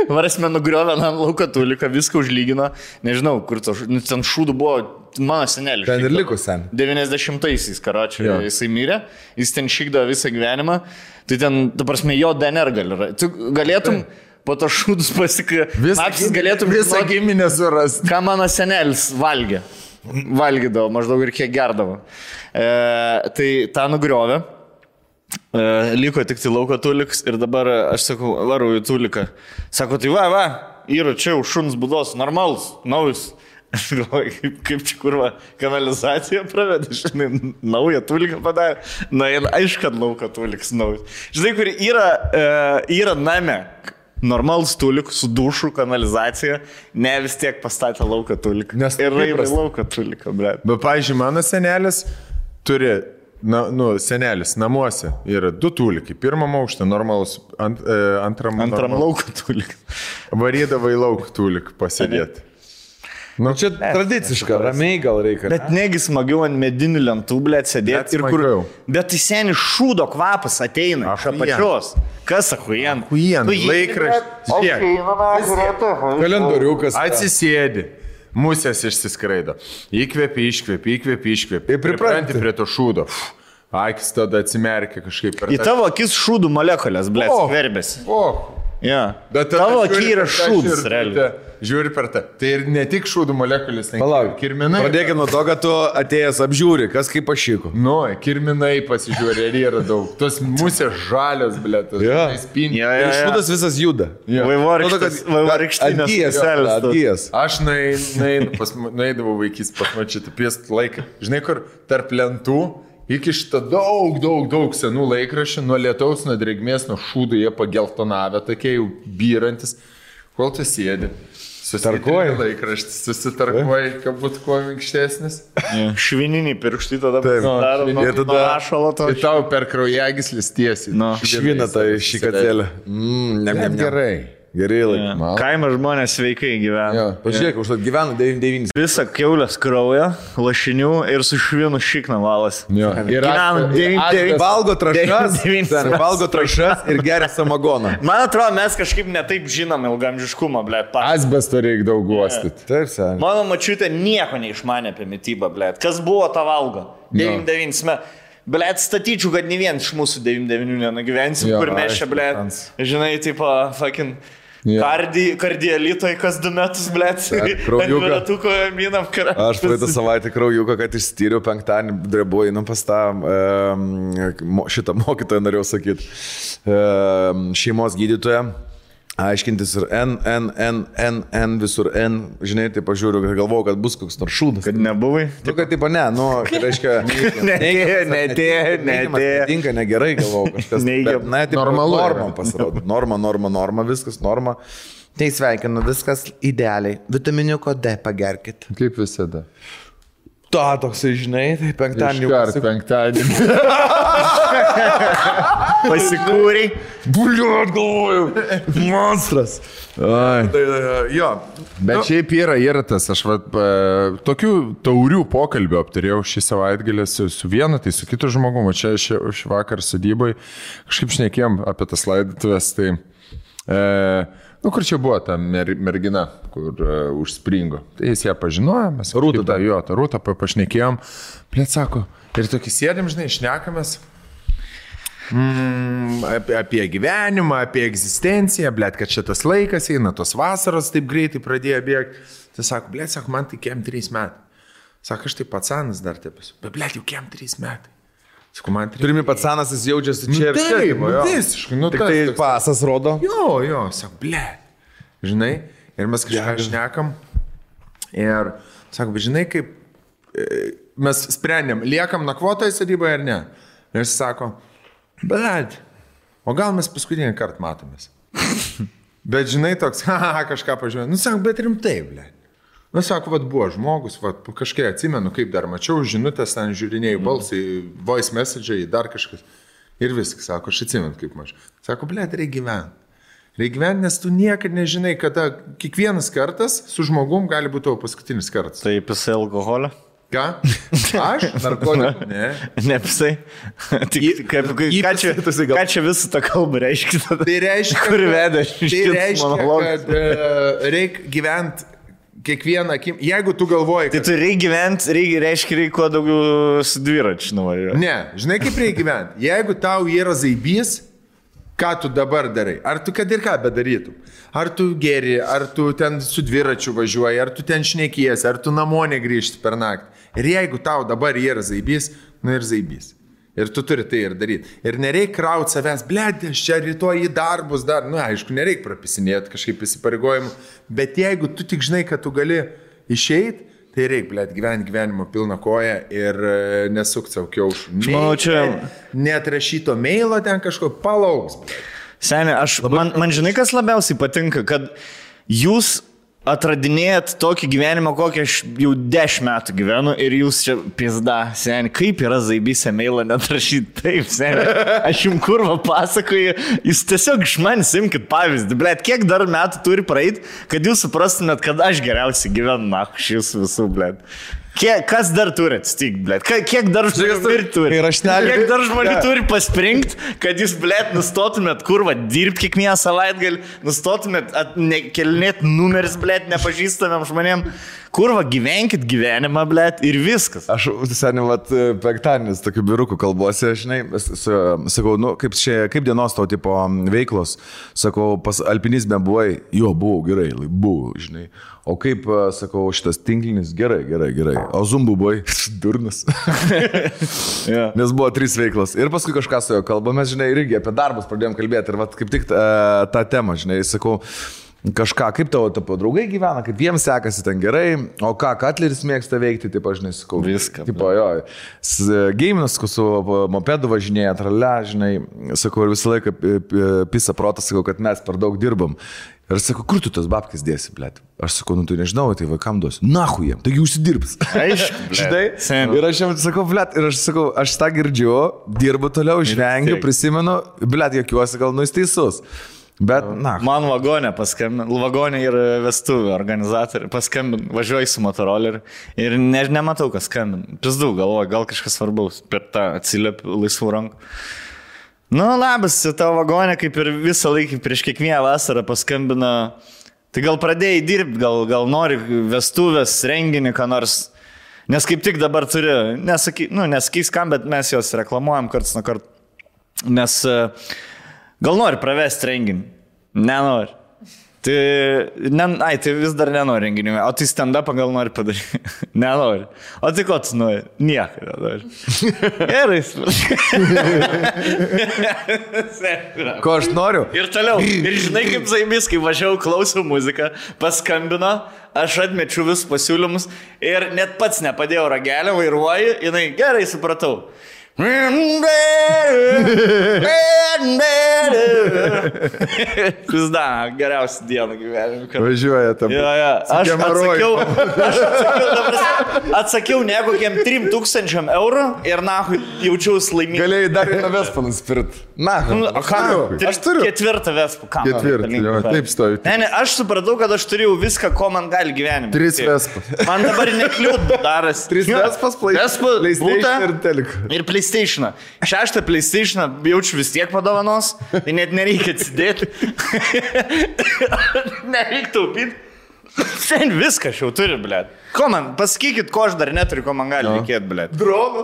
Varasme nugriovė ant lauko tuliką, viską užlygino. Nežinau, kur ten šūdų buvo mano senelis. Ten ir liko sen. 90-aisiais, karočiui, jisai mirė. Jis ten šykdavo visą gyvenimą. Tai ten, ta prasme, jo DNR gali. Tu galėtum po to šūdus pasikapsis, galėtum visą giminę surasti. Ką mano senelis valgė. Valgydavo maždaug ir kiek gerdavo. Tai tą nugriovė. Liko tik tai lauko tuliks ir dabar aš sakau, varau į tuliką. Sako, tai va, yra čia už šuns būdos, normalus, naujus. Aš galvoju, kaip čia kurva kanalizaciją pravedė, žinai, naują tuliką padarė. Na, aišku, kad lauko tuliks naujus. Žinai, kur yra name. Normalus tulik su dušu, kanalizacija, ne vis tiek pastatė lauką tuliką. Nes ir raivai lauką tuliką, bre. Bet, pavyzdžiui, mano senelis turi, senelis namuose yra 2 tulikai. Pirmam aukštą normalus, antram lauką tuliką. Varydavo į lauką tuliką pasėdėti. Nu, čia tradiciška, ramiai gal reikia. Bet negi smagiau ant medinių lentų, blėt, sėdėti ir kur... Bet tai seniai šūdo kvapas ateina iš apačios. Kas achujen? Laikraštis. Kalendoriukas. Atsisėdi. Musės išsiskraido. Įkvėpi, iškvėpi. Ir pripranti prie to šūdo. Akis tada atsimerkia kažkaip per... Į tavo akis šūdų molekulės, blėt, skverbėsi. Ja. Tavo akį yra šūdas, realiai. Žiūri per tą. Tai ir ne tik šūdų molekulės, Palauk, kirminai. Pradėkime nuo to, kad tu atėjęs apžiūri, kas kaip pašyko. Nu, kirminai pasižiūri, ar yra daug. Tos musės žalios, blėt. Ir šūdas visas juda. Vaivorykštinės. Atgyjas. Aš nueidavau vaikys pas mačytą piest laiką. Žinai, kur tarp lentų iki šitą daug senų laikraščių, nuo lietaus, nuo drėgmės, nuo šūdų jie pageltonavę, tokie jau byrantis. Kol tu sėdi, susitarkuoji laikraštis, susitarkuoji, kad būtų kuo minkštesnis. Švininiai pirštai tada daro, ir tada rašalo to. Ir tau per kraujagyslis tiesiai. Švina tai šikatėlė. Gerai. Geri laikai. Kaimo žmonės sveikai gyvena. Pažiūrėk, už tai gyvena 99. Visą keulės kraują, lašinių ir su švinu šikną valas. Gyvena 99. Valgo trašas ir geria samagoną. Man atrodo, mes kažkaip netaip žinom ilgamžiškumą, blėt. Asbesto reikia daug guostyti. Taip, seniai. Mano mačiutė nieko neišmanė apie mitybą, blėt. Kas buvo ta valgo? 99 metų. Blėt, statyčiau, kad ne vien iš mūsų 99 nenugyvensim, kur mes čia, blėt, žinai, tipo, fucking kardielitoj kas 2 metus, blėt, kraujuką minam karą. Aš praeitą savaitę kraujuką, kad išstyriau penktadienį, drebu, einam pas tą šitą mokytoją, norėjau sakyti, šeimos gydytoją. Aiškintis ir N, visur N, žinai, tai pažiūriu, galvojau, kad bus koks nors šūdas. Kad nebuvai? Tu, kad taip, ne, nu, tai reiškia, netinka, negerai, galvojau, kažkas. Na, taip, norma pasirodo. Norma, viskas norma. Tai sveikinu, viskas idealiai. Vitaminiuko D pagerkit. Kaip visada. Toksai, žinai, tai penktadienį. Penktadienį. Pasikūrei. Buliuot, galvoju. Monstras. Jo. Bet šiaip yra tas, aš tokių taurių pokalbių aptarėjau šį savaitgalį su vienu, tai su kitu žmogumu. Čia šį vakar sodybai kažkaip šnekėjom apie tas laidotuvės, tai... kur čia buvo ta mergina, kur užspringo. Tai jis ją pažinojo, mes tą Rūtą pašnekėjom. Plėt sako, ir tokį sėdėm, žinai, šnekamės apie gyvenimą, apie egzistenciją, blėt, kad šitas laikas eina, tos vasaros taip greitai pradėjo bėgti. Tai sako, blėt, sako, man tai kiem 3 metai. Sako, aš tai patsanas dar taip esu. Bet blėt, jau kiem 3 metai. Sako, man 3 metai. Turimi patsanas, jis jaučiasi čia ir čia. Taip, visiškai. Tik tai pasas rodo. Jo, sako, blėt. Žinai, ir mes kažką šnekam. Ir sako, bet žinai, kaip mes sprendėm, liekam nakvotoje sodyboje ar ne. Ir jis sako, blėt, o gal mes paskutinį kartą matomės. Bet žinai, toks, kažką pažiūrėjau. Nu, sako, bet rimtai, blėt. Nu, sako, buvo žmogus, kažkai atsimenu, kaip dar mačiau, žinutės, ten žiūrinėjau balsai, voice message'ai, dar kažkas. Ir viskas, sako, aš atsimenu, kaip mačiau. Sako, blėt, reikia gyventi. Reikia gyventi, nes tu niekad nežinai, kada kiekvienas kartas su žmogum gali būti tavo paskutinis kartas. Tai pisai alkoholio? Ką? Aš? Narkotikų? Ne. Nepisai. Ką čia visą tą kalbą reiškia? Tai reiškia, kur veda tai reiškia, kad reikia gyventi kiekvieną akim. Jeigu tu galvoji, kad... Tai tu reikia gyventi, reiškia kuo daugiau su dviračiu nuvažiuoti. Ne, žinai kaip reikia gyventi. Jeigu tau yra zaibys, ką tu dabar darai? Ar tu kad ir ką bedarytum? Ar tu geri, ar tu ten su dviračiu važiuoji, ar tu ten šnekiesi, ar tu namo negrįžti per naktį. Ir jeigu tau dabar yra zaibys, nu ir zaibys. Ir tu turi tai ir daryti. Ir nereikia krauti savęs, blėt, aš čia rytoj į darbus dar, nu aišku, nereikia prapisinėti kažkaip įsipareigojimų, bet jeigu tu tik žinai, kad tu gali išeiti, tai reikia, blėt, gyvenimo pilną koją ir nesukti savo kiaušų. Manau, čia... Net rašyto mailo ten kažko palauks. Seniai, man žinai, kas labiausiai patinka, kad jūs atradinėjat tokį gyvenimą, kokį aš jau 10 metų gyvenu ir jūs čia pizda, seniai, kaip yra zaibysė mailą net rašyti, taip, seniai, aš jums kurva pasakoju, jūs tiesiog iš manęs imkit pavyzdį, blėt, kiek dar metų turi praeiti, kad jūs suprastumėt, kad aš geriausiai gyvenu, na, šis visų, blėt. Kas dar turi atsitikti, blėt? Kiek dar žmonių turi? Kiek dar žmonių turi pasprinkt, kad jūs, blėt, nustotumėt kurva dirbti kiekvieną savaitgalį, nustotumėt kelinėt numeris, blėt, nepažįstamiem žmonėm. Kurva, gyvenkit gyvenimą, blėt, ir viskas. Aš, seniai, penktadienis tokių birukų kalbuose, žinai, sakau, nu, kaip dienos tau tipo veiklos, sakau, pas alpinizme buvai, jo, buvau, gerai, buvau, žinai. O kaip, sakau, šitas tinklinis, gerai. O zumbu buvai, durnas. Nes buvo 3 veiklos. Ir paskui kažką su jo kalbame, žinai, irgi apie darbus pradėjom kalbėti. Ir vat, kaip tik tą temą, žinai, sakau, kažką, kaip tavo draugai gyvena, kaip jiems sekasi ten gerai, o ką Katleris mėgsta veikti, taip aš nesakau. Viską. Tipo, jo, geiminas, su mopedu važinėja, trale, žinai, sakau, ir visą laiką pisa protas, sakau, kad mes per daug dirbam. Ir sakau, kur tu tas babkis dėsi, blėt? Aš sakau, nu tu nežinau, tai vaikam duosiu. Nahu jiem, taigi užsidirbs. Aišku, žinai. Ir aš jiems sakau, blėt, ir aš sakau, aš tą girdžiu, dirbu toliau, žvengiu, prisimenu, blėt, jokiuosi, gal nu jis teisus. Bet, na. Man vagonė paskambino, vagonė ir vestuvių organizatoriai paskambino, važiuoju su motoroleriu ir nematau, kas skambino. Pizdu, galvoju, gal kažkas svarbaus, per tą atsiliepiu laisvų rankų. Nu, labas, tavo vagonė kaip ir visą laiką prieš kiekvieną vasarą paskambino. Tai gal pradėjai dirbti, gal nori vestuvės, renginį, ką nors. Nes kaip tik dabar turi, nesakys kam, bet mes jos reklamuojam karts nuo karto. Nes gal nori pravesti renginį? Nenori. Tai vis dar nenori renginių. O tai stand-upą gal nori padaryti? Nenori. O tai ko tu nori? Nieko nenori. Gerai. Ko aš noriu? Ir toliau. Ir žinai, kaip zaibys, kai važiavau, klausiau muziką, paskambino, aš atmečiu visus pasiūlymus ir net pats nepadėjau ragelio, vairuoju, jinai gerai supratau. Pizda, geriausia diena gyvenime. Važiuoja tam. Atsakiau ne kokiam 3,000 eurų ir nahui jaučiausi laimingai. Galėjai dar vieną vespą nusipirkti. Na, aš turiu 4 vespų. 4, taip stovi. Ne, aš supratau, kad aš turėjau viską, ko man gali gyvenime. 3 vespas. Man dabar nekliūt daras. 3 vespas, PlayStation ir telik. Ir PlayStation. 6 PlayStation jaučiu vis tiek padovanos, tai net nereikia atsidėti. Nereikia taupyti. Sen viską aš jau turiu, blėt. Ko man, pasakykit, ko aš dar neturiu, ko man gali reikėti, blėt. Dronų.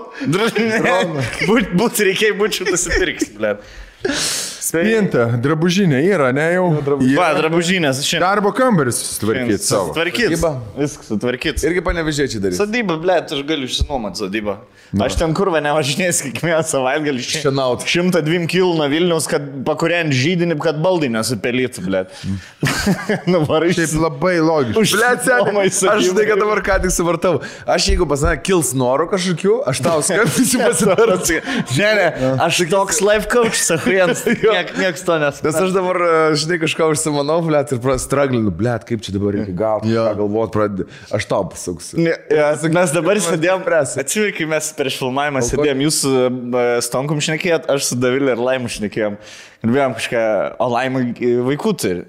Būt reikėjo, būčiau nusipirks, blėt. Spinta, drabužinė yra, ne jau? Va, drabužinės. Darbo kambaris sutvarkyti savo. Sutvarkyti. Viskas sutvarkyti. Irgi panevežėčiai darys. Sodyba, blėt, aš galiu išsinuomati sodybą. Aš ten kurva nevažinės kiekvieną savaitgalį šienauti. 102 kil nuo Vilniaus, kad pakuriant žydinį, kad baldai nesupelytų, blėt. Nuvarai. Taip labai logiškai. Blėt, seniai, aš žinai, kad dabar ką tik suvartau. Aš jeigu pas mane kils norų kažkokių, aš tau skambinsiu pasidarti. Ne, aš toks life coach, sakau, jiems. Niekas to nes. Nes aš dabar, žinai, kažką užsimanau, blėt, ir straglinu, blėt, kaip čia dabar reikia gauti, ką galvoti pradėti. Aš tau pasuksiu. Mes dabar sėdėjom, atsiveik, kai mes prieš filmavimą sėdėjom, jūs su Stonkum šnekėjot, aš su Davilė ir Laimu šnekėjom. Ir bijom kažką, o Laima vaikų turi.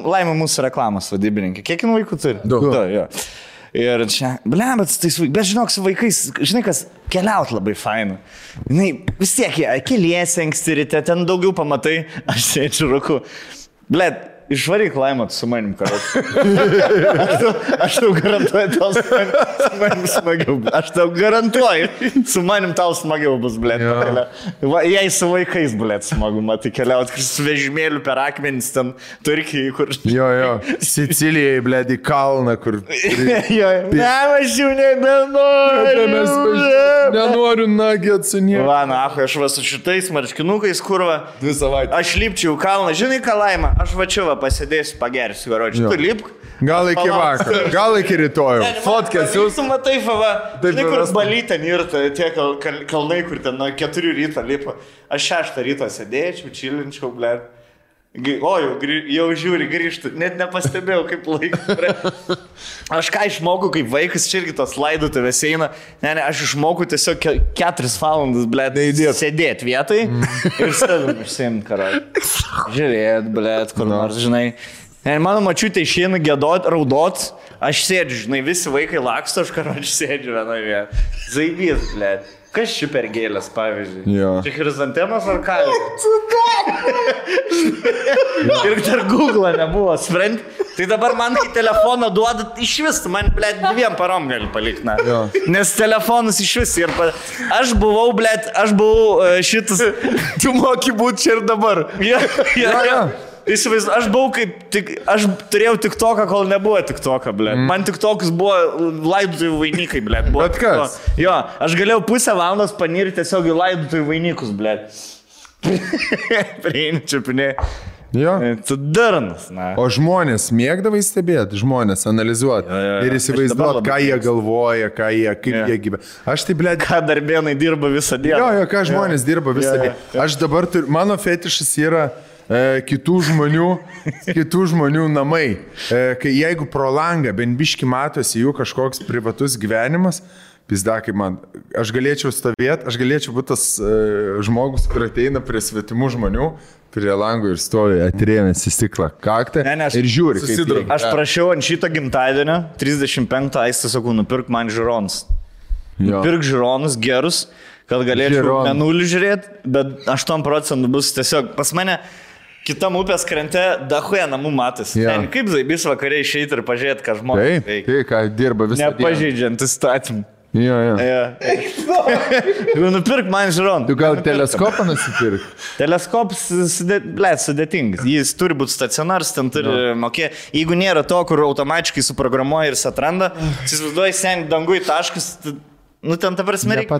Laima mūsų reklamos vadybininkė. Kiek jin vaikų turi? Daug. Jo. Ir čia, bet žinok, su vaikais, žinai, kas keliaut labai fainu. Žinai, vis tiek, keliesi anksti ryte, ten daugiau pamatai, aš sėdžiu rūku. Blet, išvaryk Laimą su manim kartu. Aš tau garantuoju, tau su manim smagiau. Aš tau garantuoju, su manim tau smagiau bus, blet. Jei su vaikais, blet, smagu, matai, keliaut su vežimėliu per akmenis ten Turkijai, kur... Jo, Sicilijai, blet, į kalną, kur... Ne, aš jau nebenoriu. Nenoriu nagėt su nieko. Va, na, aš va su šitais marškinukais, kurva. 2 savaitės. Aš lipčiau kalną, žinai ką, Laima, aš va čia va pasidėsiu, pagersiu, garočiu. Tu lipk. Gal iki vakar, gal iki rytojų. Fotkės jūs. Tu matai, va, žinai, kur balytė nirta, tie kalnai, kur ten nuo 4 ryto lipa. Aš 6 ryto sėdėčiau, čilinčiau, blėt. O, jau žiūri, grįžtų, net nepastebėjau, kaip laikas. Aš ką išmokau, kaip vaikas, čia irgi tos laidotuvės eina. Ne, aš išmokau tiesiog 4 valandas, blėt, sėdėti vietai ir savim išsiimti, karai. Žiūrėt, blėt, kur nors, žinai. Ne, mano mačiutė išeina gėdot, raudot, aš sėdžiu, žinai, visi vaikai laksto, aš karočiu sėdžiu vienoje vietoje. Zaibys, blėt. Kas čia per gėlės, pavyzdžiui? Čia chrizantemas ar kalė? Ir dar Google nebuvo, sprend. Tai dabar man, kai telefoną duodat, iš vis, man, blėt, 2 parom gali palikti, na. Nes telefonas iš vis ir... Aš buvau, blėt, šitas... Tu moki būti čia ir dabar. Jo. Aš buvau aš turėjau TikToką, kol nebuvo TikToką, blėt. Man TikTokas buvo laidotuvių vainikai, blėt. Bet kas? Jo, aš galėjau pusę valandos panirti tiesiog į laidotuvių vainikus, blėt. Prieini čiapinė. Jo. Tu darnas, na. O žmonės mėgdavai stebėti, žmonės analizuoti ir įsivaizduoti, ką jie galvoja, kaip jie gyvena. Aš tai, blėt... Ką darbėnai dirba visą dieną. Jo, ką žmonės dirba visą dieną. Aš dabar turiu, mano fetišas yra kitų žmonių namai. Kai jeigu pro langą bent biški matosi jų kažkoks privatus gyvenimas, Pizdakai man, aš galėčiau stovėti, aš galėčiau būti tas žmogus, kur ateina prie svetimų žmonių, prie langų ir stovi atrėmęs į stiklą kaktą ir žiūri. Aš prašiau ant šito gimtadienio, 35 aistą sakau, nupirk man žiūronus. Nupirk žiūronus gerus, kad galėčiau menulį žiūrėti, bet 8% bus tiesiog pas mane. Kitam upės krante dahuja namų matas. Ten kaip zaibys vakariai išeiti ir pažiūrėti, ką žmonės veikia. Tai, ką dirba visą dieną. Nepažeidžiant įstatymų. Jo. Nupirk man žiūroną. Tu gal teleskopą nusipirk? Teleskopas, sudėtingas. Jis turi būti stacionaras, ten turi mokėti. Jeigu nėra to, kur automatiškai suprogramuoja ir jis atranda, įsivaizduoji sen dangui taškas. Nu, ten ta prasme reikia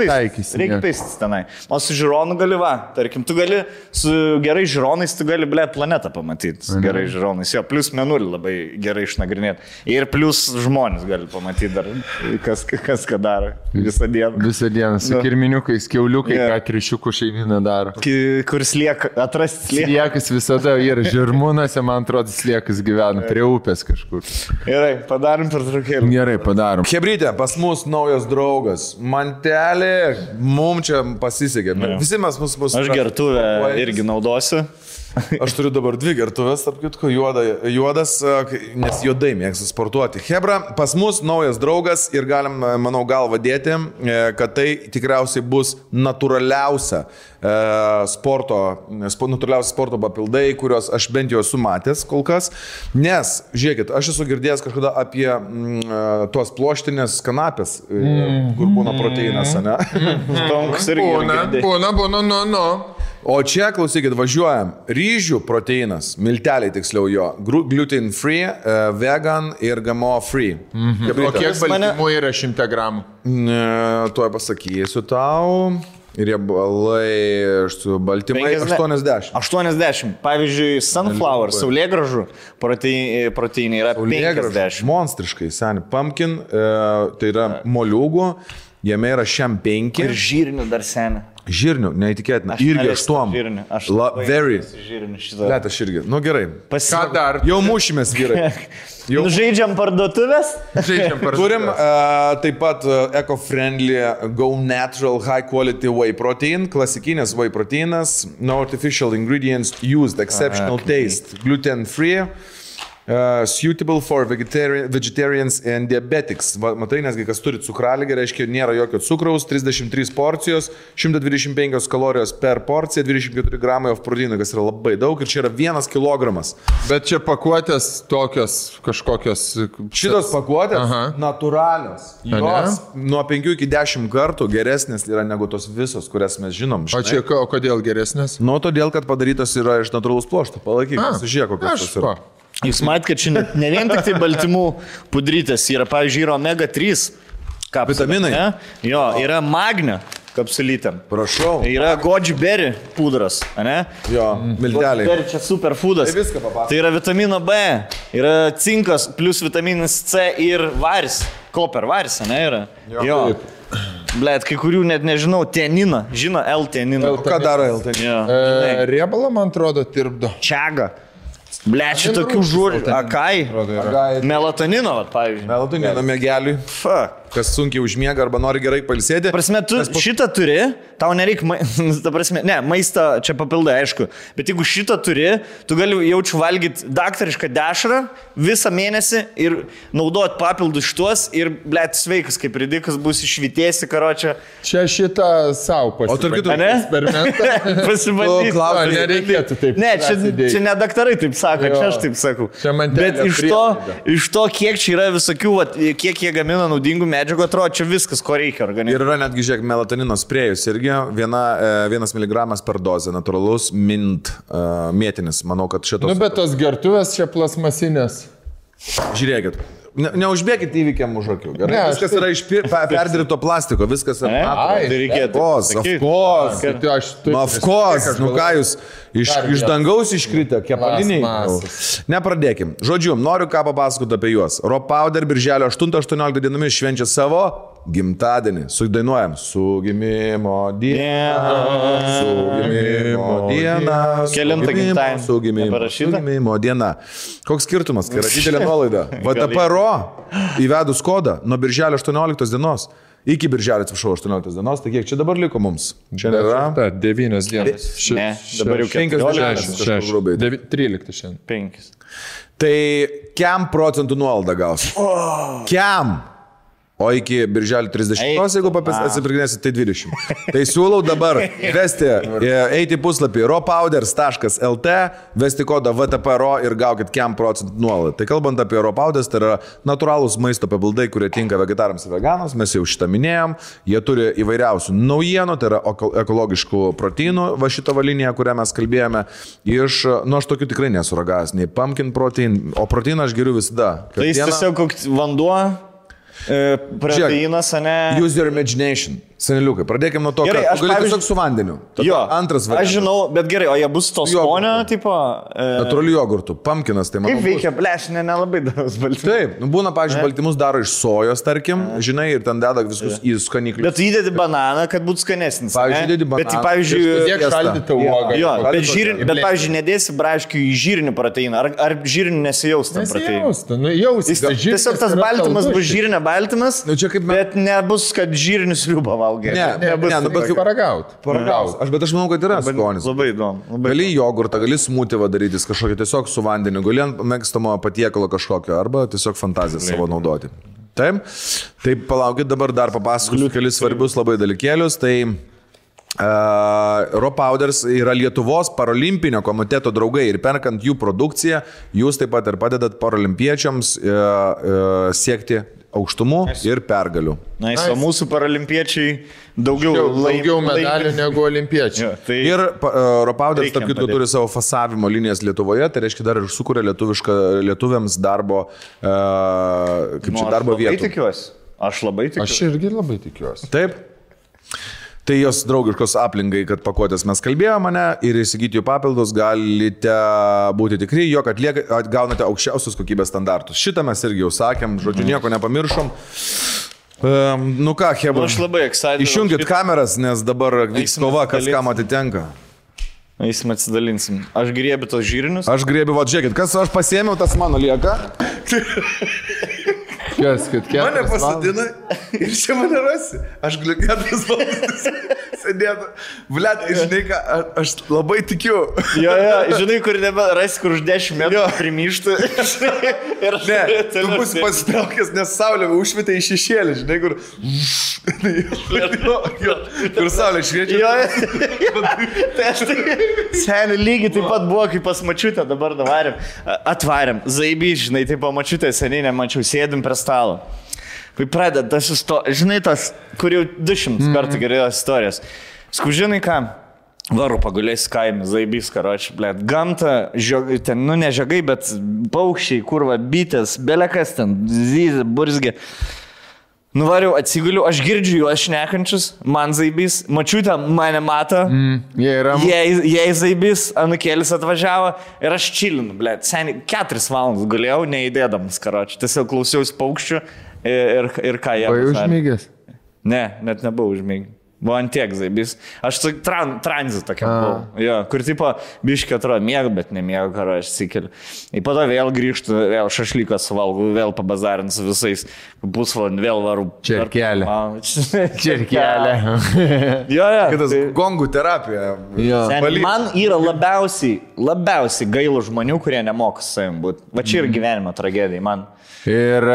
paistis tenai. O su žiūronu gali tarkim, tu gali su gerai žiūronais, tu gali, planetą pamatyti. Su gerai žiūronais. Jo, plus menulį labai gerai išnagrinėti. Ir plus žmonės gali pamatyti dar, kas ką daro visą dieną. Visą dieną, su kirminiukais, kiauliukai, ką trišiukų šeimina daro. Kur slieka, atrasti slieką. Sliekas visada yra žirmūnose, man atrodo, sliekas gyvena prie upės kažkur. Gerai, padarom per trukėlį. Gerai, padarom. Hebrytė, pas mus naujas draugas. Mantelė, mums čia pasisekė. Visi mes mus... Aš gertuvę irgi naudosiu. Aš turiu dabar 2 gertuvės, tarp kitko, juodas, nes juodai mėgstu sportuoti. Hebra, pas mus naujas draugas ir galim, manau, galvą dėti, kad tai tikriausiai bus natūraliausia sporto papildai, kurios aš bent jau esu matęs kol kas. Nes, žiūrėkit, aš esu girdėjęs kažkada apie tuos ploštinės kanapės, kur būna proteinas, ne? Būna. O čia, klausykit, važiuojam. Ryžių proteinas, milteliai tiksliau jo, gluten free, vegan ir GMO free. O kiek baltymų yra 100 gramų? Tuoj pasakysiu tau. Riebalai su baltymai 80. 80. Pavyzdžiui, sunflower, saulėgražų proteinai yra 50. Monstriškai, seni. Pumpkin, tai yra moliūgų, jame yra šiam 5. Ir žirnių dar seni. Žirnių, neįtikėtina. Irgi 8. Very. Let aš irgi. Nu gerai. Ką dar? Jau mušimės, vyrai. Žaidžiam parduotuvės? Turim taip pat eco-friendly Go Natural High Quality Whey Protein. Klasikinis whey proteinas. No artificial ingredients used. Exceptional taste. Gluten free. Suitable for vegetarians and diabetics. Matai, nesgi kas turi cukralygę, reiškia, nėra jokio cukraus, 33 porcijos, 125 kalorijos per porciją, 24 gramai of proteino, kas yra labai daug ir čia yra 1 kilogramas. Bet čia pakuotės tokios kažkokios... Šitos pakuotės natūralios. Jos nuo 5 iki 10 kartų geresnės yra negu tos visos, kurias mes žinom. O čia kodėl geresnės? Nu, todėl, kad padarytos yra iš natūralaus pluošto. Palaikyk, pasižiūrėk, kokios tos yra. Jūs matėte, kad čia ne vien tik tai baltymų pudrytės, yra, pavyzdžiui, yra omega 3 kapsulė. Vitaminai. Ne? Jo, yra magnio kapsulytėm. Prašau. Yra goji berry pudras, ne? Jo, milteliai. Berry čia superfoodas. Tai viską papasakok. Tai yra vitamino B, yra cinkas plus vitaminas C ir varis. Koper varis, ne yra? Jo. Blet, kai kurių net nežinau, tenina. Žino L-teniną. Ką daro L-teniną? Riebalą, man atrodo, tirpdo. Čiaga. Blet, šitokių žūrių. Akai. Melatonino, pavyzdžiui. Melatonino mėgeliui. Kas sunkiai užmiega arba nori gerai pailsėti. Prasme, tu šitą turi, tau nereikia, maistą čia papildai, aišku, bet jeigu šitą turi, tu gali jaučiu valgyti daktarišką dešrą visą mėnesį ir naudoti papildus šituos ir, blet, sveikas, kaip ridikas, bus išvitėsi, karočią. Čia šitą savo pasibandyti. O tarp kitų, eksperimentą. Pasibandyti. Nereikėtų taip. Ne, čia ne daktarai taip sako, čia aš taip sakau. Bet iš to, kiek čia yra visokių, kiek jie gamina naudingų medžiagų, atrodo, čia viskas, ko reikia organizmui. Ir yra netgi, žiūrėk, melatonino sprėjus irgi 1 miligramas per dozę, natūralus mint mėtinis. Manau, kad šitos... Nu, bet tos gertuvės čia plasmasinės. Žiūrėkit. Neužbėkit įvykiam už akių. Gerai, ne, viskas yra iš perdirbto plastiko, viskas yra. Tai reikėtų. Of course. Nu ką jūs, iš dangaus iškritę, kepaliniai. Nepradėkim. Žodžiu, noriu ką papasakoti apie juos. Raw Powder birželio 8-18 dienomis švenčia savo gimtadienį. Sudainuojam. Su gimimo diena. Su gimimo diena. Kelintą gimtadienį. Su gimimo diena. Koks skirtumas, kai yra didelė nuolaida. VTP Raw įvedus kodą nuo birželio 18 dienos Iki birželio, atsiprašau, 18 dienos, tai kiek čia dabar liko mums? Čia yra 9 dienas. Ne, dabar jau 14. 13 šiandien. 5. Tai kiam procentų nuolaidą gausi? Kiam? O iki birželio 30, jeigu atsipirkinėsi, tai 20. Tai siūlau dabar eiti į puslapį rawpowders.lt, vesti kodą VTPRO ir gaukit kiam procentų nuolaidą. Tai kalbant apie rawpowders, tai yra natūralūs maisto papildai, kurie tinka vegetarams ir veganams, mes jau šitą minėjom, jie turi įvairiausių naujienų, tai yra ekologiškų proteinų, va šitą valinę, kurią mes kalbėjome, aš tokių tikrai nesuragavęs, nei pumpkin protein, o proteiną aš geriu visada. Tai jis tiesiog koks vanduo, proteinas, ne? Use your imagination. Seneliukai, pradėkime nuo to, gerai, kad tu gali tiesiog su vandeniu. Jo, antras variantas. Aš žinau, bet gerai, o jie bus to skonio, tipo... Natūralių jogurtų, pumpkinas, tai manau. Kaip veikia, plešinė, nelabai daros baltymus. Taip, būna, pavyzdžiui, baltymus daro iš sojos, tarkim, žinai, ir ten deda viskus į skaniklius. Bet tu įdedi bananą, kad būtų skanesnis. Pavyzdžiui, įdedi bananą. Bet, pavyzdžiui... Tiek šaldytą uogą. Jo, bet, pavyzdžiui, nedėsi braškių į žyrinį proteiną. Ar žyrinį nesijaus tam proteiną? Tiesiog tas baltymas bus žyrinė baltymas, bet nebus, kad žyrinis liūba valgai. Bet paragauti. Bet aš manau, kad yra skonis. Labai įdomu. Gali jogurtą, gali smūtį darytis kažkokį tiesiog su vandeniu, gali ant mėgstamo patiekalo kažkokio, arba tiesiog fantaziją savo naudoti. Taip, tai palaukit, dabar dar papasakosiu kelis svarbius labai dalykėlius. Tai rawpowders yra Lietuvos parolimpinio komiteto draugai ir perkant jų produkciją, jūs taip pat ir padedat paralimpiečiams siekti aukštumų ir pergalių. O mūsų paralimpiečiai daugiau medalių negu olimpiečiai. Ja, tai ir rawpowders, tarp kitko, turi savo fasavimo linijas Lietuvoje, tai reiškia dar ir sukuria lietuviams darbo, darbo vietų. Aš labai tikiuosi. Aš irgi labai tikiuosi. Taip. Tai jos draugiškos aplinkai, kad pakuotės mes kalbėjome, ir įsigyti jų papildus galite būti tikri, jog gaunate aukščiausius kokybės standartus. Šitą mes irgi jau sakėm, žodžiu, nieko nepamiršom. Nu ką, Hebra, aš labai excited. Išjungit kameras, nes dabar vyks kova, kas kam atitenka. Eisim atsidalinsim. Aš griebiu tos žyrinius. Aš griebiu, žiūrėkit, kas aš pasiėmiau, tas mano lieka. Kas, kad mane pasadina ir čia mane rasi. Aš galiu 4 valandas sėdėti. Blet, žinai ką, aš labai tikiu. Jo, žinai, kur rasi, kur už 10 metrų primyštų. Ne, tu būsi pasitraukęs, nes saulė užšvietė į šešėlį, žinai, kur... Kur saulė šviečia. Jo, tai aš tai... Seniai lygiai taip pat buvo, kaip pas mačiutę, dabar atvarėm. Zaibys, žinai, taip mačiutę seniai nemačiau, sėdim prie stalo. Kai pradeda tas istorijas, žinai tas, kur jau 200 kartų gerėjos istorijos. Žinai ką, varu pagulės kaime, Zaibys, karoči, blėt, gamta, ten, ne žiogai, bet paukščiai, kurva, bitės, belekas ten, zyzė, burzgė. Nuvariau, atsiguliu, aš girdžiu juos šnekančius, man Zaibys, mačiutė mane mato, jei Zaibys, anukėlis atvažiavo ir aš čilinu, blėt, seniai 4 valandas gulėjau, neįdėdamas, karoči, tiesiog klausiausi paukščių ir ką jie. Buvai užmygęs? Ne, net nebuvau užmygęs. Buvo antiek Zaibys. Aš tranzit tokia buvau. Jo, kur tipo biškį atrodo mėgų, bet nemėgų, karo aš sikeliu. Ir po to vėl grįžtu, vėl šašlyką suvalgau, vėl pabazarinu su visais. Pusvalandį vėl varu. Čerkelė. Čerkelė. Jo. Kitas gongų terapija. Man yra labiausiai gailų žmonių, kurie nemoka su savim būti. Va čia yra gyvenimo tragedija man. Ir...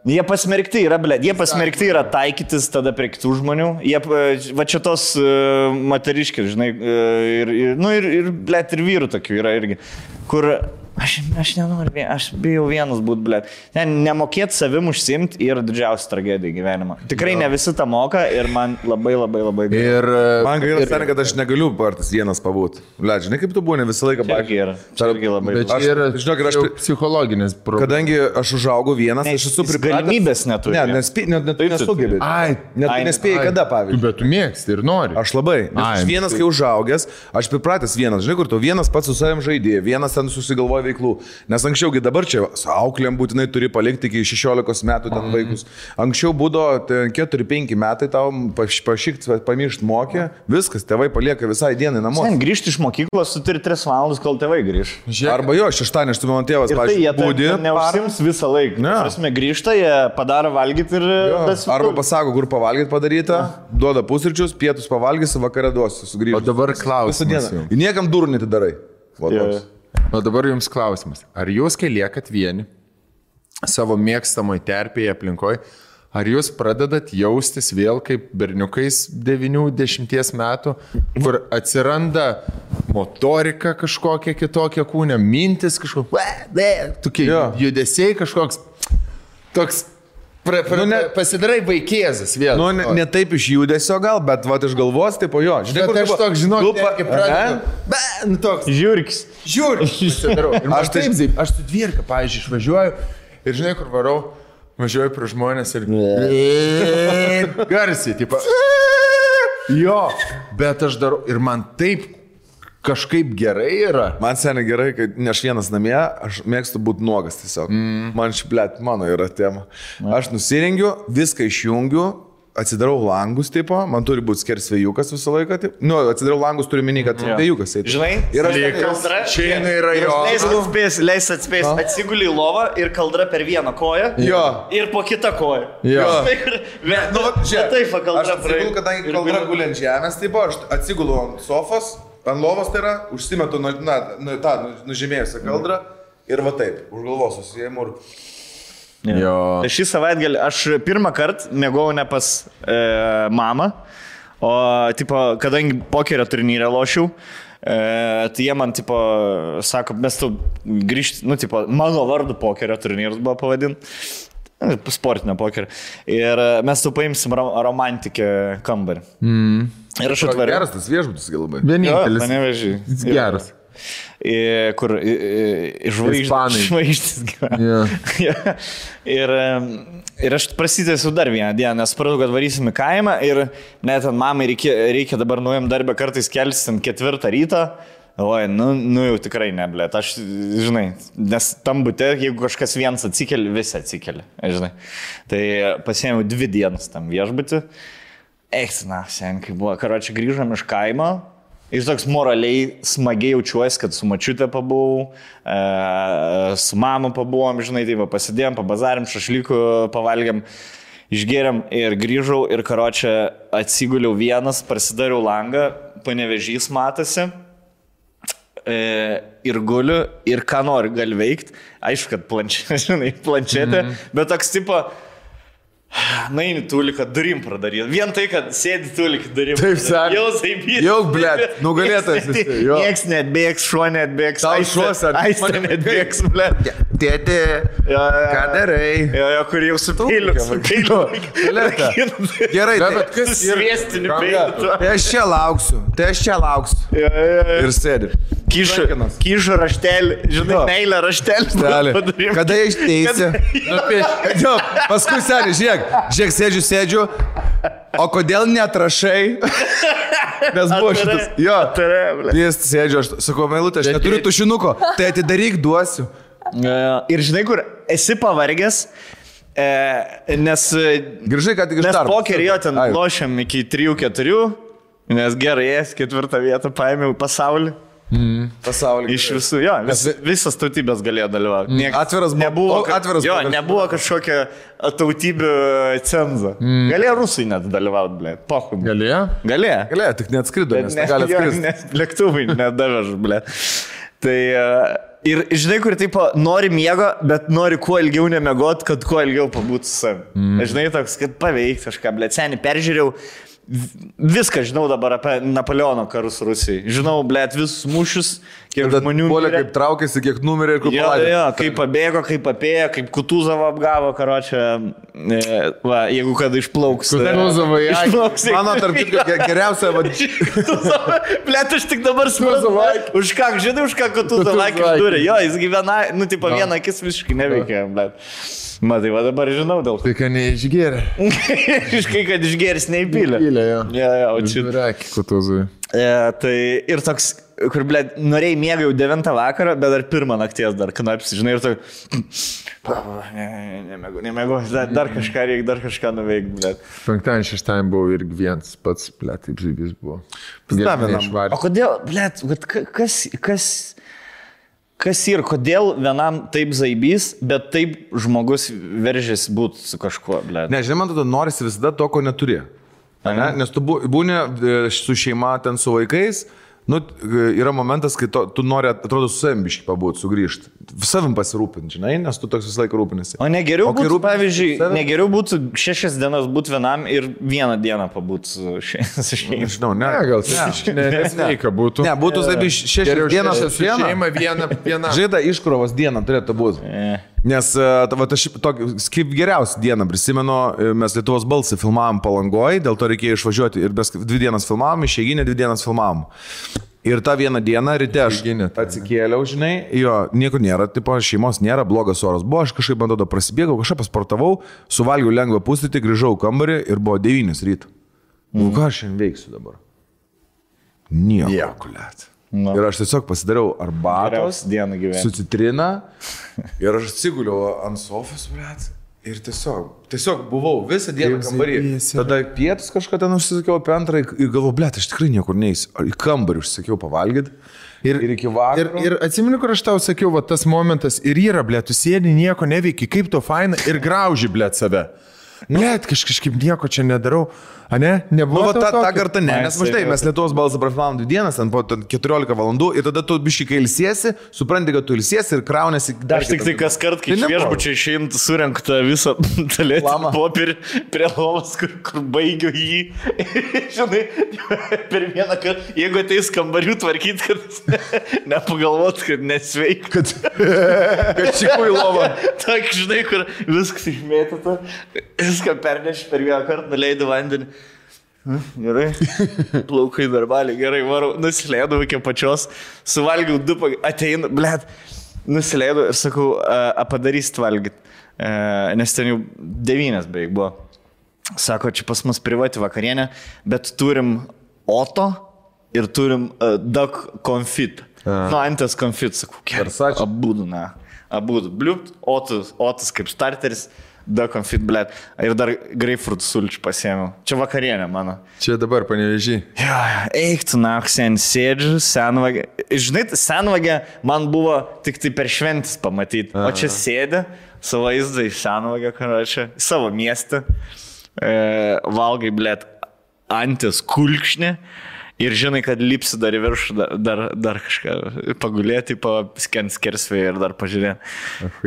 Jie pasmerkti yra taikytis tada prie kitų žmonių. Va čia tos moteriškės, žinai, ir blėt, ir vyrų tokių yra irgi, kur aš nenoriu, aš bijau vienas būti, blėt. Nemokėti savim užsimti yra didžiausia tragedija gyvenimo. Tikrai ne visi tą moka ir man labai gaila. Ir man gaila, seniai, kad aš negaliu partas vienas pabūti. Blėt, žinai, kaip tu būni visą laiką baigti. Bet čia yra psichologinis problemas. Kadangi aš užaugau vienas, aš esu pripratęs. Galimybės neturi. Nesugebėjai. Nespėjai kada, pavyzdžiui. Bet tu mėgsti ir nori. Aš labai. Aš vienas, kai užaugęs, aš pripratęs vienas. Žinai, kur tu vienas pats su savim žaidėjai, vienas kiekvienas ten susigalvoja veiklų. Nes anksčiaugi dabar čia su auklėm būtinai turi palikti iki 16 metų ten vaikus. Anksčiau būdavo 4-5 metai tau pašykti, pamiršti mokė, viskas, tėvai palieka visai dienai namuose. Sen grįžti iš mokyklos, tu turi 3 valandas, kol tėvai grįž. Arba jo, šeštadienį, aš tu mano tėvas, pavyzdžiui, būdi. Neužsims visą laiką. Prasme, grįžta, jie padaro valgyti ir... Arba pasako, kur pavalgyti padaryta, duoda pusryčius, pietus pavalgysi, vakarą duosi, sugrįžti. O dabar klausimas. Ir niekam durų netidarai. O dabar jums klausimas. Ar jūs, kai liekat vieni savo mėgstamoj terpėje aplinkoje, ar jūs pradedat jaustis vėl kaip berniukais 9-10 metų, kur atsiranda motorika kažkokia kitokia kūne, mintis kažkokia, tokie judesiai kažkoks, toks, pasidarai vaikėzas vėl. Nu, ne taip iš judesio gal, bet va iš galvos, taip jo. Žinai, aš toks, žinok, toks. Žiūrkis. Aš su dvierka, pavyzdžiui, išvažiuoju ir žinai, kur varau, važiuoju prie žmonės ir garsiai, tipo. Jo, bet aš darau ir man taip kažkaip gerai yra. Man seniai gerai, kad ne aš vienas namie, aš mėgstu būti nuogas tiesiog. Man šiplėt, mano yra tema. Aš nusirengiu, viską išjungiu, atsidarau langus, tipo, man turi būti skersvėjukas visą laiką. Taip. Nu, atsidarau langus, turiu minį, kad vėjukas. Žinai, ir aš šiandien yra jo. Leis atspės, atsiguli į lovą ir kaldra per vieną koją. Jo. Ir po kitą koją. Jo. Nu, taip, kaldra. Aš atsigulu, kadangi kaldra guli ant žemės, tipo, aš atsigulu ant sofos. Ant lovos tai yra, užsimetu nužymėjusią kaldrą ir va taip, už galvos susijėmų ir... Tai šį savaitgalį aš pirmą kartą mėgau ne pas mamą, o tipo, kadangi pokerio turnyrę lošiau, tai jie man tipo, sako, mes tu grįžti, nu tipo, mano vardu pokerio turnyras buvo pavadinti. Sportinio pokerio. Ir mes tu paimsim romantikę kambarį. Ir aš atvariau. Geras tas viešbutis labai. Vienintelis. Mane veži. Geras. Kur žvaigždės gyvena. Ir aš prasidėsiu dar vieną dieną, nes supratau, kad varysim į kaimą ir net ant mamai reikia dabar nuėjom darbę kartais kelsim 4 ryto. Oi, nu jau tikrai neblėt, aš, žinai, nes tam bute, jeigu kažkas vienas atsikeli, visi atsikeli, žinai. Tai pasiėmiau 2 dienas tam viešbutį. Eiktina, sen, kai buvo, karočią grįžom iš kaimo, ir toks moraliai smagiai jaučiuosi, kad su mačiute pabuvau, su mama pabuvom, žinai, tai pasidėjom, pabazarim, šašlykų pavalgiam, išgėrėm ir grįžau ir karočią atsiguliau vienas, prasidariau langą, Panevėžys matosi. Ir guliu, ir ką nori gali veikti. Aišku, kad planšetė, bet toks tipo, naini tuliką durim pradaryti. Vien tai, kad sėdi tuliką durim. Taip, sakė. Jau zaibyti. Jau, blėt, nugalėtas. Nieks netbėgs, šuo netbėgs. Tau šuos ar... Aistė netbėgs, blėt. Tėti, ką darai? Jo, kur jau su peiliu. Gerai, bet kas sviestiniu peiliu. Tai aš čia lauksiu. Ir sėdi. Kyšo raštelį, žinai, meilę raštelį. Kada išteisi? Paskui seniai, žiūrėk, sėdžiu, o kodėl neatrašai? Nes buvo šitas. Jo, jis sėdžiu, aš sakau, meilutė, aš neturiu tušinuko, tai atidaryk, duosiu. Ir žinai, kur esi pavargęs, nes... Grįžai, kad tik iš darbo. Nes pokerį jo ten lošiam iki 3-4, nes gerai, 4 vietą paėmiau pasaulį. Pasaulį. Iš visų, jo, visas tautybės galėjo dalyvauti. Atviras buvo. Jo, nebuvo kažkokia tautybių cenza. Galėjo rusai net dalyvauti, blėt. Pohum. Galėjo? Galėjo, tik neatskrido, nes negali atskristi. Nes lėktuvai nedavež, blėt. Tai ir žinai, kur taip nori miego, bet nori kuo ilgiau nemiegot, kad kuo ilgiau pabūti su savim. Žinai, toks, kad paveikti kažką, blėt, seniai peržiūrėjau. Viską žinau dabar apie Napoleono karus Rusijai. Žinau, blėt, visus mūšius, kiek žmonių mirė. Kiek traukėsi, kiek numirė ir kur paladė. Jo, kaip pabėgo, kaip apėjo, kaip Kutuzovą apgavo, karočią. Va, jeigu kada išplauks. Kutuzovą, mano tarp kitko geriausia. Blėt, aš tik dabar supratau. Už ką, žinai, už ką Kutuzovą akis turi. Jo, jis gyvena, nu, tipo, vieną akis visiškai neveikia, blėt. Matai, va dabar žinau dėl to. Tai, kad neišgėrė. Iškai, kad išgėris neįpylė. Įpylė, jo. Jo, o čia. Reikia Kutuzui. Tai ir toks, kur, ble, norėjai miegą jau 9 vakarą, bet dar 1 nakties dar knapsi, žinai, ir tu... Nemėgu, dar kažką reikia, dar kažką nuveikti, ble. 5-6 buvau irgi vienas pats, ble, taip žaibys buvo. O kodėl, ble, kas ir kodėl vienam taip zaibys, bet taip žmogus veržėsi būti su kažkuo, ble. Ne, žinai, man tada norisi visada to, ko neturi. Ne? Nes tu būni su šeima, ten su vaikais, nu, yra momentas, kai tu nori, atrodo, su savim biškai pabūti, sugrįžti. Savim pasirūpinti, žinai, nes tu toks visą laiką rūpinasi. O negeriau būtų, pavyzdžiui, negeriau būtų 6 dienas būti vienam ir 1 dieną pabūti su šeima. Žinau, ne. Gal nesveika būtų. Ne, būtų 6 dienas su šeima viena. Žaida iškrovos diena turėtų būti. Nes aš kaip geriausią dieną prisimenu, mes Lietuvos balsą filmavom Palangoje, dėl to reikėjo išvažiuoti ir 2 dienas filmavom, išeiginę 2 dienas filmavom. Ir tą vieną dieną ryte aš atsikėliau, žinai, jo, nieko nėra, tipo, šeimos nėra, blogas oras buvo, aš kažkaip, man tada prasibėgau, kažką pasportavau, suvalgiau lengvą pusrytį, grįžau į kambarį ir buvo 9 ryto. Ką aš šiandien veiksiu dabar? Nieko, kuliat. Ir aš tiesiog pasidariau arbatos su citrina ir aš atsiguliau ant sofos, blėt, ir tiesiog buvau visą dieną kambarį. Tada pietus kažką ten užsisakiau apie 2 ir galvoju, blėt, aš tikrai niekur neįsiu. Į kambarį užsisakiau pavalgyti ir iki vakaro. Ir atsimenu, kur aš tau sakiau, va tas momentas ir yra, blėt, tu sėdi, nieko neveiki, kaip to faina ir grauži, blėt, save. Blėt, kažkaip nieko čia nedarau. A ne? Nebuvo tą kartą ne, nes maždai mes Lietuvos balsą prafilmavom 2 dienas, ten po 14 valandų ir tada tu biškai kai ilsiesi, supranti, kad tu ilsiesi ir kraunasi dar. Aš tik tai kas kart, kai iš viešbučio išėjant, surenktą visą talėtį popierį prie lovos, kur baigiu jį. Žinai, per vieną kartą, jeigu ateis kambarių tvarkyti, kad nepagalvot, kad nesveik. Kad čikų į lovą. Tak, žinai, kur viskas išmėtyta, viską perneši per vieną kartą, nuleidai vandenį. Gerai, plaukai darbaliai, gerai, varau, nusileidau iki pačios, suvalgiau 2, ateinu, blėt, nusileidau ir sakau, padarysit valgyti, nes ten jau 9 beveik buvo. Sako, čia pas mus privati vakarienė, bet turim Oto ir turim Duck Confit. Nu, Antės Confit, sakau, abudu, bliupt, Otas kaip starteris. Da konfit, blėt. Ir dar grapefruit sulčių pasiėmiau. Čia vakarienė mano. Čia dabar Panevėžy. Jo, eik tu naksen, sėdžiu, senvagė. Žinai, senvagė man buvo tik tai per šventis pamatyti. O čia sėdė, savo vaizdą į senvagę, karočią, savo miestą. Valgai, blėt, Antės kulkšnį. Ir žinai, kad lipsi dar į viršų, dar kažką pagulėti, paskent skersvėje ir dar pažiūrėti.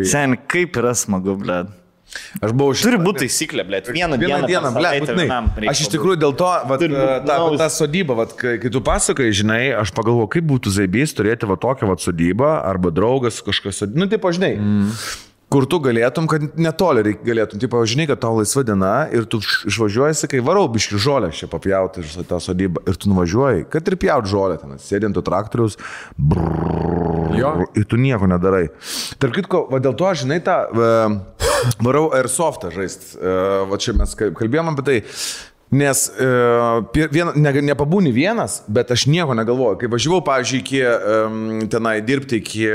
Sen, kaip yra smagu, blėt. Aš buvau Turi būti taisyklė, blėt. Vieną dieną, blėt. Aš iš tikrųjų dėl to, tą sodybą, kai tu pasakai, žinai, aš pagalvoju, kaip būtų zaibys turėti tokią sodybą arba draugas kažkas sodybą. Nu, taip, žinai. Kur tu galėtum, kad netoli galėtum, tipo, žinai, kad tau laisva diena ir tu išvažiuoji, sakai, varau biški žolę čia papjauti iš tą sodybą ir tu nuvažiuoji, kad ir pjaut žolę ten, sėdint traktorius, ir tu nieko nedarai. Tarp kitko, dėl to, žinai, tą varau airsoftą žaist, va čia mes kalbėjom apie tai. Nes nepabūni vienas, bet aš nieko negalvoju. Kai važiavau, pavyzdžiui, tenai dirbti iki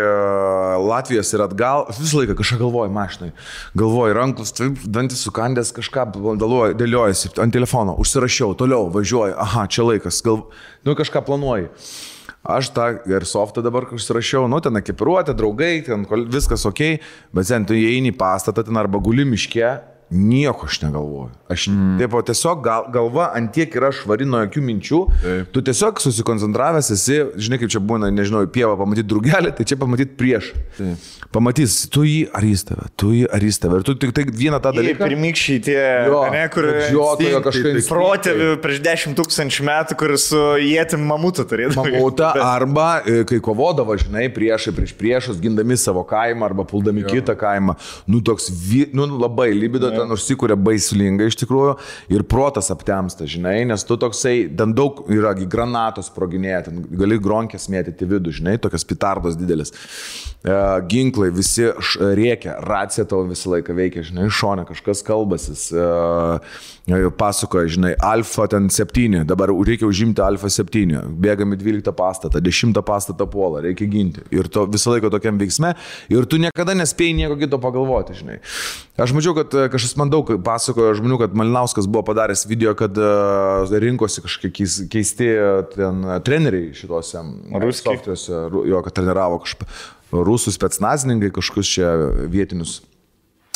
Latvijos ir atgal, aš visą laiką kažką galvoju mašinai. Galvoju, ranklus, dantis sukandęs, kažką dėliojasi ant telefono, užsirašiau, toliau važiuoju, aha, čia laikas, kažką planuoju. Aš tą airsoftą dabar užsirašiau, ten ekipiruotė, draugai, ten viskas ok, bet sen tu įeini į pastatą, ten arba guli miške, nieko aš negalvoju. Aš tiesiog galva antiek yra švari nuo jokių minčių. Tu tiesiog susikoncentravęs esi, žinai kaip čia būna, nežinau, pievą pamatyti drugelį, tai čia pamatyti prieš. Pamatys, tu jį ar jis tave, Ir tu tik tai vieną tą dalyką. Pirmykščiai tie, kur protėvių prieš 10 000 metų, kur su jėtim mamutą turėdavo. Mamutą arba kai kovodavo, žinai, priešus, gindami savo kaimą arba puldami kitą kaimą. Toks, labai libido ten užsikūrė baisulingai iš tikrųjų ir protas aptemsta, žinai, nes tu toksai, ten daug yra granatos sproginėja, ten gali gronkės mėtyti vidų, žinai, tokios pitardos didelis. Ginklai visi rėkia, racija tavo visą laiką veikia, žinai, šone kažkas kalbasis, pasakoja, žinai, Alfa ten 7, dabar reikia užimti Alfa 7, bėgami 12 pastatą, 10 pastatą puolą, reikia ginti. Ir to visą laiką tokiam veiksme, ir tu niekada nespėjai nieko kito pagalvoti, žinai. Aš mačiau, kad kažkas man daug pasakojo žmonių, kad Malinauskas buvo padaręs video, kad rinkosi kažkokie keisti ten treneriai šitose softuose, jo, kad treniravo rusų specnazininkai, kažkokius čia vietinius.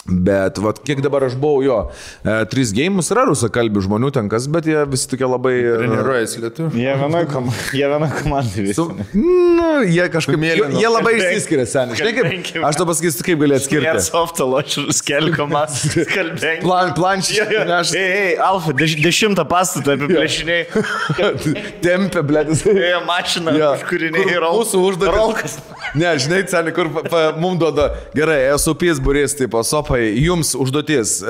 Bet vat, kiek dabar aš buvau jo, 3 geimus yra rusakalbių žmonių tenkas, bet jie visi tokie labai... Treniruojasi lietuvių. Jie vienoj komandai visi. Jie kažkaip... Jie labai išsiskiria, seniai. Žinai, kaip, aš to pasakysiu, kaip gali atskirti. Jie softą ločių skelkomas, skalbengi. Planšį. Alfa, 10 pastatą apiplėšiniai. Tempė, blėtis. Mašina, kažkuriniai ir mūsų užduotis. Ne, žinai, seniai, kur mums duoda, gerai, esu pysburys, tipo, sopa. Jums užduotis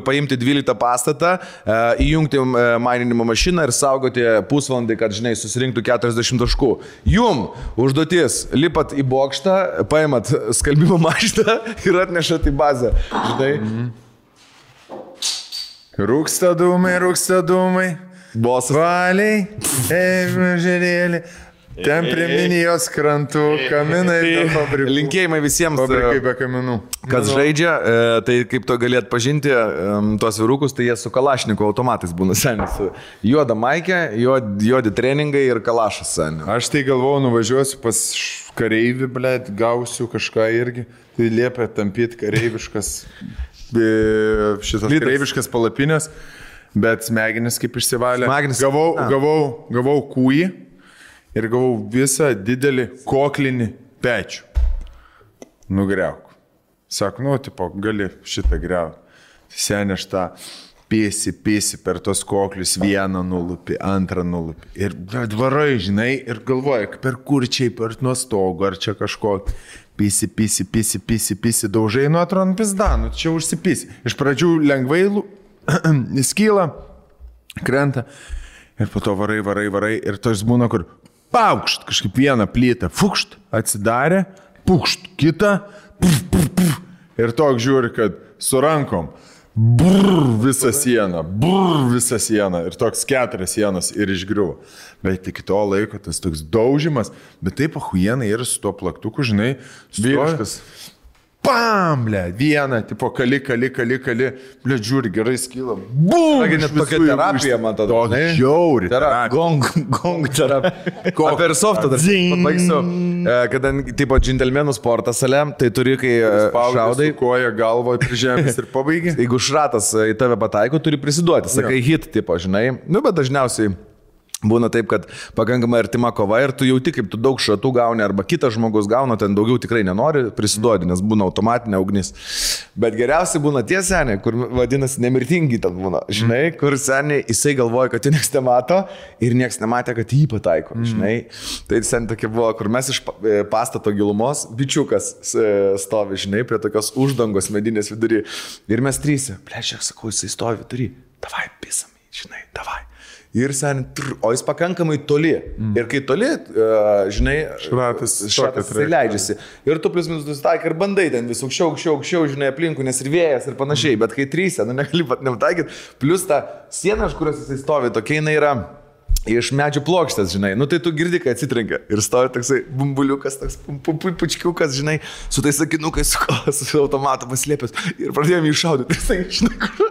paimti 12 pastatą, įjungti maininimo mašiną ir saugoti pusvalandį, kad, žinai, susirinktų 40 taškų. Jum užduotis lipat į bokštą, paimat skalbimo mašiną ir atnešat į bazę. Žinai? Rūksta dūmai. Bosas. Valiai, žerėlį. Ten prie Minijos krantų, kaminai ir fabrikai. Linkėjimai visiems, fabrikai be kaminų. Kas žaidžia, tai kaip to gali atpažinti, tuos vyrukus, tai jie su kalašniko automatais būna senis. Juoda maikė, juodi treningai ir kalašas senis. Aš tai galvojau, nuvažiuosiu pas kareivį, blėt, gausiu kažką irgi. Tai liepia tampyti kareiviškas, kareiviškas palapinės, bet smegenis kaip išsivalė. Gavau kūjį. Ir gavau visą didelį koklinį pečių. Nugriauk. Sako, tipo, gali šitą griauti. Senė aš tą pėsi per tos koklius, vieną nulupi, antrą nulupi. Ir varai, žinai, ir galvoja, per kurčiai, per nuo stogo, ar čia kažko. Pisi, daužai, nu atrodo, pizdanu, čia užsipisi. Iš pradžių lengvai skyla, krenta. Ir po to varai. Ir tos būna, kur paukšt, kažkaip vieną plytą, fukšt, atsidarė, pukšt, kitą, puf. Ir toks žiūri, kad su rankom, visą sieną, ir toks 4 sienos ir išgriuvo. Bet iki to laiko tas toks daužimas, bet taip ahuienai ir su tuo plaktuku, žinai, vyriškas. Pam, ble, vieną, tipo, kali, ble, žiūri, gerai skyla. Bum! Net tokia terapija, man tada. Žiauri. Gong terapija. O per softą dar pabaigsiu. Kada, tipo, džentelmenų sporto salė, tai turi, kai šaudai. Koja galvoje prižemės ir pabaigi. Jeigu šratas į tave pataiko, turi prisiduoti. Sakai hit, tipo, žinai. Nu, bet dažniausiai būna taip, kad pakankamai artima kova ir tu jauti, kaip tu daug šratų gauni arba kitas žmogus gauna, ten daugiau tikrai nenori prisiduoti, nes būna automatinė ugnis. Bet geriausiai būna tie seniai, kur vadinasi nemirtingi ten būna, žinai, kur seniai jisai galvoja, kad jį nieks nemato ir nieks nematė, kad jį pataiko, žinai. Tai seniai tokia buvo, kur mes iš pastato gilumos, bičiukas stovi, žinai, prie tokios uždangos medinės vidury ir mes 3, plečiak, sakau, jisai stovi vidury, davai, pisam, žinai, davai. Ir sen, o jis pakankamai toli. Ir kai toli, žinai, šratas leidžiasi. Ir tu plius minus nusitaikai ir bandai ten vis aukščiau, žinai, aplinkų, nes ir vėjas ir panašiai. Bet kai 3, negali pat nepataikyti. Plius ta siena, iš kurios jisai stovi, tokia jinai yra iš medžių plokštės, žinai. Nu tai tu girdi, kai atsitrenkia. Ir stovi toksai bumbuliukas, toks pučkiukas, žinai, su tais sakinukais, su automatu paslėpęs. Ir pradėjome jį šaudyti. Ir tai, žinai, kur...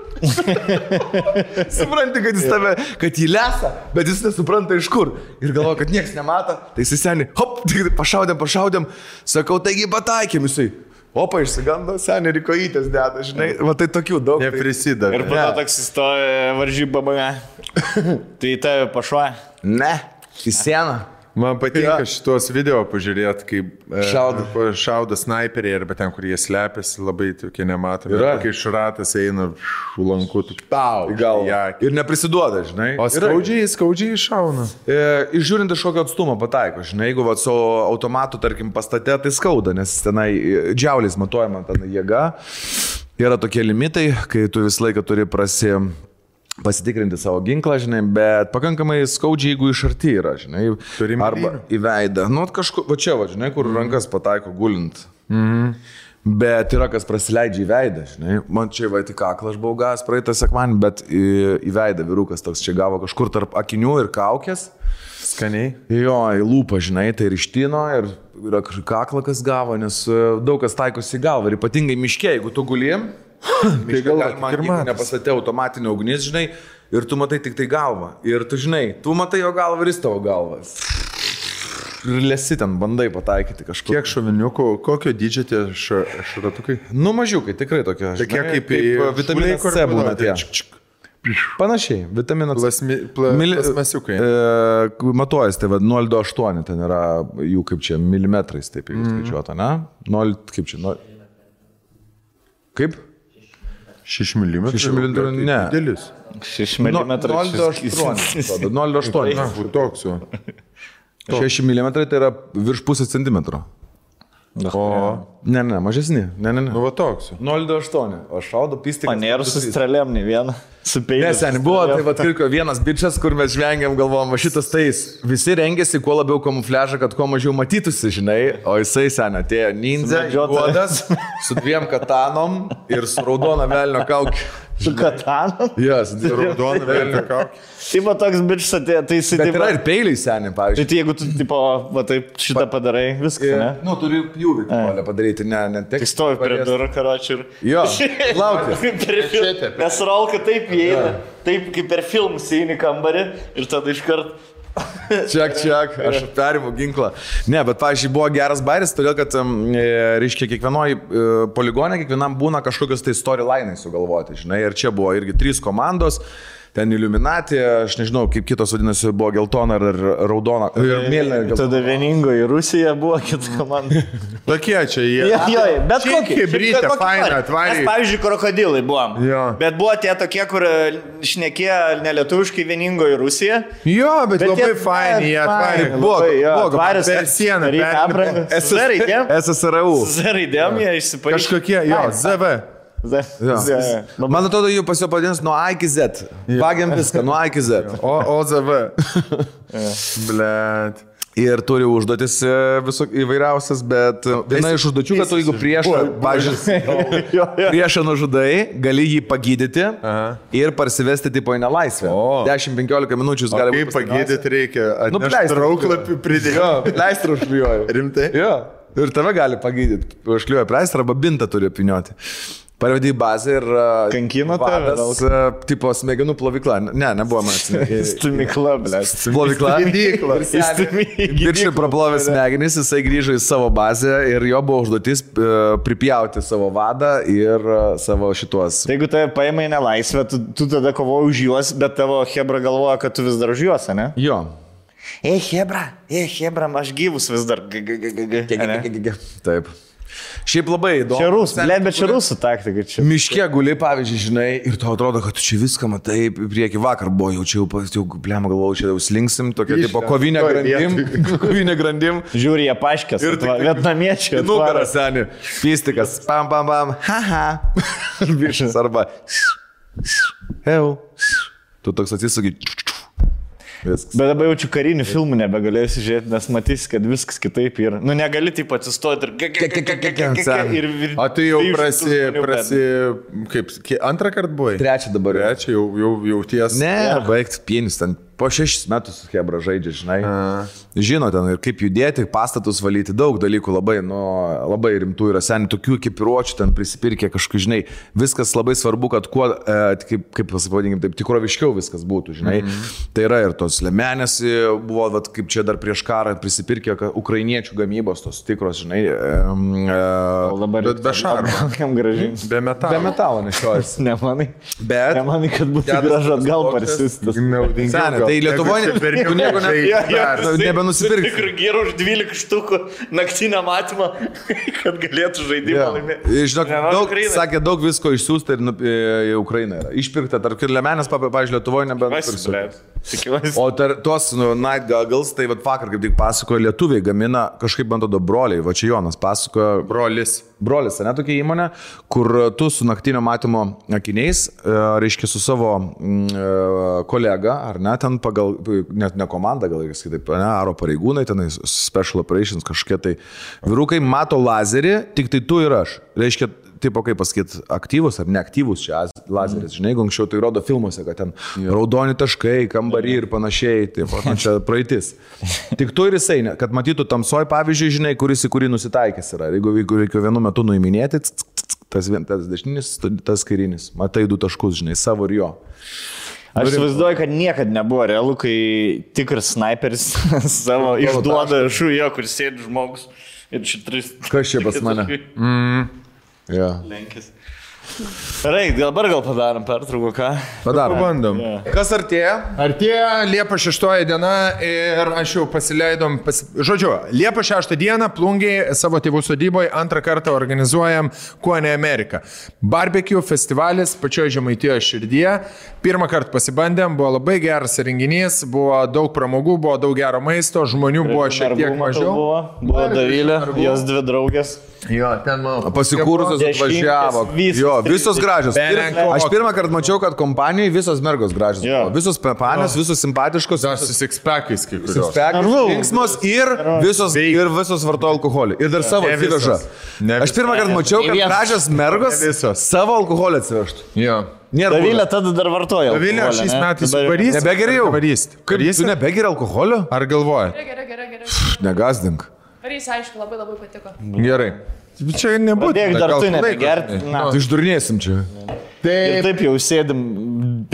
Supranti, kad jis tave, kad jį lesa, bet jis nesupranta iš kur. Ir galvoja, kad nieks nemato. Tai jis seniai, hop, pašaudėm. Sakau, taigi pataikėm jisai. Opa, išsigando, seniai ir kojytės deda, žinai. Va tai tokių daug. Neprisideda. Ir po to toks įstoja varžybą bame. Tai tave pašuoja? Ne, į sieną. Man patinka šitos video pažiūrėti, kaip šaudo snaiperiai arba ten, kur jie slepiasi, labai tokie nematomi. Kai šratas eina lanku, tu tau. Ir neprisiduoda, žinai. O skaudžiai šauna. Išžiūrint iš kokio atstumo pataiko, žinai, jeigu su automatu, tarkim, pastate, tai skauda, nes tenai džiauliais matuojama ten jėga. yra tokie limitai, kai tu visą laiką turi pasitikrinti savo ginklą, žinai, bet pakankamai skaudžiai, jeigu iš arti yra, žinai, arba į veidą. Nu, kažkur, va čia, va, žinai, kur rankas pataiko gulint. Bet yra kas prasileidžia į veidą, žinai. Man čia va tik kaklą aš buvau gavęs praeitą sekmanį, bet į veidą vyrukas toks čia gavo kažkur tarp akinių ir kaukės. Skaniai. Jo, į lūpą, žinai, tai ir ištino, ir yra kaklą kas gavo, nes daug kas taikosi į galvą. Ir ypatingai miške, jeigu tu gulim, tai galima nepasatė automatinio ugnis, žinai, ir tu matai tik tai galvą. Ir tu žinai, tu matai jo galvą ir jis tavo galvą. Ir lesi ten, bandai pataikyti kažkur. Kiek šoviniukų, kokio dydžio tie šratukai? Nu, mažiukai, tikrai tokie. Tokie kaip vitaminas C būna tie. Panašiai, vitaminas C. Plasmasiukai. Matuojas, tai 0,28, ten yra jų kaip čia milimetrais, taip jau skaičiuota, ne? 0, kaip čia, 0. Kaip? 6 mm. 6 mm, ne. Didelis. 6 mm. 0,8. 0,8. Toks jau. 6 mm tai yra virš pusės centimetro. O. Ne, mažesni. Ne. Nu, va toks. 0,28. O šaudo pistikas. Manėrų su strėlėm, ne vieną. Su peiliu. Neseniai buvo, tai va kirko vienas bičias, kur mes žvengiam, galvom, šitas tais. Visi rengėsi kuo labiau kamufliažą, kad kuo mažiau matytųsi, žinai. O jisai seniai atėjo ninja, juodas, su 2 katanom ir su raudona velnio kaukė. Su katanom? Yes, raudona velnio kaukė. Tai va toks bičias atėjo, tai jisai... Bet yra ir peiliai seniai, pavyzdžiui. Tai jeigu tu, tipo, va taip šitą padarai, viskas, ne? Nu, turi pjūvį padaryti, ne tik. Tai stovi prie durų, karočiui, ir... Jo, laukia. Nes Rolka taip įeina, taip kaip per filmus įeini kambarį ir tada iškart... Čiak, aš perimu ginklą. Ne, bet, pavyzdžiui, buvo geras bairis, todėl, kad, reiškia, kiekvienoj poligone, kiekvienam būna kažkokios tai storyline'ai sugalvoti, žinai, ir čia buvo irgi 3 komandos. Ten Illuminati, aš nežinau, kaip kitos vadinasi, buvo geltona ar raudona. Ir mėlyna. Tada vieningoji Rusija buvo kita komanda. Tokie čia jie. Jo, bet kokį. Hibrytė, faina, atvarė. Mes, pavyzdžiui, krokodilai buvom. Jo. Bet buvo tie tokie, kur šnekėjo nelietuviškai vieningoji Rusija. Jo, bet labai faini, jie atvarė. Buvo atvarės per sieną. SSRU. Raidėm jie išsipaaiškino. Kažkokie, jo, ZV. Man atrodo, jų pas jo padins nuo A iki Z. Vagiam viską, nuo A iki Z. OZV. Blet. Ir turi užduotis įvairiausias, bet viena iš užduočių, kad tu jeigu priešą nužudai, gali jį pagydyti ir parsivesti tipo į nelaisvę. 10-15 minučių gali būti. Kaip pagydyti reikia? Atnešti trauklapį pridėti. Jo, pleistrą užklijuoju. Rimtai? Jo. Ir tave gali pagydyti. Užklijuoju pleistrą arba bintą turi apvynioti. Parvedai bazę ir... Kankino tave? Tipo smegenų plovykla. Ne, nebuvo man. Stumykla, ble. Plovykla. Viršai praplovė smegenys, jisai grįžo į savo bazę ir jo buvo užduotis pripjauti savo vadą ir savo šituos. Tai jeigu tave paima į nelaisvę, tu tada kovoji už juos, bet tavo hebra galvoja, kad tu vis dar už juos, ne? Jo. Hebra, aš gyvus vis dar. Taip. Šiaip labai įdomu. Čia rusų, bet čia rusų taktika. Miške guli, pavyzdžiui, žinai, ir tau atrodo, kad tu čia viską matai, prieki vakar buvo, jau blema galvojau, čia jau slinksim, tokia tipo kovinė grandim. Žiūri, jie paškės, ir vietnamiečiai. Nugaras, seni, pistikas, pam, haha, viršas arba, heu, tu toks atsisugi. Viskas. Bet dabar jaučiu karinių filmų nebegalėsiu žiūrėti, nes matysi, kad viskas kitaip yra. Nu, negali taip atsistoti ir... O tu jau kaip, antrą kartą buvai? Trečią dabar. Trečią jau ties. Ne, baigti pienis ten. Po 6 metus hebra žaidžia, žinai. Žino ten ir kaip judėti, pastatus valyti, daug dalykų labai rimtų yra. Seniai tokių ekipiruočių ten prisipirkė kažkaip, žinai. Viskas labai svarbu, kad kuo, kaip pasipavadinkim, taip tikroviškiau viskas būtų, žinai. Tai yra ir tos lemenės buvo, vat, kaip čia dar prieš karą prisipirkė ukrainiečių gamybos, tos tikros, žinai. Bet be šarmo. Be metalo. Be metalo nešiojasi. Nemanai. Bet. Nemanai, kad būtų gražu atgal parsistas. Tai Lietuvoje nieko nebenusipirkti. Tikrai gerų už 12 štukų naktinę matymą, kad galėtų žaidimą laimėti. Žinok, sakė, daug visko išsiųsta ir į Ukrainą yra. Išpirkta, tarp ir lemenės, pavyzdžiui, Lietuvoje nebenusipirkti. O tos Night Goggles, tai vakar kaip tik pasakojo, lietuviai gamina kažkaip bandodo broliai, va čia Jonas pasakojo. Brolis. brolis, ne tokia įmonė, kur tu su naktinio matymo akiniais, reiškia su savo kolega, ar ne, ten pagal, net ne komanda, gal ir kitaip, ne, aro pareigūnai, ten special operations kažkokie tai vyrukai mato lazerį, tik tai tu ir aš. Reiškia, tipo, kaip pasakyti, aktyvus ar neaktyvus čia lazeris, žinai, jeigu anksčiau tai rodo filmuose, kad ten raudoni taškai, kambarį ir panašiai, taip, čia praeitis. Tik tu ir jisai, kad matytų tamsoj, pavyzdžiui, žinai, kuris į kurį nusitaikęs yra. Jeigu reikia vienu metu nuiminėti, tas dešinis, tas kairinis, matai 2 taškus, žinai, savo ir jo. Aš įsivaizduoju, kad niekada nebuvo realu, kai tikras sniperis savo išduoda šūjo, kur sėdi žmogus ir čia 3. Kas čia pas mane? Ja. Lenkis. Gerai, dabar gal padarom pertrauką, ką? Padarom. Pabandom. Kas artėja? Artėja Liepos 6 diena ir aš jau pasileidom, žodžiu, Liepos 6 dieną Plungiai savo tėvų sodyboje 2 kartą organizuojam Kuone Ameriką. Barbecue festivalis pačioje Žemaitijoje širdyje. 1 kartą pasibandėm, buvo labai geras renginys, buvo daug pramogų, buvo daug gero maisto, žmonių buvo šiek tiek mažiau. Buvo Davilė, jos 2 draugės. Jo, ten mano. Pasikūrusios atvažiavo. Jo, visos gražios. Aš 1 kartą mačiau, kad kompanijai visos mergos gražios. Visos panės, visos simpatiškos. Su six-packais kai kurios. Linksmos ir visos vartoja alkoholį. Ir dar savo atsiveža. Aš 1 kartą mačiau, kad gražios mergos savo alkoholį atsivežtų. Jo. Davilė tada dar vartoja. Davilė šiais metais varys. Nebegeriau. Kaip tu nebegeri alkoholio? Ar galvoji? Gerai. Negazdink. Varys, aišku, labai patiko. Gerai. Čia nebūtų. Padėk dar tu nebegerti. Tu išdurnėsim čia. Ir taip jau sėdim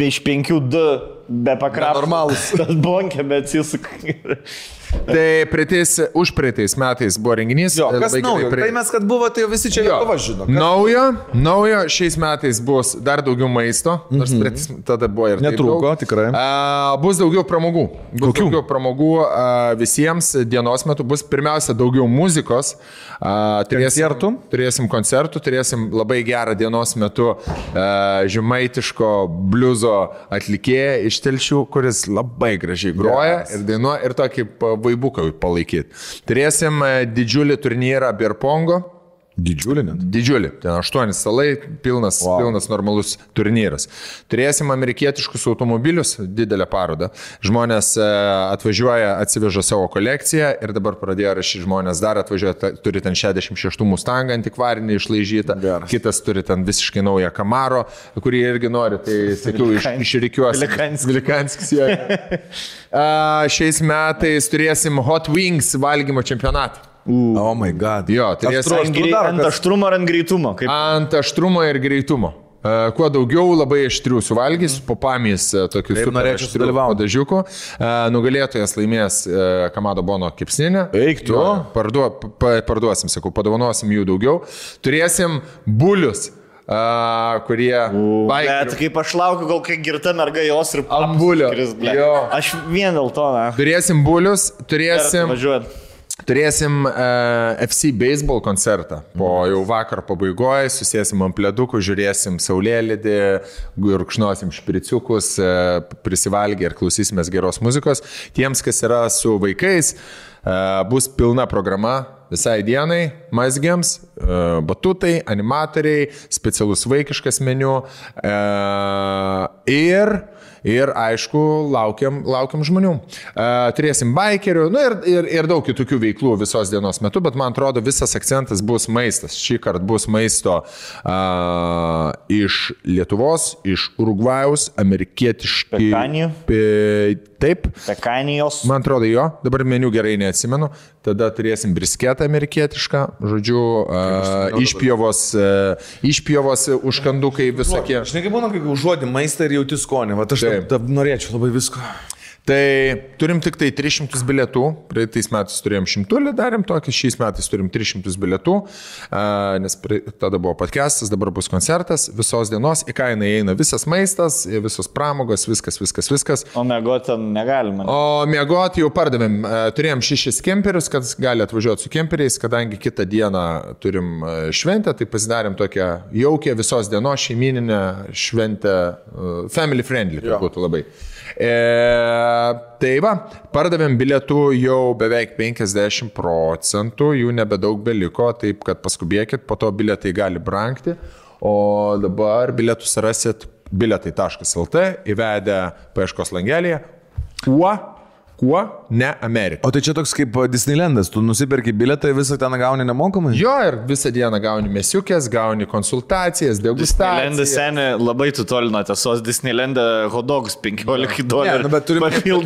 iš 5-2 be pakrapų. Normalus. Tas bonkė, bet jis... Tai užpraeitais metais buvo renginys. Jo, kas naujo? Tai mes, kad buvo, tai visi čia jau žino. Naujo, šiais metais bus dar daugiau maisto. Nors tada buvo ir netrūko, tikrai. Bus daugiau pramogų. Daugiau pramogų visiems dienos metu. Bus pirmiausia daugiau muzikos. Turėsim koncertų, turėsim labai gerą dienos metu žemaitiško bliuzo atlikėją iš Telšių, kuris labai gražiai groja ir dainuoja ir tokį vaibuką palaikyti. Turėsim didžiulį turnyrą Birpongo. Didžiulį net? Didžiulį. Ten 8 salai, pilnas normalus turnyras. Turėsim amerikietiškus automobilius, didelę parodą. Žmonės atvažiuoja, atsiveža savo kolekciją ir dabar pradėjo rašyti žmonės dar atvažiuoja, turi ten 66 Mustangą antikvarinį išlaižytą, kitas turi ten visiškai naują Camaro, kurį irgi nori, tai sakiau, išrikiuosi. Vilikanskis. Šiais metais turėsim Hot Wings valgymo čempionatą. Oh my god. Jo, ant aštrumo ar ant greitumo? Ant aštrumo ir greitumo. Kuo daugiau labai aštrių suvalgys, po pamis tokius super aštrių dažiukų. Nugalėtojas laimės Kamado Bono kepsninę. Eik tu. Parduosim, sakau, padovanosim jų daugiau. Turėsim bulius. Kurie Bet kaip aš laukiu, gal kai girta merga jos ir ambulio. Aš vien dėl to, ne. Turėsim bulius, Turėsim FC baseball koncertą. Po jau vakar pabaigoje susėsim ant pledukų, žiūrėsim saulėlydį, rūkšnosim špriciukus, prisivalgę ir klausysimės geros muzikos. Tiems, kas yra su vaikais, bus pilna programa visai dienai, mazgiams, batutai, animatoriai, specialus vaikiškas meniu ir aišku, laukiam žmonių. Turėsim bikerių, ir daug kitokių veiklų visos dienos metu, bet man atrodo visas akcentas bus maistas. Šį kartą bus maisto iš Lietuvos, iš Urugvajaus, amerikietiški. Pekanijų? Taip. Pekanijos. Man atrodo jo, dabar meniu gerai neatsimenu. Tada turėsim brisketą amerikietišką, žodžiu, išpjovos užkandukai visokie. Aš nekai būna, kai užuodi maistą ir jauti skonį, va aš norėčiau labai visko. Tai turim tik tai 300 bilietų, praeitais metais turėjom 100, darėm tokį, šiais metais turim 300 bilietų, nes tada buvo podcastas, dabar bus koncertas, visos dienos, į kainą įeina visas maistas, visos pramogos, viskas. O miegot ten negalima. O miegot jau pardavėm, turėjom 6 kemperius, kad gali atvažiuoti su kemperiais, kadangi kitą dieną turim šventę, tai pasidarėm tokią jaukę visos dienos šeimininę šventę, family friendly, kad būtų labai. Tai va, pardavėm bilietų jau beveik 50%, jų nebedaug beliko, taip kad paskubėkit, po to bilietai gali brangti, o dabar bilietus rasit biletai.lt įvedę paieškos langelėje. Kuo ne Amerika. O tai čia toks kaip Disneylandas, tu nusiperki biletą ir visą ten gauni nemokamai? Jo, ir visą dieną gauni mesiukės, gauni konsultacijas, degustacijas. Disneyland'e seniai labai tu toli nuo tiesos, Disneyland'e hodogus $15. Ne, bet turi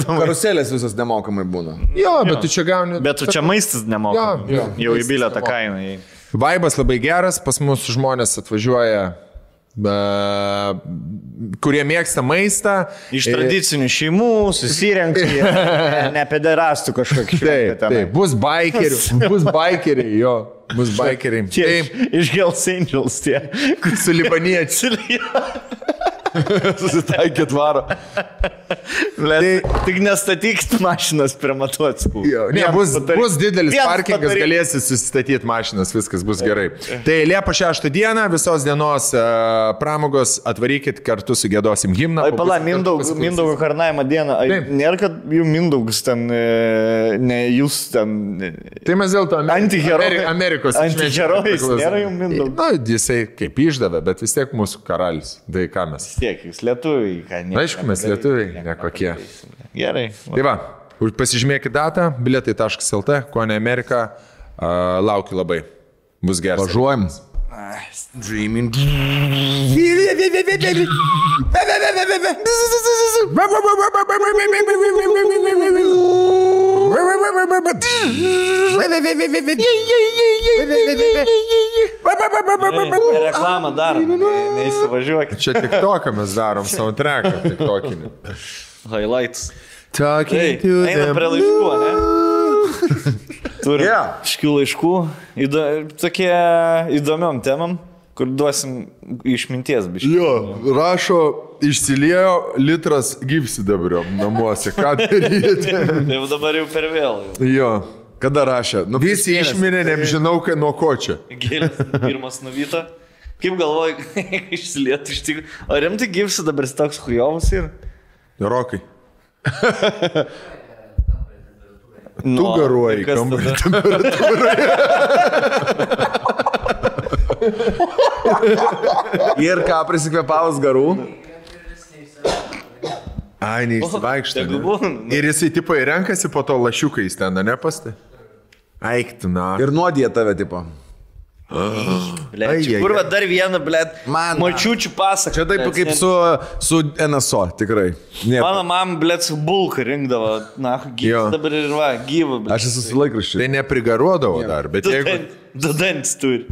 karuselės visas nemokamai būna. Jo, bet tu čia gauni... Bet tu čia maistas nemokamai. Jo, jau į bilietą kainą. Vaibas labai geras, pas mus žmonės atvažiuoja, kurie mėgsta maistą. Iš tradicinių šeimų susirenka, ne pederastų kažkokį. Taip, bus bikeriai, jo, bus bikeriai. Iš Hells Angels tie, su libaniečiai. Susitaikėt varo. Tik nestatykit mašinas prie matuotskų. Ne, bus didelis parkingas, galėsi susistatyti mašinas, viskas bus gerai. Tai Liepa 6 dieną, visos dienos pramogos, atvarykit kartu su gėdosim himną. Ai, pala, Mindaugo karnavimo dieną. Nėra, kad jų Mindaugas ten, ne jūs ten... Tai mes dėl to Amerikos antiherojais, nėra jų Mindaugas. Na, jisai kaip išdavė, bet vis tiek mūsų karalis. Tai ką mes? Tiek, jūs lietuviai, ką ne. Aišku, mes lietuviai, nekokie. Gerai. Tai va, pasižymėkit datą, biletai.lt, kuo ne Amerika, laukiu labai. Bus geras. Važiuojam. Dreaming. Reklamą darom, neįsivažiuokit. Čia TikToką mes darom, soundtracką TikTokinį. Highlights. Talking Einam prie laiškų, ne? Turim iškių laiškų, tokie įdomiom temam, kur duosim išminties biškį. Jo, rašo, išsiliejo litras gyvsidabrio namuose, ką daryti? Tai dabar jau per vėl. Jo, kada rašė? Nu, visi išmirė, nežinau, nuo ko čia. Gėlės pirmas nuvyto. Kaip galvoju, išsilietų iš tikrųjų. O rimtai gyvsidabris toks hujovas ir? Rokai. Tu garuoji kambarį temperatūroje. Ir ką prisikvėpavus garų? Ai, neįsivaikšta. Ir jisai tipo įrenkasi po to lašiukais ten, ne pastai? Eiktų, na. Ir nuodija tave, tipo. Kurva dar vieną, blėt, močiučių pasaką. Čia taip kaip su NSO, tikrai. Mano mama, blėt, su bulka rinkdavo. Na, gyvas dabar ir va, gyva, blėt. Aš esu su laikraščiu. Tai neprigaruodavo dar, bet jeigu... Du dantis turi.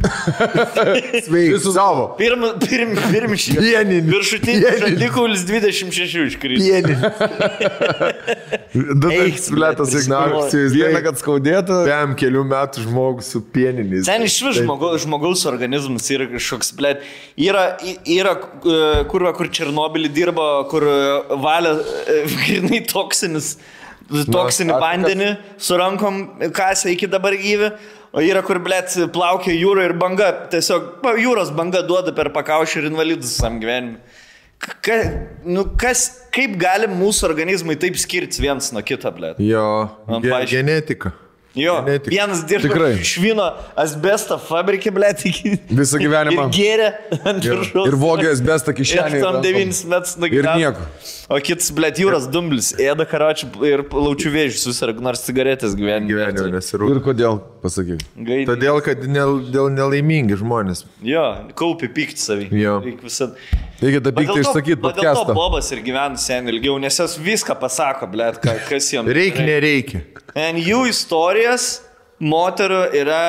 Sveiki, savo. Pirmšį. Pieninį. Viršutinis žandikaulis 26 iškrito. Pieninį. Du dantis, blėtas, ignarsijus. Vieną, kad skaudėtų. Pėm kelių metų žmogus su pieniniais. Ten iš vis žmogaus organizmas yra kažkoks, blėt. Yra kur Černobilį dirba, kur valia grinai toksinį vandenį su rankom kasę iki dabar gyvi. O yra, kur, blėt, plaukia jūra ir banga, tiesiog jūros banga duoda per pakaušį ir invalidus visam gyvenimui. Kaip gali mūsų organizmai taip skirtis vienas nuo kito, blėt? Jo, genetika. Jo, vienas dirba švino asbestą fabrikį, blėt, visą gyvenimą. Ir gėrė ant viršaus. Ir vogė asbestą kišenį. Ir tam 9 metus nugyveno. Ir nieko. O kitas, blėt, jūros dumblis, ėda karočių ir laučių vėžių susirg, nors cigaretės gyvenime nesirūp. Ir kodėl, pasakyk? Todėl, kad dėl nelaimingi žmonės. Jo, kaupi pykti savį. Jo. Reikia tą pyktį išsakyti podcastą. Dėl to Bobas ir gyvena sen ilgiau, nes jos viską pasako, blėt, kas jam. Reikia, nereikia. En jų istorijas moterų yra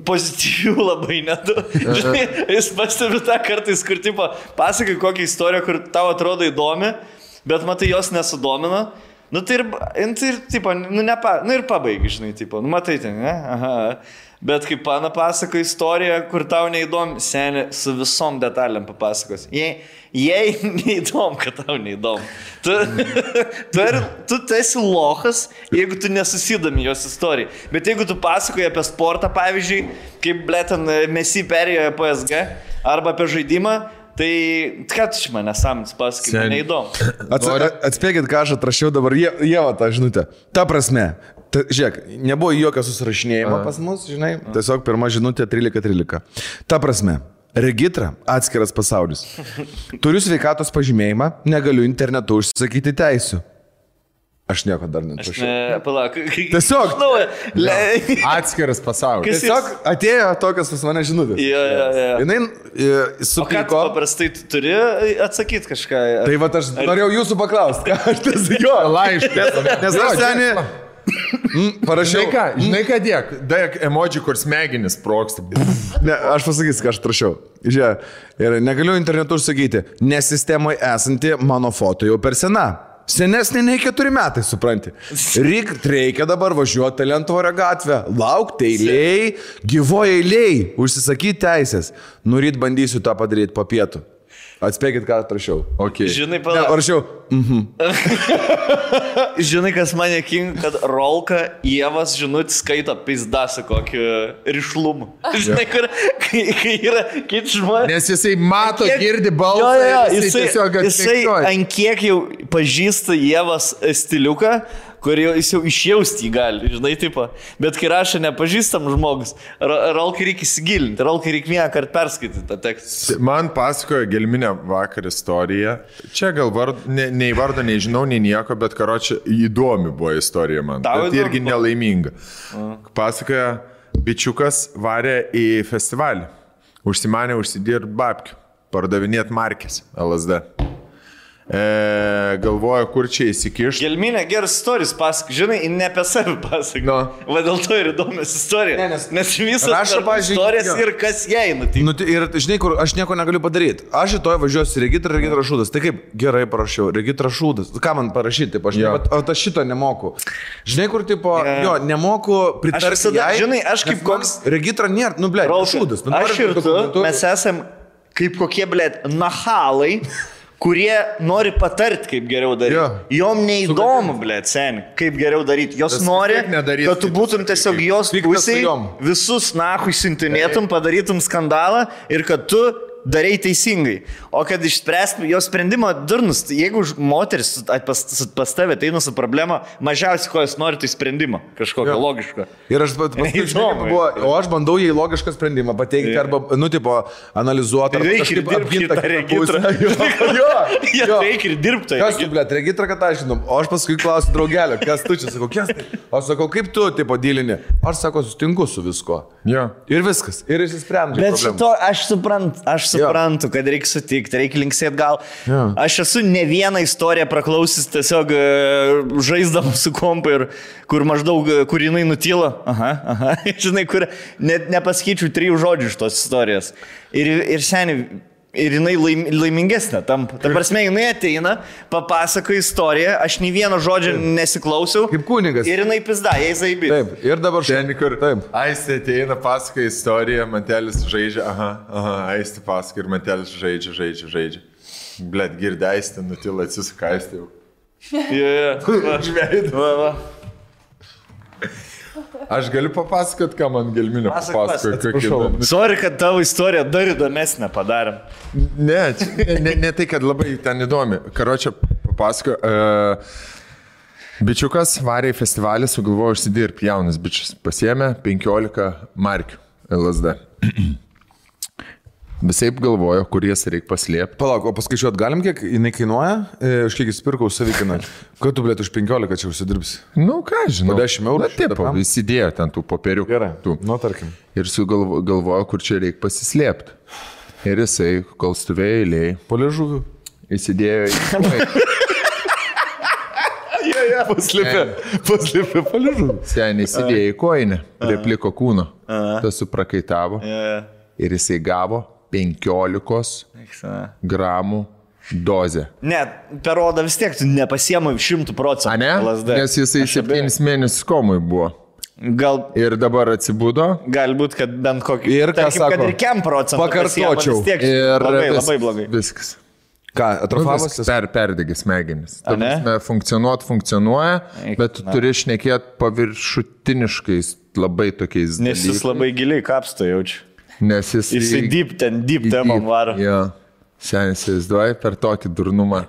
pozityvių labai nedaug. Žinai, jis pastebi tą kartais, kur tipo, pasakai kokią istoriją, kur tau atrodo įdomi, bet matai jos nesudomina. Nu tai ir tipo, ir pabaigi, žinai, tipo, matai ten, ne? Aha. Bet kaip pana pasako istoriją, kur tau neįdomi, seniai su visom detalėm papasakos. Jei neįdomu, kad tau neįdomu. Tu esi lochas, jeigu tu nesusidomi jos istorijai. Bet jeigu tu pasakoji apie sportą, pavyzdžiui, kaip blėt ten Messi perėjo PSG, arba apie žaidimą, Tai ką tu iš manęs nesąmonės pasakai, man neįdomu. Atspėkit, ką aš atrašiau dabar, Ieva tą žinutę. Ta prasme, žiūrėk, nebuvo jokio susirašinėjimo pas mus, žinai, tiesiog pirma žinutė 13:13. Ta prasme, Regitra atskiras pasaulis. Turiu sveikatos pažymėjimą, negaliu internetu užsisakyti teisių. Aš nieko dar netrašiau. Palauk. Tiesiog. Atskiras pasaulis. Tiesiog atėjo tokios pas mane žinutės. Jinai supiko. O ką tu paprastai turi atsakyti kažką? Tai va aš norėjau jūsų paklausti, ką aš tas jo. Laiškas. Nes aš seniai parašiau. Žinai ką dėk emoji, kur smegenis sproksta. Ne, aš pasakysiu, ką aš trašiau. Žiūrėk, ir negaliu internetu užsakyti, nes sistemoje esanti mano foto jau per sena. Senesnė nei 4 metai, supranti. Reikia dabar važiuoti Talentvorio gatvę, laukti eiliai, gyvoje eiliai, užsisakyti teisės. Nuryt bandysiu tą padaryti po pietų. Atspėkit, ką atrašiau. Okay. Žinai, palauk. Parašiau. Žinai, kas mane king, kad Rolka Ievas žinutį skaito pizdasą kokį rišlumą. Žinai, kur, kai yra kiti žmonės. Nes jisai mato, girdi balsą. Jisai ant kiek jau pažįsta Ievas stiliuką, kur jis jau išjausti jį gali, žinai, tipo. Bet kai rašo nepažįstam žmogus, Rolkai reikia įsigilinti, Rolkai reikia vieną kartą perskaityti tą tekstą. Man pasakojo Gelminė vakar istoriją. Čia gal nei vardo nežinau, nei nieko, bet karočią įdomi buvo istorija man. Tau bet irgi nelaiminga. Pasakojo, bičiukas varė į festivalį. Užsimanė užsidirbt babkių, pardavinėt markės LSD. Galvoju, kur čia įsikišti. Gelminė geras istorijas pasak, žinai, ne apie save pasak. No. Va dėl to ir įdomias istorija. Nes visas rašo, istorijas ir kas jai nutinka. Ir žinai, kur aš nieko negaliu padaryti. Aš rytoj važiuosiu Regitra Šūdas. Tai kaip gerai parašiau, Regitra Šūdas. Ką man parašyti? Aš šito nemoku. Žinai, kur tipo, nemoku pritarti jai. Žinai, aš kaip koks... Regitra nėra, Šūdas. Aš ir tu, mes esam kaip kokie, blėt, nahalai, kurie nori patarti, kaip geriau daryti. Jom neįdomu, blėt, seni, kaip geriau daryti. Jos nori, kad tu būtum tiesiog jos pusėj, visus nahui siuntinėtum, padarytum skandalą ir kad tu darai teisingai. O kad išspręstum jo sprendimą durnus, jeigu moteris pas tave ateina su problema, mažiausiai ko jis nori, tai sprendimą. Kažkokio logiško. Ir aš aš bandau jai logišką sprendimą pateikti arba, analizuoti. Reikia ir dirbti tą regitrą. Reikia ir dirbti. Kas tu, blėt, regitrą, kad aš žinau. O aš paskui klausiu draugelio, kas tu čia, sakau, kas tai? O sakau, kaip tu, tipo, dylini? Aš sako, sutinku su visko. Ir viskas. Ir išsisprendžiu. Bet šito aš suprantu, kad reikia sutikti, reikia linksėti gal. Aš esu ne vieną istoriją praklausis tiesiog žaisdam su kompu ir kur maždaug, kur jinai nutyla. Žinai, kur net nepasakyčiau 3 žodžių iš tos istorijos. Ir seniai, ir jinai laimingesnė. Ta prasme, jinai ateina, papasako istoriją, aš nei vieno žodžio nesiklausiau. Kaip kunigas. Ir jinai pizda, jai zaibė. Taip, ir dabar šiandien, kur Aistė ateina, pasako istoriją, Mantelis žaidžia, Aistė pasako ir Mantelis žaidžia. Blet, girdė Aistė, nutila, atsisuka Aistė jau. Va. Aš galiu papasakot, ką man Gelminė papasakojo. Sorry, kad tavo istoriją dar įdomesnę padarėm. Ne tai, kad labai ten įdomi. Karočią papasakojo. Bičiukas varė į festivalį, sugalvojo užsidirbti, jaunas bičias. Pasiėmė 15 markių LSD. Visaip galvojo, kur jas reikia paslėpti. Palauk, o paskaičiuot galim, kiek jinai kainuoja? Už kiek įsipirkau savikiną? Ką tu, blėt, už 15 čia užsidirbsi? Nu, ką žinau. Po 10 eurų? Taip, įsidėjo ten tų popierių. Gerai, tarkim. Ir sugalvojo, kur čia reikia pasislėpti. Ir jisai, kol stovėjo eilėj, po liežuviu, įsidėjo į... Paslėpė po liežuviu. Seniai įsidėjo į koinę, prie pliko kūno. Tas suprakaitavo. Ir jisai gavo 15 gramų dozę. Ne, per odą vis tiek tu nepasiemai 100%. A ne? LSD. Nes jisai 7 mėnesius komui buvo. Gal... Ir dabar atsibudo. Galbūt, kad bent kokį... Ir ką sako? Kad ir 5% pakartočiau. Vis tiek labai blogai. Viskas. Ką, atrofavosis? Perdegė smegenis. Funkcionuoja, bet tu turi šnekėti paviršutiniškais labai tokiais dalykais. Nes jis labai giliai kapsto jaučiu. Nes jisai deep temom varo. Senis įsivaizduoji per tokį durnumą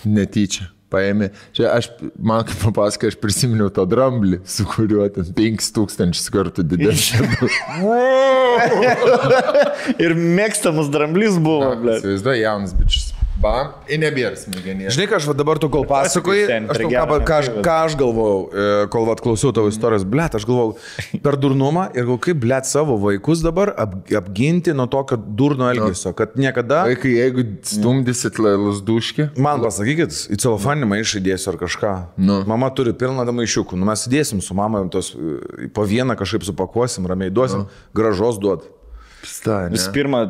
netyčia. Paėmė. Čia man kaip papasakai, aš prisiminiau tą dramblį, su kuriuo ten 5000 kartų didesnė. Ir mėgstamas dramblys buvo, ble. Įsivaizduoji, jaunas bičias. Bam, ir nebėra smegenės. Žinai, ką aš dabar tu kol pasakoji, ką aš galvojau, kol klausiau tavo istorijos, blėt, aš galvojau per durnumą ir galvojau, kaip blėt savo vaikus dabar apginti nuo tokio durno elgesio, kad niekada... Vaikai, jeigu stumdysit lasduškį... Man pasakykit, į celofaninį maišą įdėsiu ar kažką. Mama turi pilną maišiukų, mes įdėsim su mama, po vieną kažkaip supakuosim, ramiai duosim, gražos duot. Vis pirma,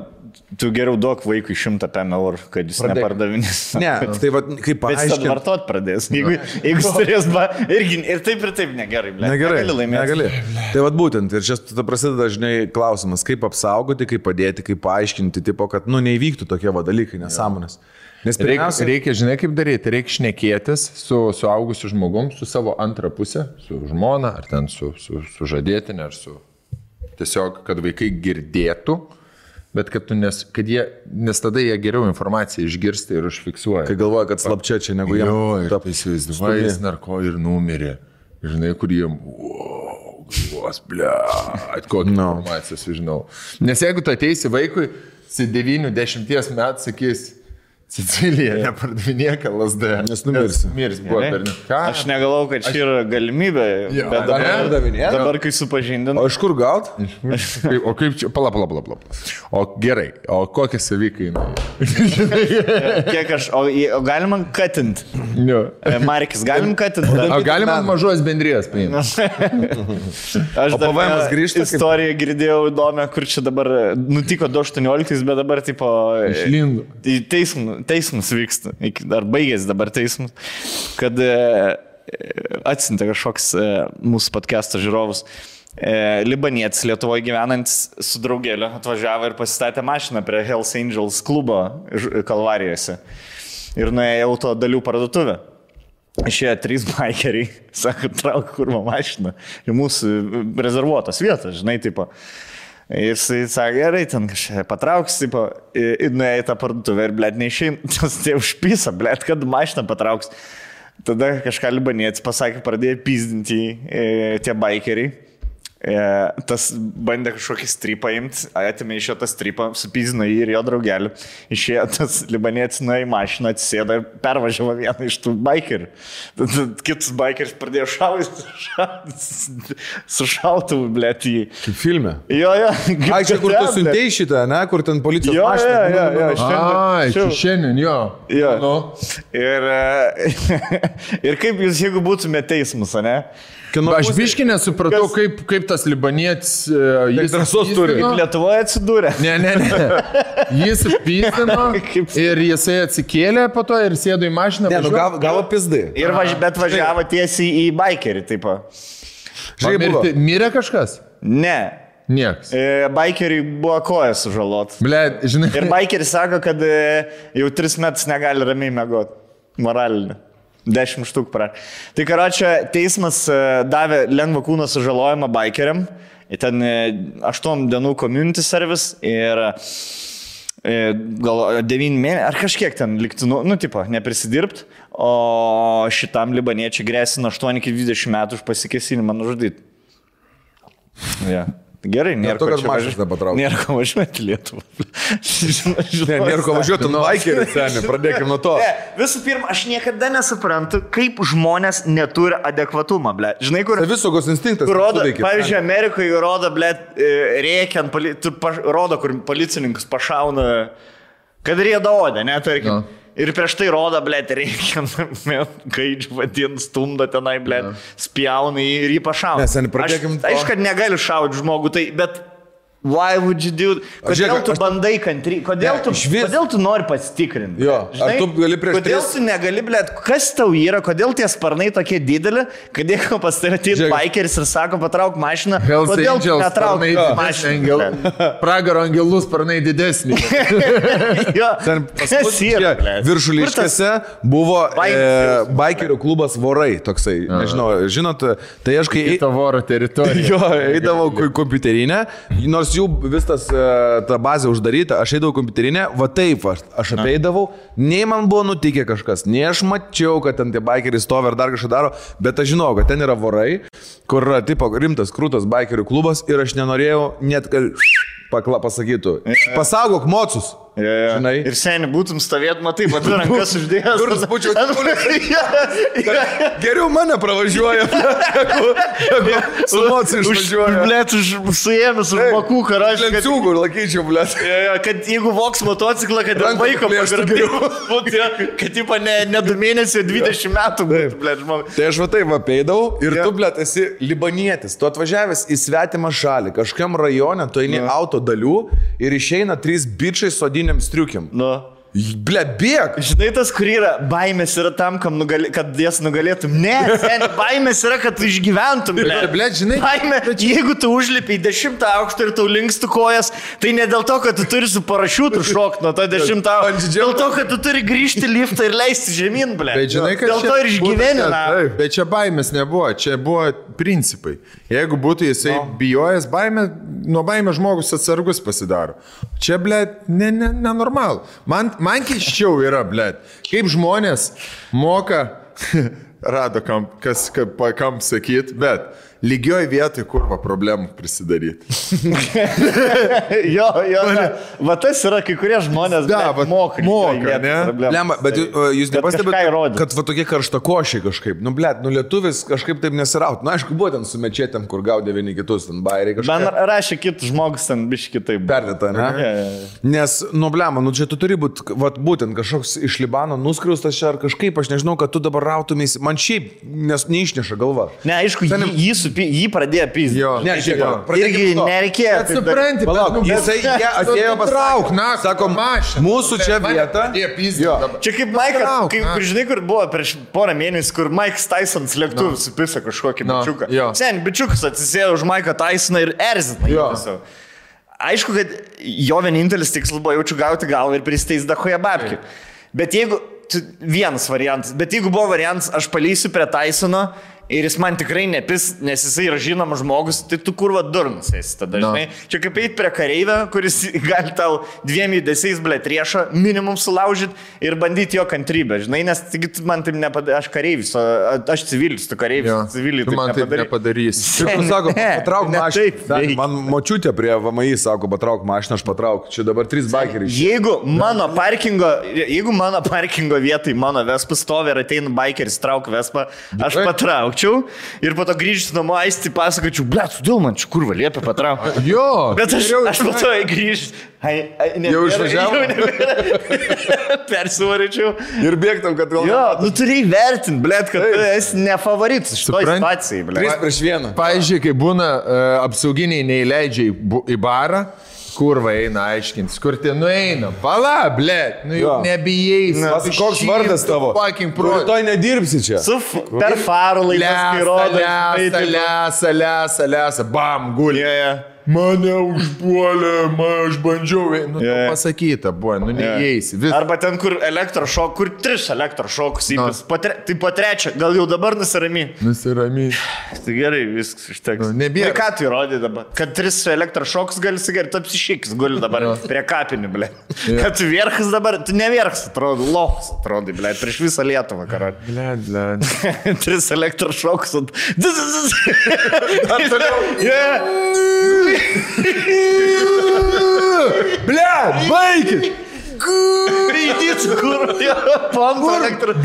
tu geriau duok vaikui 100 eurų, kad jis nepardavinės. Ne, tai va, kaip paaiškinti. Bet jis vartot pradės. Jeigu jis turės, ir taip negerai, ble. Negali. Tai va būtent, ir čia prasideda dažnai klausimas, kaip apsaugoti, kaip padėti, kaip paaiškinti, tipo, kad, neįvyktų tokie dalykai, nesąmonės. Nes pirmiausia... Reikia, žinai, kaip daryti, reikia šnekėtis su suaugusiu žmogum, su savo antrą pusę, su žmona, ar ten su žadėtinė, ar su... Tiesiog, kad vaikai girdėtų, bet kad nes tada jie geriau informaciją išgirsta ir užfiksuoja. Kai galvoja, kad slapčia čia negu jie. Jo, ir taip įsivaizduoja, jis narko ir numirė. Žinai, kur jiem, galvos, kokią informaciją sužinau. Nes jeigu tu ateisi vaikui, 9-10 metų sakys, Sicilija nepardavinėk LSD. Nes numirsi. Mirs buvo per ką? Aš negalvau, kad čia yra galimybė, bet dabar kai supažindinu. O iš kur gaut? O kaip čia, pala. O gerai, o kokie savikainai? Kiek o galima katint? Markis, galim katint? O galima mažos bendrijos paimti? Aš dar istoriją girdėjau įdomią, kur čia dabar nutiko 2018, bet dabar tipo... Išlindo. Teismas vyksta, ar baigėsi dabar teismas, kad atsiuntė kažkoks mūsų podcast'o žiūrovus. Libanietis Lietuvoje gyvenantis su draugėliu atvažiavo ir pasistatė mašiną prie Hells Angels klubo Kalvarijose ir nuėjo auto dalių parduotuvę. Išėjo 3 bikeriai, sako, trauk kurva mašiną į mūsų rezervuotas vietas, žinai, tipo. Ir jisai sakė, gerai, ten kažkaip patrauks, tipo, ir nuėjo į tą parduotuvę ir, blėt, neišein, tai užpisa, blėt, kad mašiną patrauks. Tada kažką libanietis pasakė, pradėjo pizdinti tie bikeriai. Tas bandė kažkokį stripą imti, atėmė iš jo tą stripą, supizino jį ir jo draugelį. Išėjo tas libanietis nuėjo į mašiną, atsisėdo ir pervažiavo vieną iš tų bikerių. Tada kitus bikeris pradėjo su šautuvu, blėt, jį. Kaip filme? Jo. Ai, čia kur tu siuntėjai šitą, ne? Kur ten policijos mašina? Ai, šiandien, jo. Ir kaip jūs, jeigu būtumėte teismus, ne? Aš biškį nesupratau, kaip tas libanietis... Jis drąsos turi. Kaip Lietuvoje atsidūrė. Ne. Jis pyzdino ir jisai atsikėlė po to ir sėdo į mašiną. Ne, gavo pizdai. Bet važiavo tiesiai į bikerį, taip. Mirė kažkas? Ne. Nieks. Bikeriai buvo kojas sužalot. Blet, žinai. Ir bikeris sako, kad jau 3 metus negali ramiai mėgoti. Moralinį. 10 štuk pra. Tai karočią, teismas davė lengvą kūno sužalojimą bikeriam. Ten 8 dienų community service ir gal 9 mėnesių, ar kažkiek ten likti, tipo, neprisidirbt. O šitam libaniečiai grėsina 8-20 metų už pasikėsinimą nužudyti. Ja. Gerai, nėra ko važiuoti Lietuvą. Nėra ko važiuoti bikerį, seniai, pradėkime nuo to. Visų pirma, aš niekada nesuprantu, kaip žmonės neturi adekvatumą, ble. Žinai, kur... Savisaugos instinktas. Pavyzdžiui, Amerikoje rodo, ble, rėkiant, rodo, kur policininkus pašauna, kad rėda odę, ne, tarkim. Ir prieš tai rodo, blėt, reikia, gaidžių vadin, stumdo tenai, blėt, spjauna ir jį pašauna. Aišku, kad negali šauti žmogų, tai, bet why would you do? Kodėl tu bandai kantry? Kodėl tu nori pasitikrinti? Jo, ar tu gali prieš kodėl tu negali, blėt, kas tau yra, kodėl tie sparnai tokie dideli, kad jeigu pas tai atėjo bikeris ir sako, patrauk mašiną, kodėl tu netrauk mašiną? Pragaro angelų sparnai didesnį. Kas yra? Viršuliškėse buvo bikerių klubas Vorai, toksai, nežinau, žinot, tai aš kai... Kita Voro teritorija. Jo, eidavau kompiuterinę, nors jų vis ta bazė uždaryta, aš eidavau kompiuterinę, va taip, aš apeidavau, nei man buvo nutikę kažkas, nei aš mačiau, kad ten tie bikeriai stovi ar dar kažką daro, bet aš žinau, kad ten yra vorai, kur yra tipo rimtas, krūtas bikerių klubas ir aš nenorėjau net, kad pasakytų, pasaugok mocus. Žinai. Ir seniai būtum stovėt, matai, bet rankas uždėjęs. Durnas būčiau geriau mane pravažiuoja, jeigu su mocu išvažiuoja. Blėt, suėmės už bakų, karažiai. Lenciūgų ir laikyčiau, blėt. Kad jeigu voks motociklą, kad vaiko pagrabėjau, kad tipo ne 2 mėnesiai, 20 metų būtų, blėt, žmogus. Tai aš va taip apeidavau ir tu, blėt, esi libanietis. Tu atvažiavęs į svetimą šalį, kažkam rajone, tu eini auto dalių ir išeina 3 bičiai sodini striukiam. Ble, bėg. Žinai, tas, kur yra, baimės yra tam, kad jas nugalėtum. Ne, seniai, baimės yra, kad tu išgyventum. Ble, žinai. Baimė, jeigu tu užlipi į 10 aukštą ir tau linkstų kojas, tai ne dėl to, kad tu turi su parašiutu šokti nuo to 10 aukštą. Dėl to, kad tu turi grįžti liftą ir leisti žemyn, ble. Bet žinai, kad dėl to ir išgyveni. Bet čia baimės nebuvo, čia buvo principai. Jeigu būtų jisai bijojęs baimę, nuo baimės žmogus atsargus pasidaro. Čia, ble, nenormal. Man keiščiau yra, blėt, kaip žmonės moka, rado kam sakyt, bet lygioj vietoj kurva problemų prisidaryti. jo, va tas yra kai kurie žmonės moka, ne? Lemba, bet jūs nepastebėte, kad va tokie karštakošiai kažkaip, blėt, lietuvis kažkaip taip nesiraut. Aišku, buvo ten su mečetėm, kur gaudė vieni kitus, ten bairiai kažkaip. Man rašė kitus žmogus ten biški kitaip. Perdėta, ne? Nes, blema, čia tu turi būti, būtent kažkoks iš Libano nuskriaustas čia ar kažkaip, aš nežinau, kad tu dabar rautumės, man šiaip neišneša galva. Ne, aišku, jį pradėjo pyzdyti. Ne, žiūrėk. Irgi nereikėjo. Bet supranti, jisai atėjo patrauk, sakom, mūsų čia vieta. Čia kaip Maikas, kaip žinai, kur buvo prieš porą mėnesių, kur Maikas Tysons lėktuvų supisa kažkokį bičiuką. Sen, bičiukas atsisėjo už Maiką Tysoną ir erzina. Aišku, kad jo vienintelis tikslas buvo jaučiu gauti galvą ir pristeis dahoje babkių. Bet jeigu, vienas variantas, bet jeigu buvo variantas, aš palysiu prie Tysono, ir jis man tikrai nepis, nes jisai yra žinomas žmogus, tai tu kurva durnas esi tada, žinai. Čia kaip eit prie kareivę, kuris gali tau 2 judesiais, blėt, riešą minimum sulaužyti ir bandyti jo kantrybę, žinai, nes man taip nepadarys, aš kareivis, aš civilis, tu kareivis, civilis, tu man taip nepadarys. Šiaip, sako, patrauk mašiną, man močiutė prie VMI sako, patrauk mašiną, aš patrauk, čia dabar 3 bikeriai. Jeigu mano parkingo vietai mano Vespa stovi ir ateina bikeris, trauk Vespa, aš patrauk. Ir po to grįžti namo aisti pasakočiau, blėt, sudėl man čia kurva liepia patraukti. Jo. Bet aš po to grįžti. Jau išvažiavo? Persivaryčiau. Ir bėgtam, kad vėl... Jo, turi įvertinti, blėt, kad tu esi ne favoritas šitoj situacijai, blėt. 3-1. Pavyzdžiui, kai būna apsauginiai neįleidžia į barą, kurva eina aiškintis, kur ten nueina. Pala, blėt, jau nebijais. Koks vardas tavo? Rytoj nedirbsi čia. Per farų laikas, kai rodo. Lesa, bam, gulė. Mane užpuolė, aš bandžiau. Pasakyta buvo, neįeisi. Arba ten, kur elektrošok, kur 3 elektrošokus įpis. Tai po 3, gal jau dabar nusiramy. Tai gerai, viskas išteks. Nebėra. Ką tu įrodė dabar? Kad 3 elektrošokus gali sigerti, tu apsišykis guli dabar prie kapinių, blė. Kad tu vierchas dabar, tu nevierchas, atrodo, lohas, atrodo, blė, prieš visą Lietuvą, karot. Blė. 3 elektrošokus. Ar toliau? Bля, baikit! Gaidys, kur? Pompa elektro.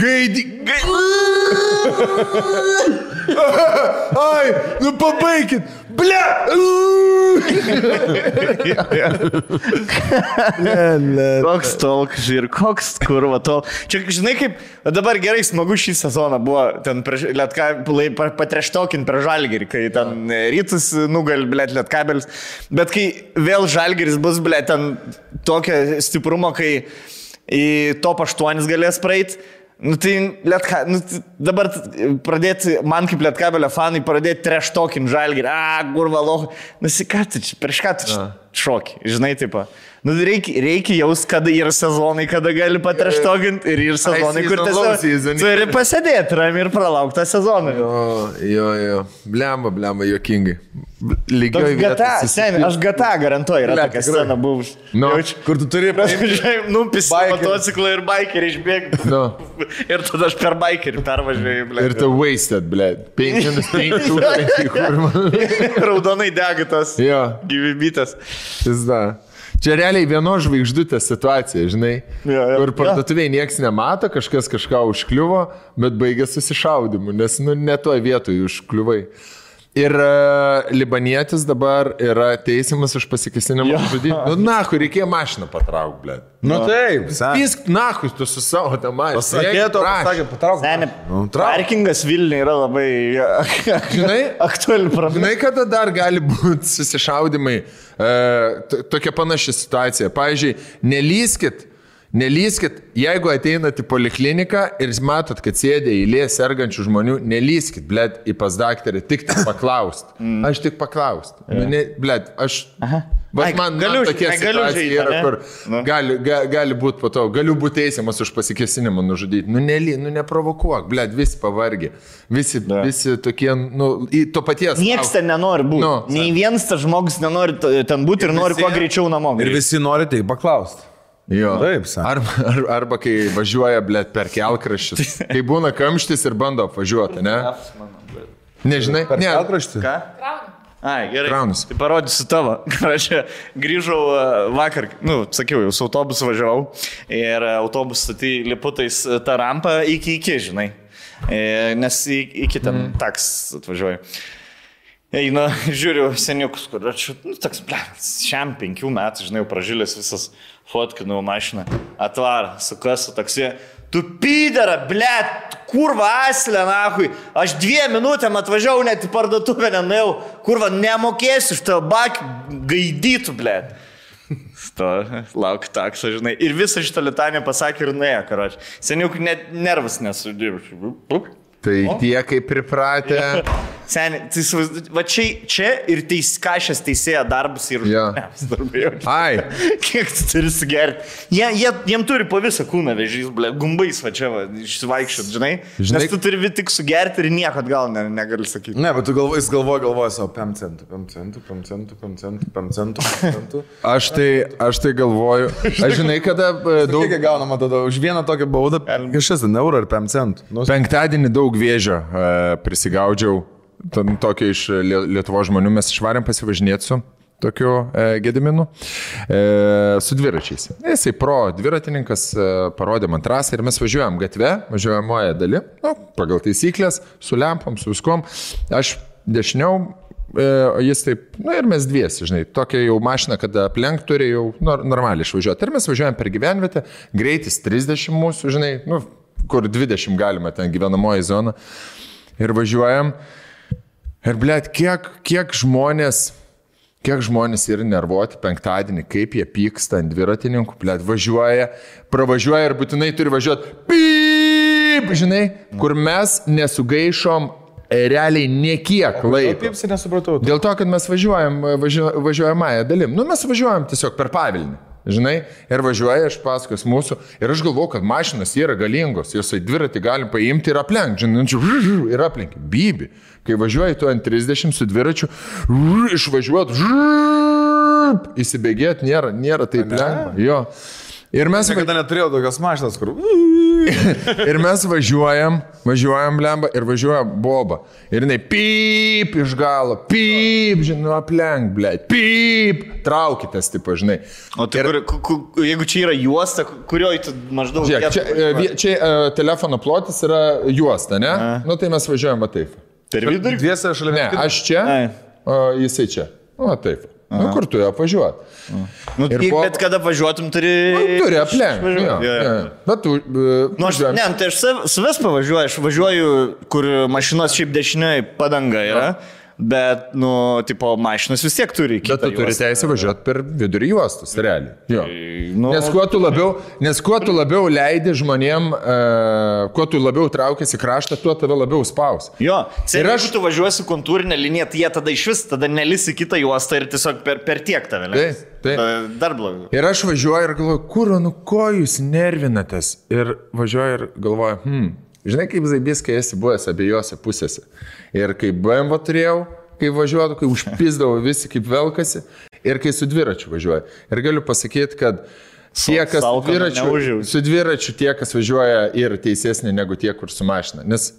Ai, pabaikit! Bля! Koks tolk, žir, koks kurva tol. Čia, žinai, kaip dabar gerai smagu šį sezoną buvo ten patreštokin per Žalgirį, kai ten Rytus nugali, blėt, Lietkabelis. Bet kai vėl Žalgiris bus, blėt, ten tokio stiprumo, kai į top 8 galės praeiti, dabar pradėti, man kaip Lietkabelio fanai, pradėti treštokin Žalgirį, kurva loho, ką tu čia, prieš ką tu čia šoki, žinai, taip. Reikia jaus, kada yra sezonai, kada gali patreštokinti ir sezonai, kur tiesiog turi pasėdėti rami ir pralaukti tą sezoną. Jo, blemba, juokingai. Lygioj vietoj. Aš GTA garantuoju, yra tokia scena buvus. Kur tu turi Numpis motociklą ir bikerį išbėgti. Ir tada aš per bikerį pervažiuoju, ble. Ir tu wasted, ble. 5 Raudonai dega tas gyvybėtas. Čia realiai vienos žvaigždutės situacija, žinai, kur parduotuvėje nieks nemato, kažkas kažką užkliuvo, bet baigė susišaudimu, nes ne toj vietoj užkliuvai. Ir libanietis dabar yra teisiamas už pasikesinimą žudyti. Kur reikėjo mašiną patrauk, ble. Taip. Pisk, tu su savo tą mašiną. Pasakė, patrauk. Parkingas Vilniuje yra labai aktuali problema. Žinai, kada dar gali būti susišaudimai, tokia panaši situacija. Pavyzdžiui, Nelyskit, jeigu ateinat į polikliniką ir matot, kad sėdė eilė sergančių žmonių, nelyskit, blėt, į pas daktarį, tik paklaust. Aš tik paklaust. Blėt, man tokia situacija yra, kur gali būti po to, galiu būti teisiamas už pasikesinimą nužudyti. Neprovokuok, blėt, visi pavargi. Visi tokie, to paties. Nieks ten nenori būti. Nei vienas tas žmogus nenori ten būti ir nori kuo greičiau namo. Ir visi nori tik paklausti. Jo. Taip, arba kai važiuoja, blėt, per kelkraščius. Kai būna kamštis ir bando apvažiuoti, ne? Nežinai? Per kelkraštį? Ką? Gerai. Kraunus. Tai parodysiu tavo. Aš grįžau vakar, sakiau, jau su autobusu važiavau ir autobusą tai liputais tą rampą iki, žinai. Nes iki ten taks atvažiuoju. Eina, žiūriu seniukus, kur aš, toks, šiam 5 metų, žinai, pražylės visas fotkinau mašiną, atvarą, su kasu taksi. Tu pydara, blėt, kurva aslė, nahui. Aš 2 minutėm atvažiavau, net į parduotuvę nenuėjau. Kurva, nemokėsiu iš tavo bakį, gaidytų, blėt. Lauk taksą, žinai. Ir visą šitą litanę pasakė ir nuėjo, karoči. Seniuk net nervas nesudėjau. Tai tie kaip pripratę. Seniai, va čia ir kašės teisėja darbus ir darbai. Ai. Kiek tu turi sugerti? Jiem turi po visą kūną vežys, ble, gumbais va čia va, išsivaikščiot, žinai? Nes tu turi tik sugerti ir nieko atgal negali sakyti. Ne, bet tu galvoji savo 5 centų. Aš tai galvoju. Aš žinai, kada daug... Kiek gaunama tada už vieną tokią baudą? Kažkas, eurą ar 5 centų. Penktadienį daug vėžio prisigaudžiau. Tokio iš Lietuvos žmonių mes išvarėm pasivažinėti su tokiu Gediminu, su dviračiais. Jisai dviratininkas parodė man trasą ir mes važiuojam gatve, važiuojamoje dali, pagal taisyklės, su lempom, su viskom. Aš dešiniau, jis taip, ir mes dviesi, žinai, tokia jau mašina, kada aplenk turi jau normaliai išvažiuoti. Ir mes važiuojam per gyvenvietę, greitis 30 mūsų, žinai, kur 20 galima ten gyvenamoji zona. Ir važiuojam. Ir, blėt, kiek žmonės yra nervuoti penktadienį, kaip jie pyksta ant dviratininkų, blėt, pravažiuoja ir būtinai turi važiuoti, pyp, žinai, kur mes nesugaišom realiai niekiek laiko. Pipsi nesupratau. Dėl to, kad mes važiuojamąją dalim. Mes važiuojam tiesiog per Pavilnį. Žinai, ir važiuoja iš paskos mūsų ir aš galvoju, kad mašinas yra galingos, jos į dviratį galim paimti ir aplenkti, žinai, ir aplenkti. Bibi, kai važiuoji tu ant 30 su dviračiu, išvažiuoti, įsibėgėti nėra taip lengva. Jo. Ir mes... Niekada neturėjau tokios mašinas, kur... Ir mes važiuojam, blemba, ir važiuoja boba. Ir jinai pyp iš galo, pyp, žinai, aplenk, blėt, pyp, traukitės, tipo, žinai. O tai jeigu čia yra juosta, kurioje tu maždaug... Žiūrėk, čia telefono plotis yra juosta, ne? Tai mes važiuojam va taip. Per vidurį? Dviese šalia. Ne, aš čia, o jisai čia. O taip. Kur tu apvažiuoti? Bet kada važiuotum, turi aplenkti. Bet tu... Tai aš savęs pavažiuoju, aš važiuoju, kur mašinos šiaip dešinioje padanga yra, bet, tipo, mašinos vis tiek turi kitą juostą. Bet tu turi teisę važiuoti per vidurį juostus, realiai. Nes kuo tu labiau leidi žmonėm, kuo tu labiau traukiasi kraštą, tuo tave labiau spaus. Jo, jeigu tu važiuosi kontūrinę liniją, tai jie tada iš vis, tada nelisi kitą juostą ir tiesiog per tiek tave leis. Taip. Dar blogiau. Ir aš važiuoju ir galvoju, ko jūs nervinatės? Ir važiuoju ir galvoju, žinai, kaip zaibys, kai esi buvęs abiejose pusėse. Ir kai BMW turėjau, kai važiuodavo, kai užpizdavo visi kaip velkasi ir kai su dviračiu važiuoja. Ir galiu pasakyti, kad tie, kas su dviračiu, tie, kas važiuoja, yra teisesni negu tie, kur su mašina. Nes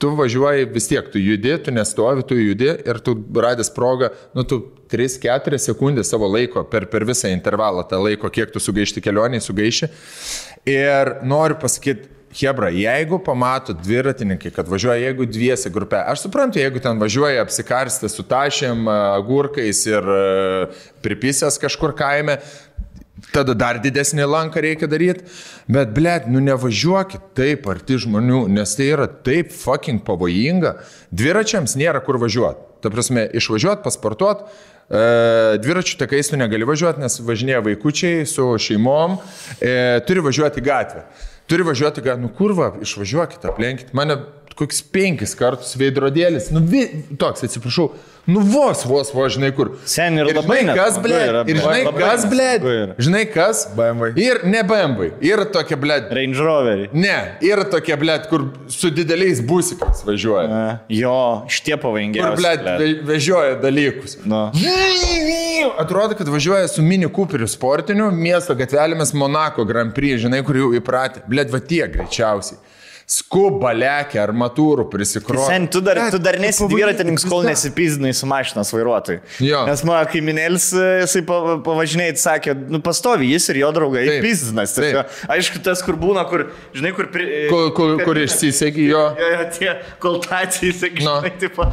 tu važiuoji vis tiek, tu judi, tu nestovi, tu judi ir tu radęs progą, tu 3-4 sekundės savo laiko per visą intervalą, tą laiko, kiek tu sugaišti kelionį, sugaiši. Ir noriu pasakyti, hebra, jeigu pamato dviratininkai, kad važiuoja, jeigu dviese grupė, aš suprantu, jeigu ten važiuoja apsikarstę su tašėm, agurkais ir pripisęs kažkur kaime, tada dar didesnį lanką reikia daryti, bet, blėt, nevažiuokit taip arti žmonių, nes tai yra taip fucking pavojinga. Dviračiams nėra kur važiuoti. Ta prasme, išvažiuoti, pasportuoti, dviračių takais tu negali važiuoti, nes važinėja vaikučiai su šeimom, turi važiuoti gatvę. Kurva, išvažiuokit, aplenkit. Mane kokius 5 kartus veidrodėlis, toks, atsiprašau, vos, žinai kur. Sen ir labai žinai kas? BMW. Ir ne BMW, yra tokia, blėt. Range Roverį. Ne, yra tokia, blėt, kur su dideliais busikais važiuoja. Jo, šitie pavojingiausi. Kur, blėt, vežioja dalykus. Atrodo, kad važiuoja su Mini Cooperiu sportiniu, miesto gatvelėmis Monako Grand Prix, žinai, kur jau įpratę. Blėt, va tie greičiausiai. Skuba, lekia, armatūrų prisikroja. Sen, tu dar nesi dviratininkas, kol nesipizdinai su mašinas vairuotojai. Jo. Nes mano kaiminėlis, jisai pavažinėjai, sakė, pastovi jis ir jo draugai pizdinas. Aišku, tas, kur būna, kur, žinai, kur išsisegi jo. Jo, tie koltacijai, žinai, tipo,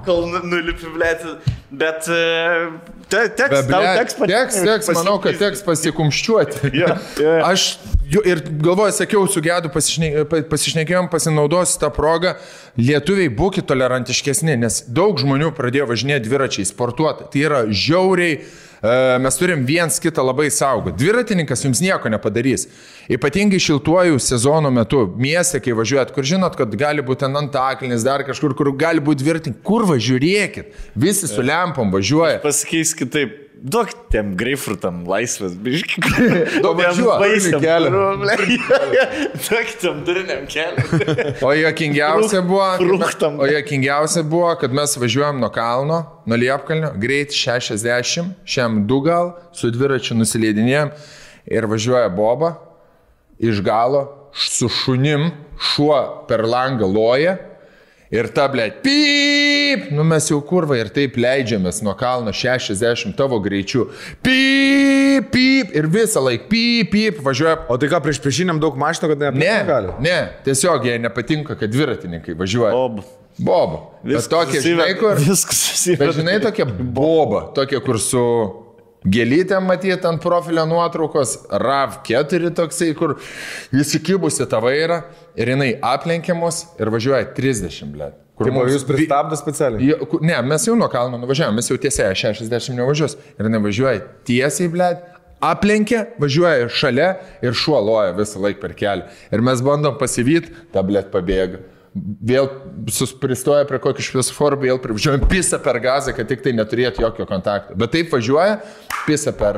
kol nulipi, blėti. Bet teks, manau, kad teks pasikumščiuoti. Aš ir galvoju, sakiau, su Gedu pasišnekėjom, pasinaudosiu tą progą. Lietuviai, būkit tolerantiškesni, nes daug žmonių pradėjo važinėti dviračiai, sportuoti. Tai yra žiauriai, mes turim viens kitą labai saugoti. Dviratininkas jums nieko nepadarys. Ypatingai šiltuoju sezono metu, mieste, kai važiuojat, kur žinot, kad gali būti antaklinis, dar kažkur, kur gali būti dviratininkai. Kur važiuokit? Visi su lempom važiuoja. Pasikeis kitaip. Duok tiem greifrutam laisvės, biškai. Duok važiuoti kelią. Duok tiem duriniam kelią. O jokingiausia buvo, kad mes važiuojam nuo kalno, nuo Liepkalnio, greit 60, šiam 2 gal, su dviračiu nusileidinėjom ir važiuoja boba iš galo su šunim, šuo per langą loja. Ir ta, blėt, pyp, mes jau kurva ir taip leidžiamės nuo kalno 60 tavo greičiu. Pyp, pyp, ir visą laiką pyp, važiuoja. O tai ką, priešiniam daug mašinų, kad negali? Ne, tiesiog jie nepatinka, kad dviratininkai važiuoja. Boba. Bet tokie, žinai, kur... Bet žinai, tokia boba, tokia, kur su... Gėlytėm matyti ant profilio nuotraukos, RAV4 toksai, kur jis įkibusi tą vairą ir jinai aplenkiamos ir važiuoja 30, blėt. Tai jūs pristabdo specialiai? Ne, mes jau nuo kalno nuvažiavome, mes jau tiesiai 60 nevažiuos. Ir jinai važiuoja tiesiai, blėt, aplenkia, važiuoja šalia ir šuo loja visą laiką per kelią. Ir mes bandom pasivyti, ta, blėt, pabėga. Vėl pristoja prie kokį šviesoforų, vėl privažiuojam, pisa per gazą, kad tik tai neturėtų jokio kontakto. Bet taip važiuoja, pisa per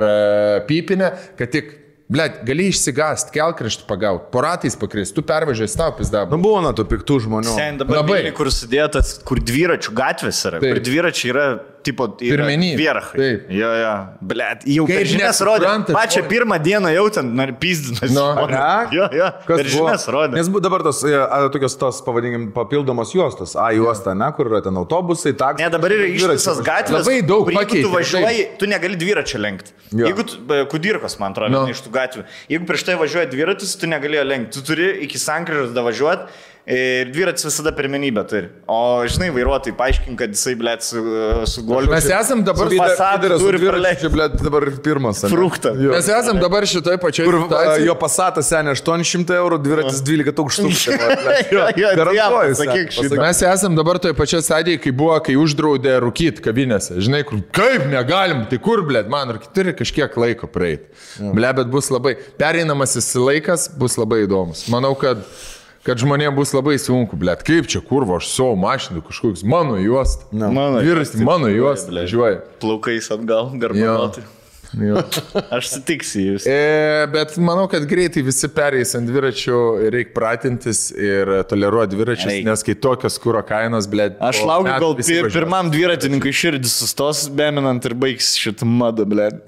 pypinę, kad tik, blėt, gali išsigast, kelkraštį pagauti, po ratais pakrist, tu pervažiuoji, tau pizdabą. Buvo nuo tų piktų žmonių. Sen dabar Vilniui, kur sudėtas, kur dviračių gatvės yra, kur dviračiai yra, tipo, vierachai. Jo, blėt, jau per žinias rodė. Pačią pirmą dieną jau ten pizdinas. Jo, per žinias rodė. Nes dabar tokios tos, pavadinkim, papildomos juostos. Juosta, ne, kur yra ten autobusai, taksai. Ne, dabar yra ištisas gatvės. Labai daug pakeitė. Tu važiuoji, tu negali dviračio lenkti. Jeigu Kudirkos, man atrodo, iš tų gatvių. Jeigu prieš tai važiuoja dviratis, tu negalėjo lenkti. Tu turi iki sankryžos davažiuoti. Ir dviratis visada pirmenybę turi. O, žinai, vairuotojai paaiškink, kad jisai, blėt, su golfu. Mes esam dabar... dabar pirmas. Fruktą. Mes esam dabar šitoj pačioj... Kur jo pasatas senė 800 eurų, dviratis 12 tūkstančių. Mes esam dabar toj pačioj stadijai, kai uždraudė rūkyti kavinėse. Žinai, kur, kaip negalim, tai kur, blėt, man rūkyti turi kažkiek laiko praeiti. Blėt, bet bus labai... Pereinamasis laikas bus labai įdomus. Manau, kad žmonėms bus labai sunku, blėt, kaip čia kurvo, aš savo mašinų kažkoks mano juosta. Dviratis mano juosta, važiuoja. Plaukais atgal, garbanoti. Aš sutiksiu jūs. Bet manau, kad greitai visi pereis ant dviračių ir reikia pratintis ir toleruoti dviračius, nes kai tokios kūro kainos, blėt. Aš laukiu, gal pirmam dviratininkui širdis sustos, beminant ir baigs šitą madą, blėt.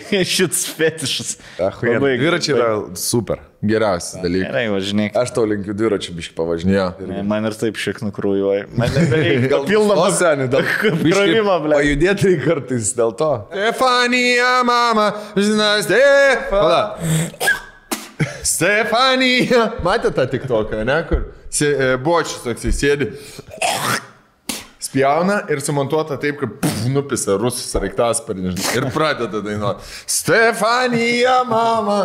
Šitas fetišas. Dviračiai yra super. Geriausias dalykas. Gerai, važinėk. Aš tau linkiu dviračių biškį pavažinėti. Man ir taip šiek nukrūjuoja. Man nebereikia. Gal pilną krovimą, blėt. Pajudėti kartais dėl to. Stefanija, mama, žinai, Stefanija. Matė tą tiktoką, ne, kur bočius toks sėdi, spjauna ir sumontuota taip, kad nupisa rusų sraigtasparnį ir pradeda dainuoti. Stefanija, mama.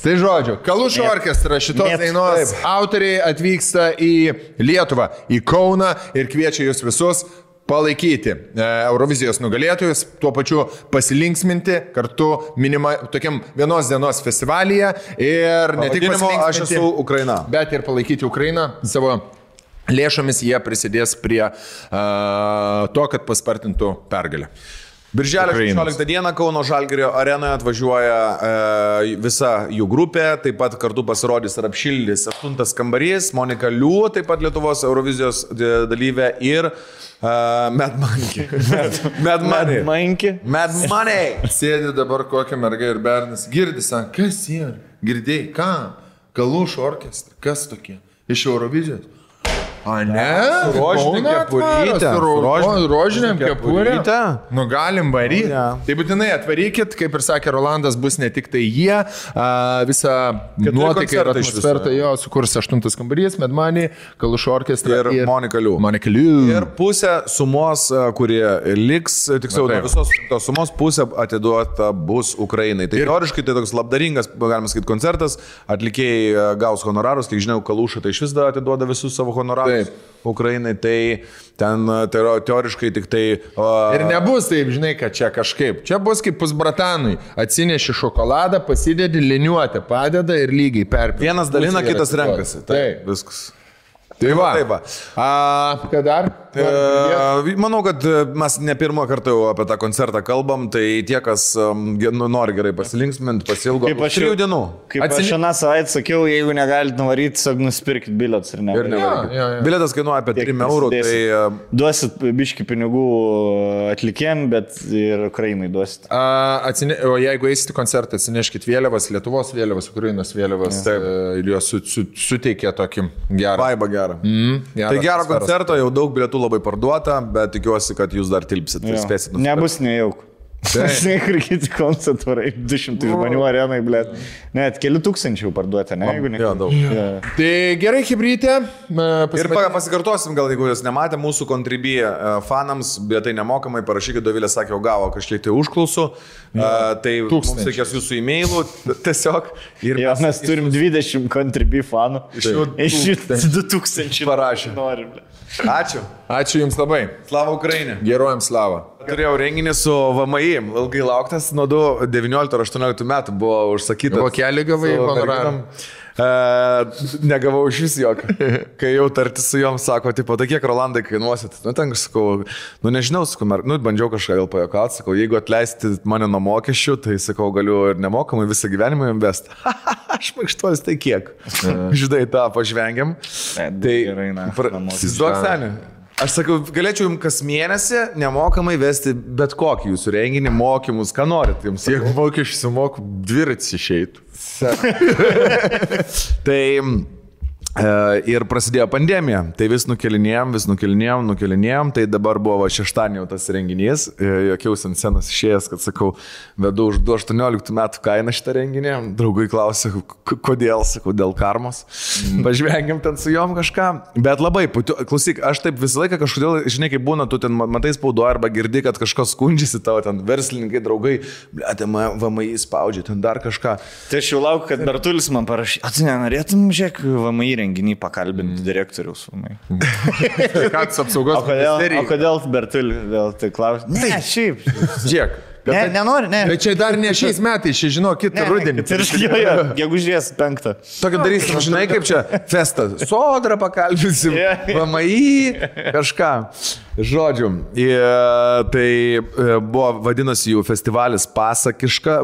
Tai žodžiu, Kalušo orkestras šitos dainos autoriai atvyksta į Lietuvą, į Kauną ir kviečia jūs visus palaikyti Eurovizijos nugalėtojus, tuo pačiu pasilinksminti kartu tokiam vienos dienos festivalyje ir ne tik pasilinksminti, aš esu Ukraina, bet ir palaikyti Ukrainą savo lėšomis, jie prisidės prie to, kad paspartintų pergalę. Birželio 16 dieną Kauno Žalgirio arenoje atvažiuoja visa jų grupė, taip pat kartu pasirodys ir apšildys 8 kambarys, Monika Liu, taip pat Lietuvos Eurovizijos dalyvė ir Mad Monkey. Mad Money. Sėdi dabar kokia merga ir bernas, girdi, sako, kas yra? Girdėjai, ką? Kalušo orkestras, kas tokie? Iš Eurovizijos? A, ne? Rožinė kepurytė. Rožinėm kepurytė. Nu, galim varyti. Tai būtinai atvarykit, kaip ir sakė Rolandas, bus ne tik tai jie, visą nuotaiką ir atmosferą jo sukurs 8 kambarys, Mad Money, Kalušo orkestras ir Monika Liu. Ir pusę sumos, kurie liks, tiksliau, visos tos sumos pusę atiduota bus Ukrainai. Tai teoriškai tai toks labdaringas, galima sakyti, koncertas, atlikėjai gaus honorarus, kiek žinau, Kalušą tai iš vis atiduoda visus savo honorarus. Ukrainai, tai ten teoriškai tik tai... Ir nebus taip, žinai, kad čia kažkaip. Čia bus kaip pusbratanui. Atsineši šokoladą, pasidedi, liniuotę, padeda ir lygiai perpildi. Vienas dalina, kitas renkasi. Taip, viskas. Tai va. Ką dar? Manau, kad mes ne pirmą kartą jau apie tą koncertą kalbam, tai tie, kas nori gerai pasilinksminti, pasilgo 3 dienų. Kaip aš šią savaitę sakiau, jeigu negalite nuvaryti, tiesiog nusipirkit bilietus ir nevaryti. Bilietas kainuoja apie 3 eurų. Tai... Duosit biški pinigų atlikėm, bet ir Ukrainai duosit. O jeigu eisite koncertą, atsineškit vėliavas, Lietuvos vėliavas, Ukrainos vėliavas ir jos suteikia tokį gerą. Vaibą gerą. Tai gero koncerto, jau daug bilietų labai parduota, bet tikiuosi, kad jūs dar tilpsit. Nebus nejauk. Žinai, kur kiti koncertūrai, 200 žmonių arenai, blėt. Net keli tūkstančių parduoti, ne? Jo, daug. Tai gerai, hibrytė. Ir pasikartosim, gal jeigu jūs nematė, mūsų kontribija fanams, bet tai nemokamai, parašykit, Dovilė sakė, gavo kažkiek tai užklausų, tai mums reikės jūsų e-mailų tiesiog. Jo, mes turim 20 kontribijų fanų. Iš jų 2000 parašė. Ačiū. Ačiū Jums labai. Slava Ukrainai. Geruojam slavą. Turėjau renginį su VMI, ilgai lauktas, nuo 19 ar 18 metų buvo užsakytas. Vokelį gavai honorarą? Negavau iš vis jokio. Kai jau tartis su jom, sako, tipo, tai kiek Rolandai kainuosit? Nu, ten aš sakau, nežinau, sakau, bandžiau kažką gal pajuokauti, sakau, jeigu atleisti mane nuo mokesčių, tai sakau, galiu ir nemokamai visą gyvenimą invest. Aš maikštuolis, tai kiek? Žinai, tą pažvengiam. Tai, įsivaizduok senį. Aš sakau, galėčiau jums kas mėnesį nemokamai vesti bet kokį jūsų renginį, mokymus, ką norit jums. Jeigu mokesčių sumoku, dviratis išeitų. Tai ir prasidėjo pandemija, tai vis nukelinėjom, tai dabar buvo šeštadienį jau tas renginys, jokiausi ant scenos išėjęs, kad sakau, vedu už 18 metų kainą šitą renginį, draugai klausė, kodėl, sakau, dėl karmos, pažvengiam ten su jom kažką, bet labai, klausyk, aš taip visą laiką kažkodėl, žinai, kaip būna, tu ten matai spaudoje arba girdi, kad kažkas skundžiasi tavo, ten verslininkai, draugai, blėte, VMI spaudžia, ten dar kažką. Tai aš jau laukiu, kad Bertulis man parašė, tu nenorėtum, žiūrėk, VMI renginį pakalbinti direktoriaus. Kas apsaugos ministerijai. O kodėl Bertulį vėl tai klausia? Ne, šiaip. Žiūrėk, Ne, nenori, ne. Bet čia dar ne šiais metais, čia žinau, kitą rudenį. Gegužės 5. Tokį darysim, žinai, kaip čia festa. Sodrą pakalbinsim, VMI, kažką. Žodžiu, tai buvo vadinasi jų festivalis Pasakiška,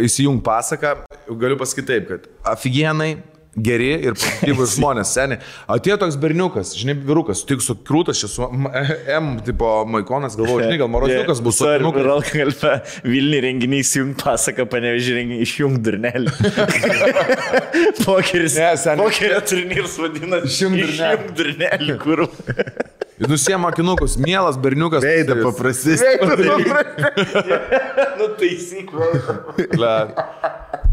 įsijung pasaką. Galiu pasakyti taip, kad aфиgenai, geri ir pozityvus žmonės, seniai. Atėjo toks berniukas, žinai, vyrukas, tik su krūtas, čia su M, tipo, maikonas, galvoju, žinai, gal Morozniukas bus su berniukas. Vilniui renginiai įsijung pasaką, Panevėžį renginiai išjung durnelį. Pokeris. Pokerio turnyras vadinasi išjung durnelį, kur. Ir nusiema akinukus, mielas berniukas. Veidą paprastis. Nu, taisyk,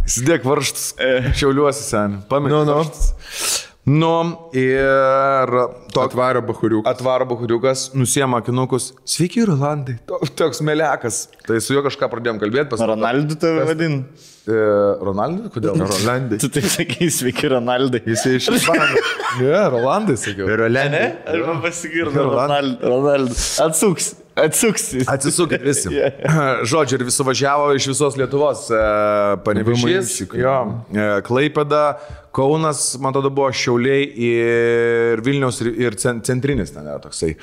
Įsidėk varštus, šiauliuosi sen. Pamėg varštus. Ir atvaro bahuriukas, nusiema akinukus. Sveiki, Rolandai. Toks melekas. Tai su juo kažką pradėjom kalbėti. Ronaldu tave vadin. Ronaldai? Kodėl? Rolandai. Tu taip sakai, sveiki, Ronaldai. Jisai iš Ispanijos. Ne, Rolandai sakiau. Rolandai. Arba pasigirdo Ronaldu. Atsisukit visi. Žodžiu, ir visi važiavo iš visos Lietuvos. Panevėžys, Klaipėda, Kaunas, man tada buvo Šiauliai ir Vilniaus ir centrinis ten yra toksai.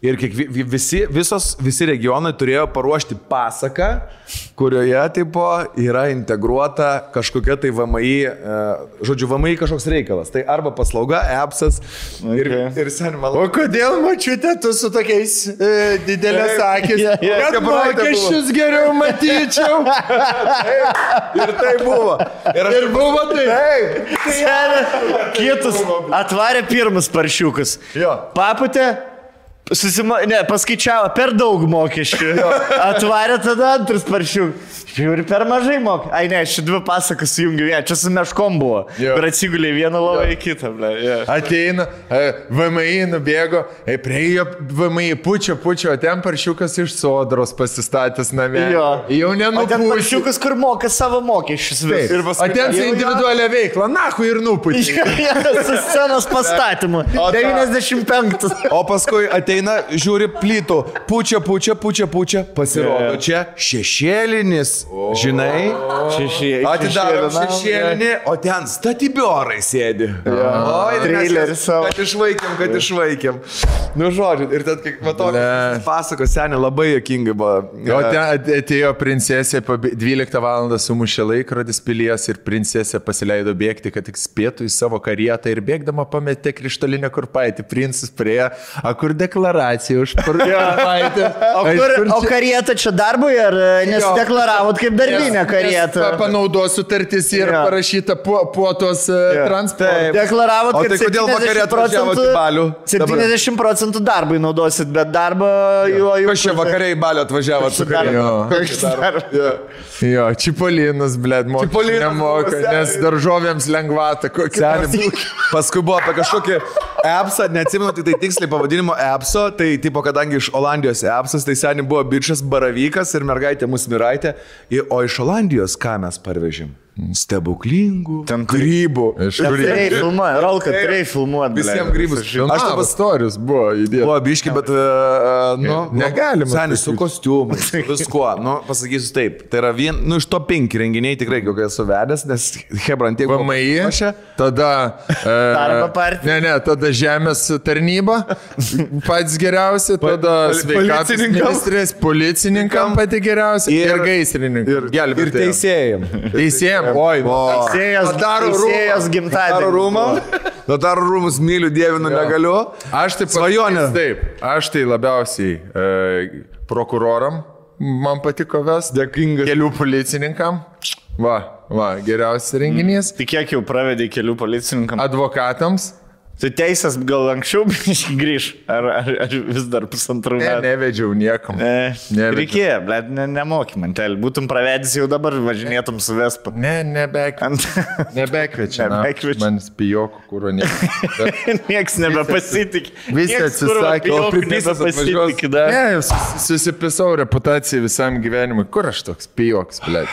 Ir visi regionai turėjo paruošti pasaką, kurioje tipo yra integruota kažkokia tai VMI, žodžiu, VMI kažkoks reikalas. Tai arba paslauga, appsas ir sen man. O kodėl, mačiute, tu su tokiais didelės akis? Kad mokesčius geriau matyčiau. Ir tai buvo. Ir buvo tai. Kietus atvarė pirmus paršiukus. Paputė, paskaičiavo per daug mokesčių. Atvarė tada antrus paršiukus. Žiūri, per mažai mokė. Ai ne, ši dvi pasakas sujungiu vieną. Čia su meškom buvo. Ir atsigulė vieną lovą į kitą. Ateina, VMI nubėgo, priejo VMI pučia, o ten paršiukas iš Sodros pasistatęs namie. Jau nenupūsi. O ten paršiukas, kur moka savo mokesčius. O ten su individualią veiklą, nahu ir nupūsi. Su scenos pastatymu. 95. O paskui ateina, žiūri plytų, pučia, pasirodo čia šešėlinis. Žinai, atidaro šešėlinį, o ten statybiorai sėdi. Traileris savo. Kad išvaikėm. Nu, žodžiu, ir tad, kai pasakos seniai labai jokingai buvo. O ten atėjo princesė, 12 val. Sumušė laikrodis pilies ir princesė pasileido bėgti, kad tik spėtų į savo karietą ir bėgdama pametė krištolinę kurpaitį. Princas priejo, kur deklaracija už kurpaitę. O karieta čia darbui ar nesideklaravo? Kaip darbinė karieta. Panaudos sutartis ir parašyta puotos transportą. Deklaravot, kad tai kodėl vakarė atvažiavot į Balių? 70% darbui naudosit, bet darbą jo... Kas čia vakarė į Balių atvažiavot su karieta? Jo, Čipolinas, blėd, mokesčių nemoka, nes daržovėms lengvata. Paskui buvo apie kažkokį appsą, neatsimenu tai tiksliai pavadinimo appso, tai tipo, kadangi iš Olandijos appsas, tai seniai buvo bičias baravykas ir mergaitė Musmiraitė. O iš Olandijos ką mes parvežim? Stebuklingų grybų. Turėjai filmuoti, Rolka, turėjai filmuoti. Visiems grybus. Aš taip istorijos buvo įdėta. Buvo biški, bet, negalima. Senis su kostiumu, viskuo. Pasakysiu taip, tai yra iš to 5 renginiai tikrai, kokie esu vedęs, nes Hebrantiek buvo. VMI, tada... Darbo partija. Ne, tada žemės tarnyba, pats geriausi, tada sveikatos ministrės, policininkam pati geriausia ir gaisrininkam. Ir teisėjam. Oi, teisėjas gimtadienį. Notarų rūmus myliu, dievinu, negaliu. Aš taip svajonė. Taip, aš tai labiausiai prokuroram man patiko vest, dėkingas kelių policininkam. Va, geriausias renginys. Tai kiek jau pravedė kelių policininkam? Advokatams. Tu teisės gal anksčiau grįž, ar vis dar pusantrų metų? Nevedžiau niekam. Reikėjo, blėt, nemoky man telį. Būtum pravedęs jau dabar, važinėtum su Vespa. Nebekvečia. Man spijokų, kuro Niekas nebepasitikė. Visi atsisakė, o pripisas atvažiuos. Ne, susipisau reputaciją visam gyvenimui. Kur aš toks pijoks, blėt?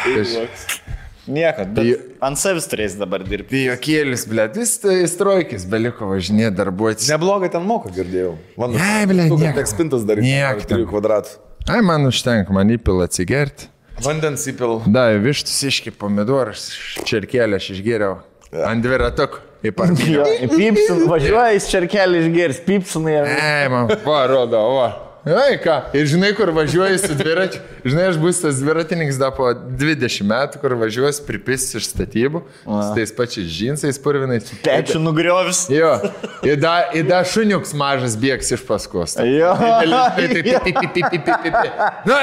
Niekad, bet ant savęs turės dabar dirbti. Pijokėlis, blėt, vis strojkis beliko važinėti, darbuotis. Neblogai ten moka, girdėjau. Ne, blėt, niek. Tik spintas daryti. 3 kvadratų. Ai, man užtenka, man įpila atsigerti. Vandens įpil. Da, vištus iški pomidoras, čerkelę aš išgėriau. Ant dviratukų į parkinę. Pypsin, važiuoja į čerkelį išgėris, pypsinai. Man, parodo, va. Ai, ką, ir žinai, kur važiuoji su dviračiu. Žinai, aš bus tas dviratininkas da po 20 metų, kur važiuos pripis iš statybų, su tais pačiais džinsais purvinais. Pečių nugriovis. Jo, ir da šuniuks mažas bėgs iš paskos. Jo. Nu,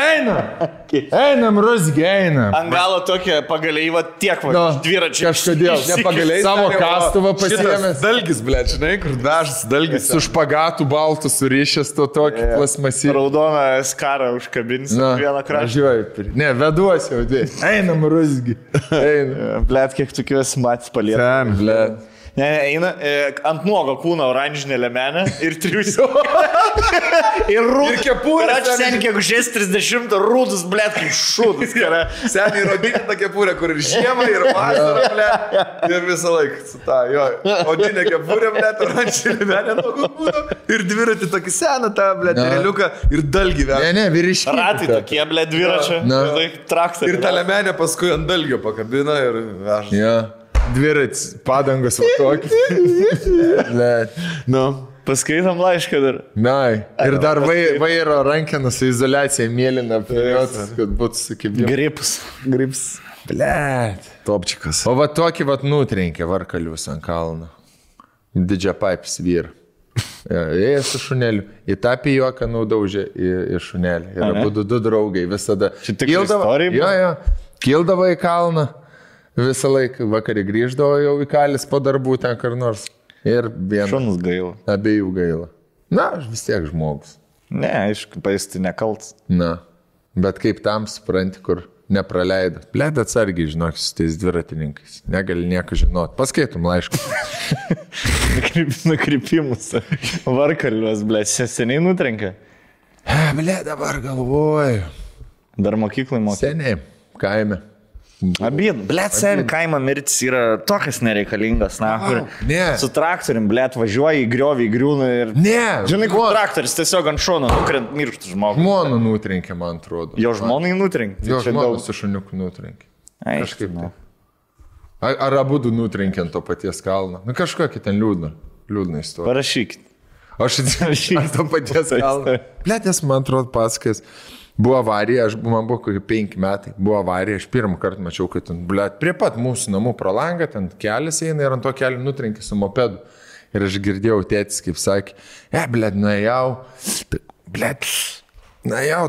einam, rusgi, einam. Ant galo tokia pagaliai, va tiek, va, dviračiai. Kažkodėl, Nepagaliai. Savo kastuvą pasiėmęs. Dalgis, ble, žinai, kur dažas dalgis. Su špagatų baltų surišęs to tokį plasmasį. Raudoną skarą užkabins vieną kraštą. Važiuoju. Ne, veduosi jau dvi. Einam, rusgi. Einam. Blet, kiek tokių esi matęs palieka. Ten, blet. Ne, eina ant nuogo kūno oranžinė lemenė ir triusiu. Ir rūdus. Ir kepurė. Ir sen kiek užės 30 rūdus, blet, kaip šūdus. Seniai rodinė ta kepurė, kur ir žiemą, ir vasarą, ble. Ir visą laiką su ta, jo. Odinė kepurė, ble, oranžinė lemenė nuo kūno. Ir dviratį tokį seną tą, ble, tereliuką ir dalgį vėl. Ne, vyriškiai. Ratai tokie, ble, dviračio. Traktoriai. Ir ta lemenė paskui ant dalgio pakabina ir veža. Ja. Dvirats, padangos va tokį. Nu, paskaitom laišką dar. Nai. Ir dar vairo rankeną su izoliacija mėlyna, kad būtų sukibimas. Grips. Blet. Topčikas. O va tokį va nutrenkė varkalius ant kalno. Didžia paipis vyr. Ėjo su šuneliu. Į tą pijoką naudaužė į šunelį. Ir abu du draugai visada. Šitik istorija? Jo. Kildavo į kalną. Visą laiką vakarį grįždavo jau į kalis po darbų ten kur nors. Ir vienas. Šunus gaila. Abiejų gaila. Na, aš vis tiek žmogus. Ne, aišku, paisti nekalts. Na, bet kaip tam supranti, kur nepraleido. Bled atsargiai, žinok, su tais dviratininkais. Negali nieko žinot. Paskaitum laišką. Nukrypimus. Varkaliuos, bled, seniai nutrenkia. Bled, dabar galvoju. Dar mokyklai mokė. Seniai, kaime. Abien, blėt, sen kaimo mirtis yra tokias nereikalingas, na, kur su traktorium, blėt, važiuoja į griovį, į griūną ir... Ne, žinai, kur traktoris tiesiog ant šono nukrent mirštų žmogų. Žmoną nutrenkė, man atrodo. Jo žmonai nutrenkė. Jo žmoną su šuniuku nutrenkė. Kažkaip tai. Ar abu du nutrenkė ant to paties kalno? Nu, kažkokį ten liūdną istoriją. Parašykit. Aš atsiprašau ant to paties kalno. Blėt, nes man atrodo pasakas. Buvo avarija, man buvo kokie 5 metai, buvo avarija, aš pirmą kartą mačiau, kad ten, blėt, prie pat mūsų namų pro langą, ten kelias eina ir ant to kelio nutrenkė su mopedu. Ir aš girdėjau tėtis, kaip sakė, blėt, nuėjau,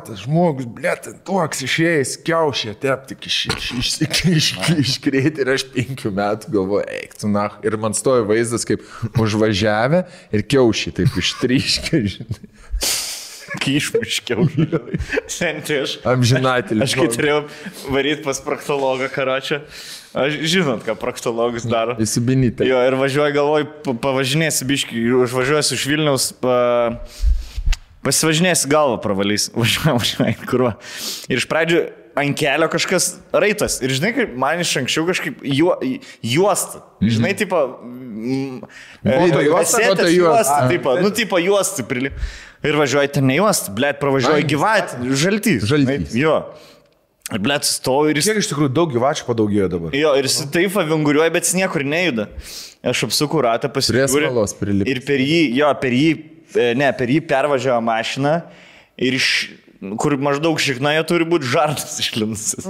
tas žmogus, blėt, toks išėjęs, kiaušė, tep, tik iškrėti ir aš 5 metų galvoju, eik, tu na. Ir man stojo vaizdas, kaip užvažiavę ir kiaušį taip ištryškė, žinai. Kyšmiškiau. Senti aš. Amžinatelį. Aš kai turėjau varyti pas proktologą karočią. Aš žinot, ką proktologas daro. Įsibinyti. Jo, ir važiuoju, galvoju, pavažinėsi biškį, užvažiuosiu iš Vilniaus, pasivažinėsi galvą pravalys. Važiuoju, kurva. Ir iš pradžių ant kelio kažkas raitas. Ir žinai, kaip man iš anksčiau kažkaip juosta. Žinai, tipo... Juosta, tipo juosta prilip. Ir važiuoji ten ne juosta, blėt, pravažiuoji gyvatį, žaltys. Jo. Ir blėt, stovi ir jis... Kiek iš tikrųjų daug gyvačių padaugėjo dabar? Jo, ir jis taip avinguriuoja, bet jis niekur nejuda. Aš apsuku ratą, pasižiūriu. Ir per jį pervažiavo mašiną ir kur maždaug šiknoje turi būti žarnas išlinusis.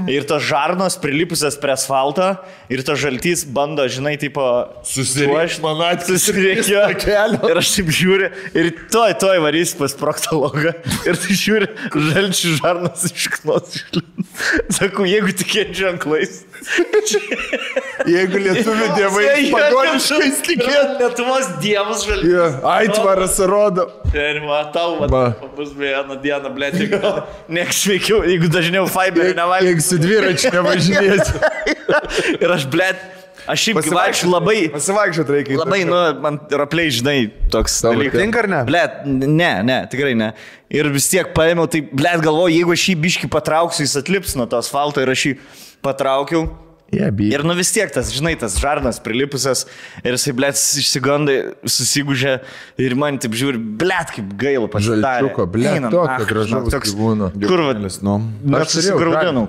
Ir tos žarnos prilipusias prie asfalto ir tas žaltys bando, žinai, tipo... Susiriekio. Ir aš taip žiūriu ir toj varys pas proktologą. Ir tai žiūri, žalčių žarnos išknos išlinus. Sakau, jeigu tikėt ženklais. Jeigu lietuvių dievai pagoniškais tikėt. Lietuvos dievas žaltys. Aitvaras rodo. Ir matau, bus vieną dieną, blėt, nieks sveikiau, jeigu dažniau fiberį nevalgysiu. Jeigu su dviračiu nevažinėsiu. Ir aš, blėt, aš šiaip gyvačiu labai... Pasivaikščiot reikia. Labai, man rapliai, žinai, toks dalykas. Tinka ar ne? Blėt, ne, tikrai ne. Ir vis tiek paėmiau, tai, blėt, galvoju, jeigu aš jį biškį patrauksiu, jis atlips nuo to asfalto ir aš jį patraukiau. Ir nu vis tiek tas, žinai, tas žarnas prilipusias ir jisai, blėt, išsigandai, susigūžė ir man taip žiūri, blėt, kaip gaila pasidarė. Žalčiuko, blėt, tokio gražaus gyvūno. Kur vadinasi, Net susigraudinau,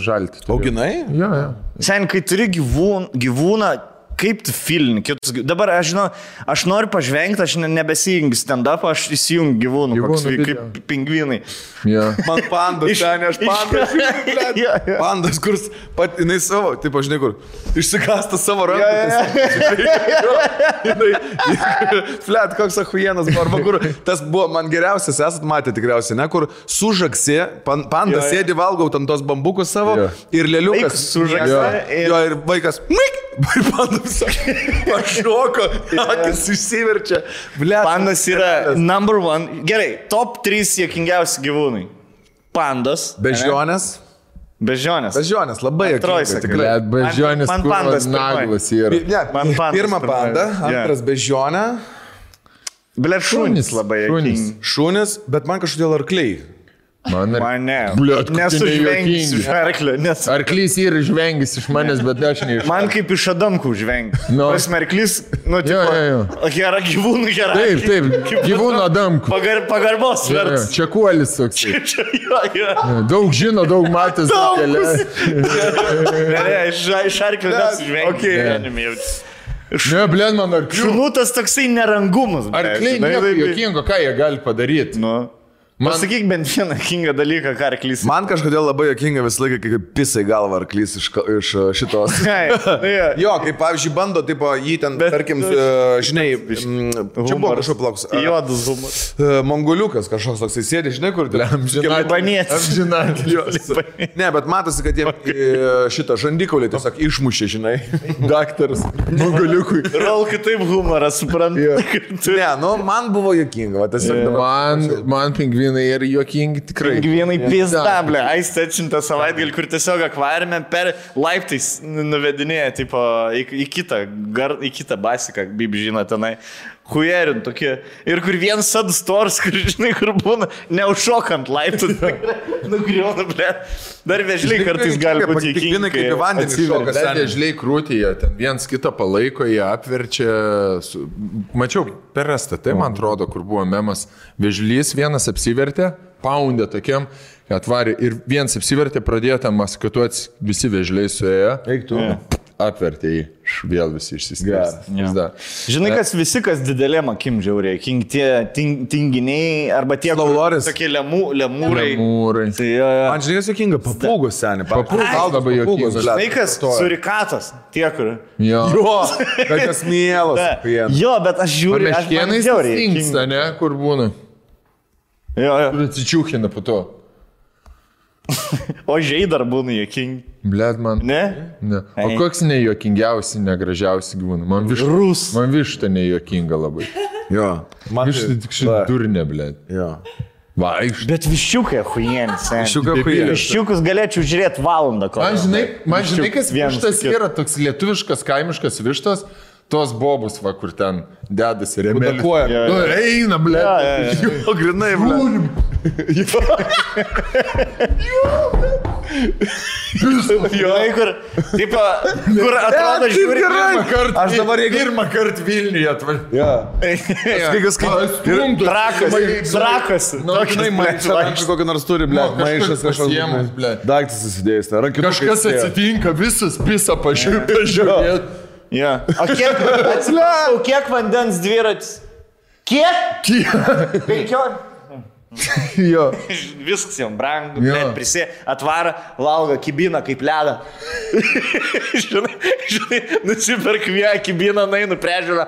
žalti. Auginai? Jo. Sen, kai turi gyvūną, kaip tu filini? Dabar aš žinau, aš noriu pažvengti, aš nebesijungiu stand-up, aš įsijungiu gyvūnų, kaip pingvinai. Man pandas, ten aš pandas. Pandas, kurs pat, jinai savo, taip aš žinai kur, išsikasta savo ranką. Flet, koks ahujienas, arba kur, tas buvo man geriausias, esat matę tikriausiai, ne, kur sužaksi, pandas sėdi, valgau ten tos bambukus savo ir lėliukas sužaksi. Jo, ir vaikas, mik, ir pandas pašoko, akis išsiverčia. Pandas yra number one, gerai, top 3 juokingiausi gyvūnai. Pandas. Bežionės. Bežionės, labai juokingas. tikrai. Bežionės, man pandas naglas yra. Pirma panda, antras bežionė. Blet, šunys labai juokingi. Šunys, bet man kažkodėl arkliai. Man ne. Bliot, nesužvengis iš arklio. Arklys yra žvengis iš manęs, bet aš ne iš. Man kaip iš Adamkų žvengi. Prasme, arklys, tipo, gera gyvūnų, gera. Taip, gyvūnų Adamkų. Pagarbos vertas. Čia kuolis toks. Daug žino, daug matęs. Ne, iš arklio nesužvengi. Ne, blėn, man arklių. Šunutas toksai nerangumas. Arkliai nieko juokingo, ką jie gali padaryti. Pasakyk bent vieną juokingą dalyką, ką arklys. Man kažkodėl labai juokinga visą laiką, kai pisai galva arklys iš šitos. Jo, kaip pavyzdžiui bando, tipo, jį ten, tarkim, žinai, čia buvo kažkoks plauks. Juodas humoras. Mongoliukas kažkoks toksai sėdė, žinai, kur Libanėtis. Ne, bet matosi, kad jie šitą žandikaulį tiesiog išmušė, žinai. Daktaras Mongoliukui. Rol kitaip humoras, suprantu. Ne, nu, man buvo juokinga. Man pingvinai ir juokingi tikrai. Pingvinai pizdablė. Aistė atšintą savaitgalį, kur tiesiog akvariume per laiptais nuvedinėja, tipo, į kitą basiką, kaip žino tenai. Hujerin tokie. Ir kur vienas sadstors, kur žinai, kur būna, neužšokant laiptų. Nugriauna, ble. Dar vežliai kartais gali būti juokingi. Kaip į vandenį šokas. Dar vežliai krūtyje, ten viens kitą palaiko, jie apverčia. Mačiau per STT, man atrodo, kur buvo memas. Vežlys vienas apsivertė, paundė tokiam, atvarė ir vienas apsivertė, pradėjo tam maskatuoti, visi vežliai suėjo. Eik tu. Apvertė jį, vėl visi išsiskirstė. Žinai, visi, kas didelėm akim žiauriai, tie tinginiai, arba tie tokie lemūrai. Man žinai, kas juokinga, papūgos seniai. Papūgos labai juokingas. Žinai, kas surikatas, tie, kur. Jo, kas mielas. Jo, bet aš žiūriu, aš Meškienais stingsta, ne, kur būna. Jo. Kur atsičiūkina po to. O žiai dar būna juokingi. Blet man. Ne? O koks nejuokingiausi, negražiausi gyvūnai? Man višta nejuokinga labai. Jo. Višta tik šitą durnė, blet. Jo. Vaikšt. Bet viščiukai huijienis. Viščiukus galėčiau žiūrėti valandą. Man žinai, kas vištas yra toks lietuviškas, kaimiškas vištas. Tos bobus, va, kur ten dedasi remelis. Eina, ble. Jo, grinai, ble. Kur atrodo žiūri. Aš dabar pirmą kartą Vilniuje atvažiuoju. Drakas. Maišas kokį nors turi, ble. Maišas kažkoks. Daiktas susidėjęs. Kažkas atsitinka, visas pisa pažiūrėt. O kiek vandens dviratis? Kiek? 15. Jo. Viskas jam brangu, prisė, atvara, valgo kibiną kaip ledą. Žinai, nusiperk vieną kibiną, nainu priežiūrą.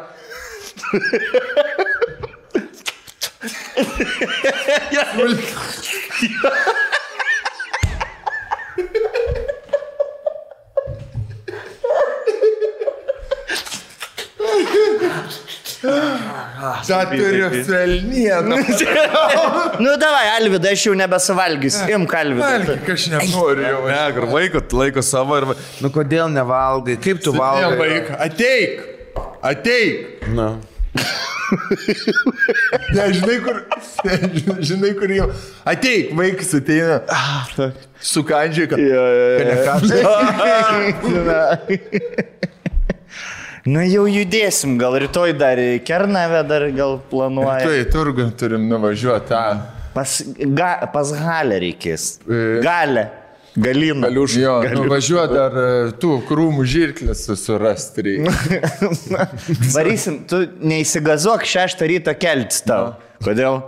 Turiu felnieną. Nu, davai, Alvyda, aš jau nebesuvalgysiu. Imk, Alvyda. Valgyk, aš nenoriu jau. Ne, kur laiko savo ir... Nu, kodėl nevalgai? Kaip tu valgai? Ateik. Na. Žinai, kur jau. Ateik, vaikas ateina. Sukandžiai, kad... Nu jau judėsim, gal rytoj dar į Kernavę dar gal planuoja. Rytoj į turgų turim nuvažiuoti tą. Pas Galę reikės. Galę. Galina. Jo, nuvažiuoti dar tų krūmų žirklės surasti reikia. Varysim, tu neįsigazuok 6 ryto keltis tau. Kodėl?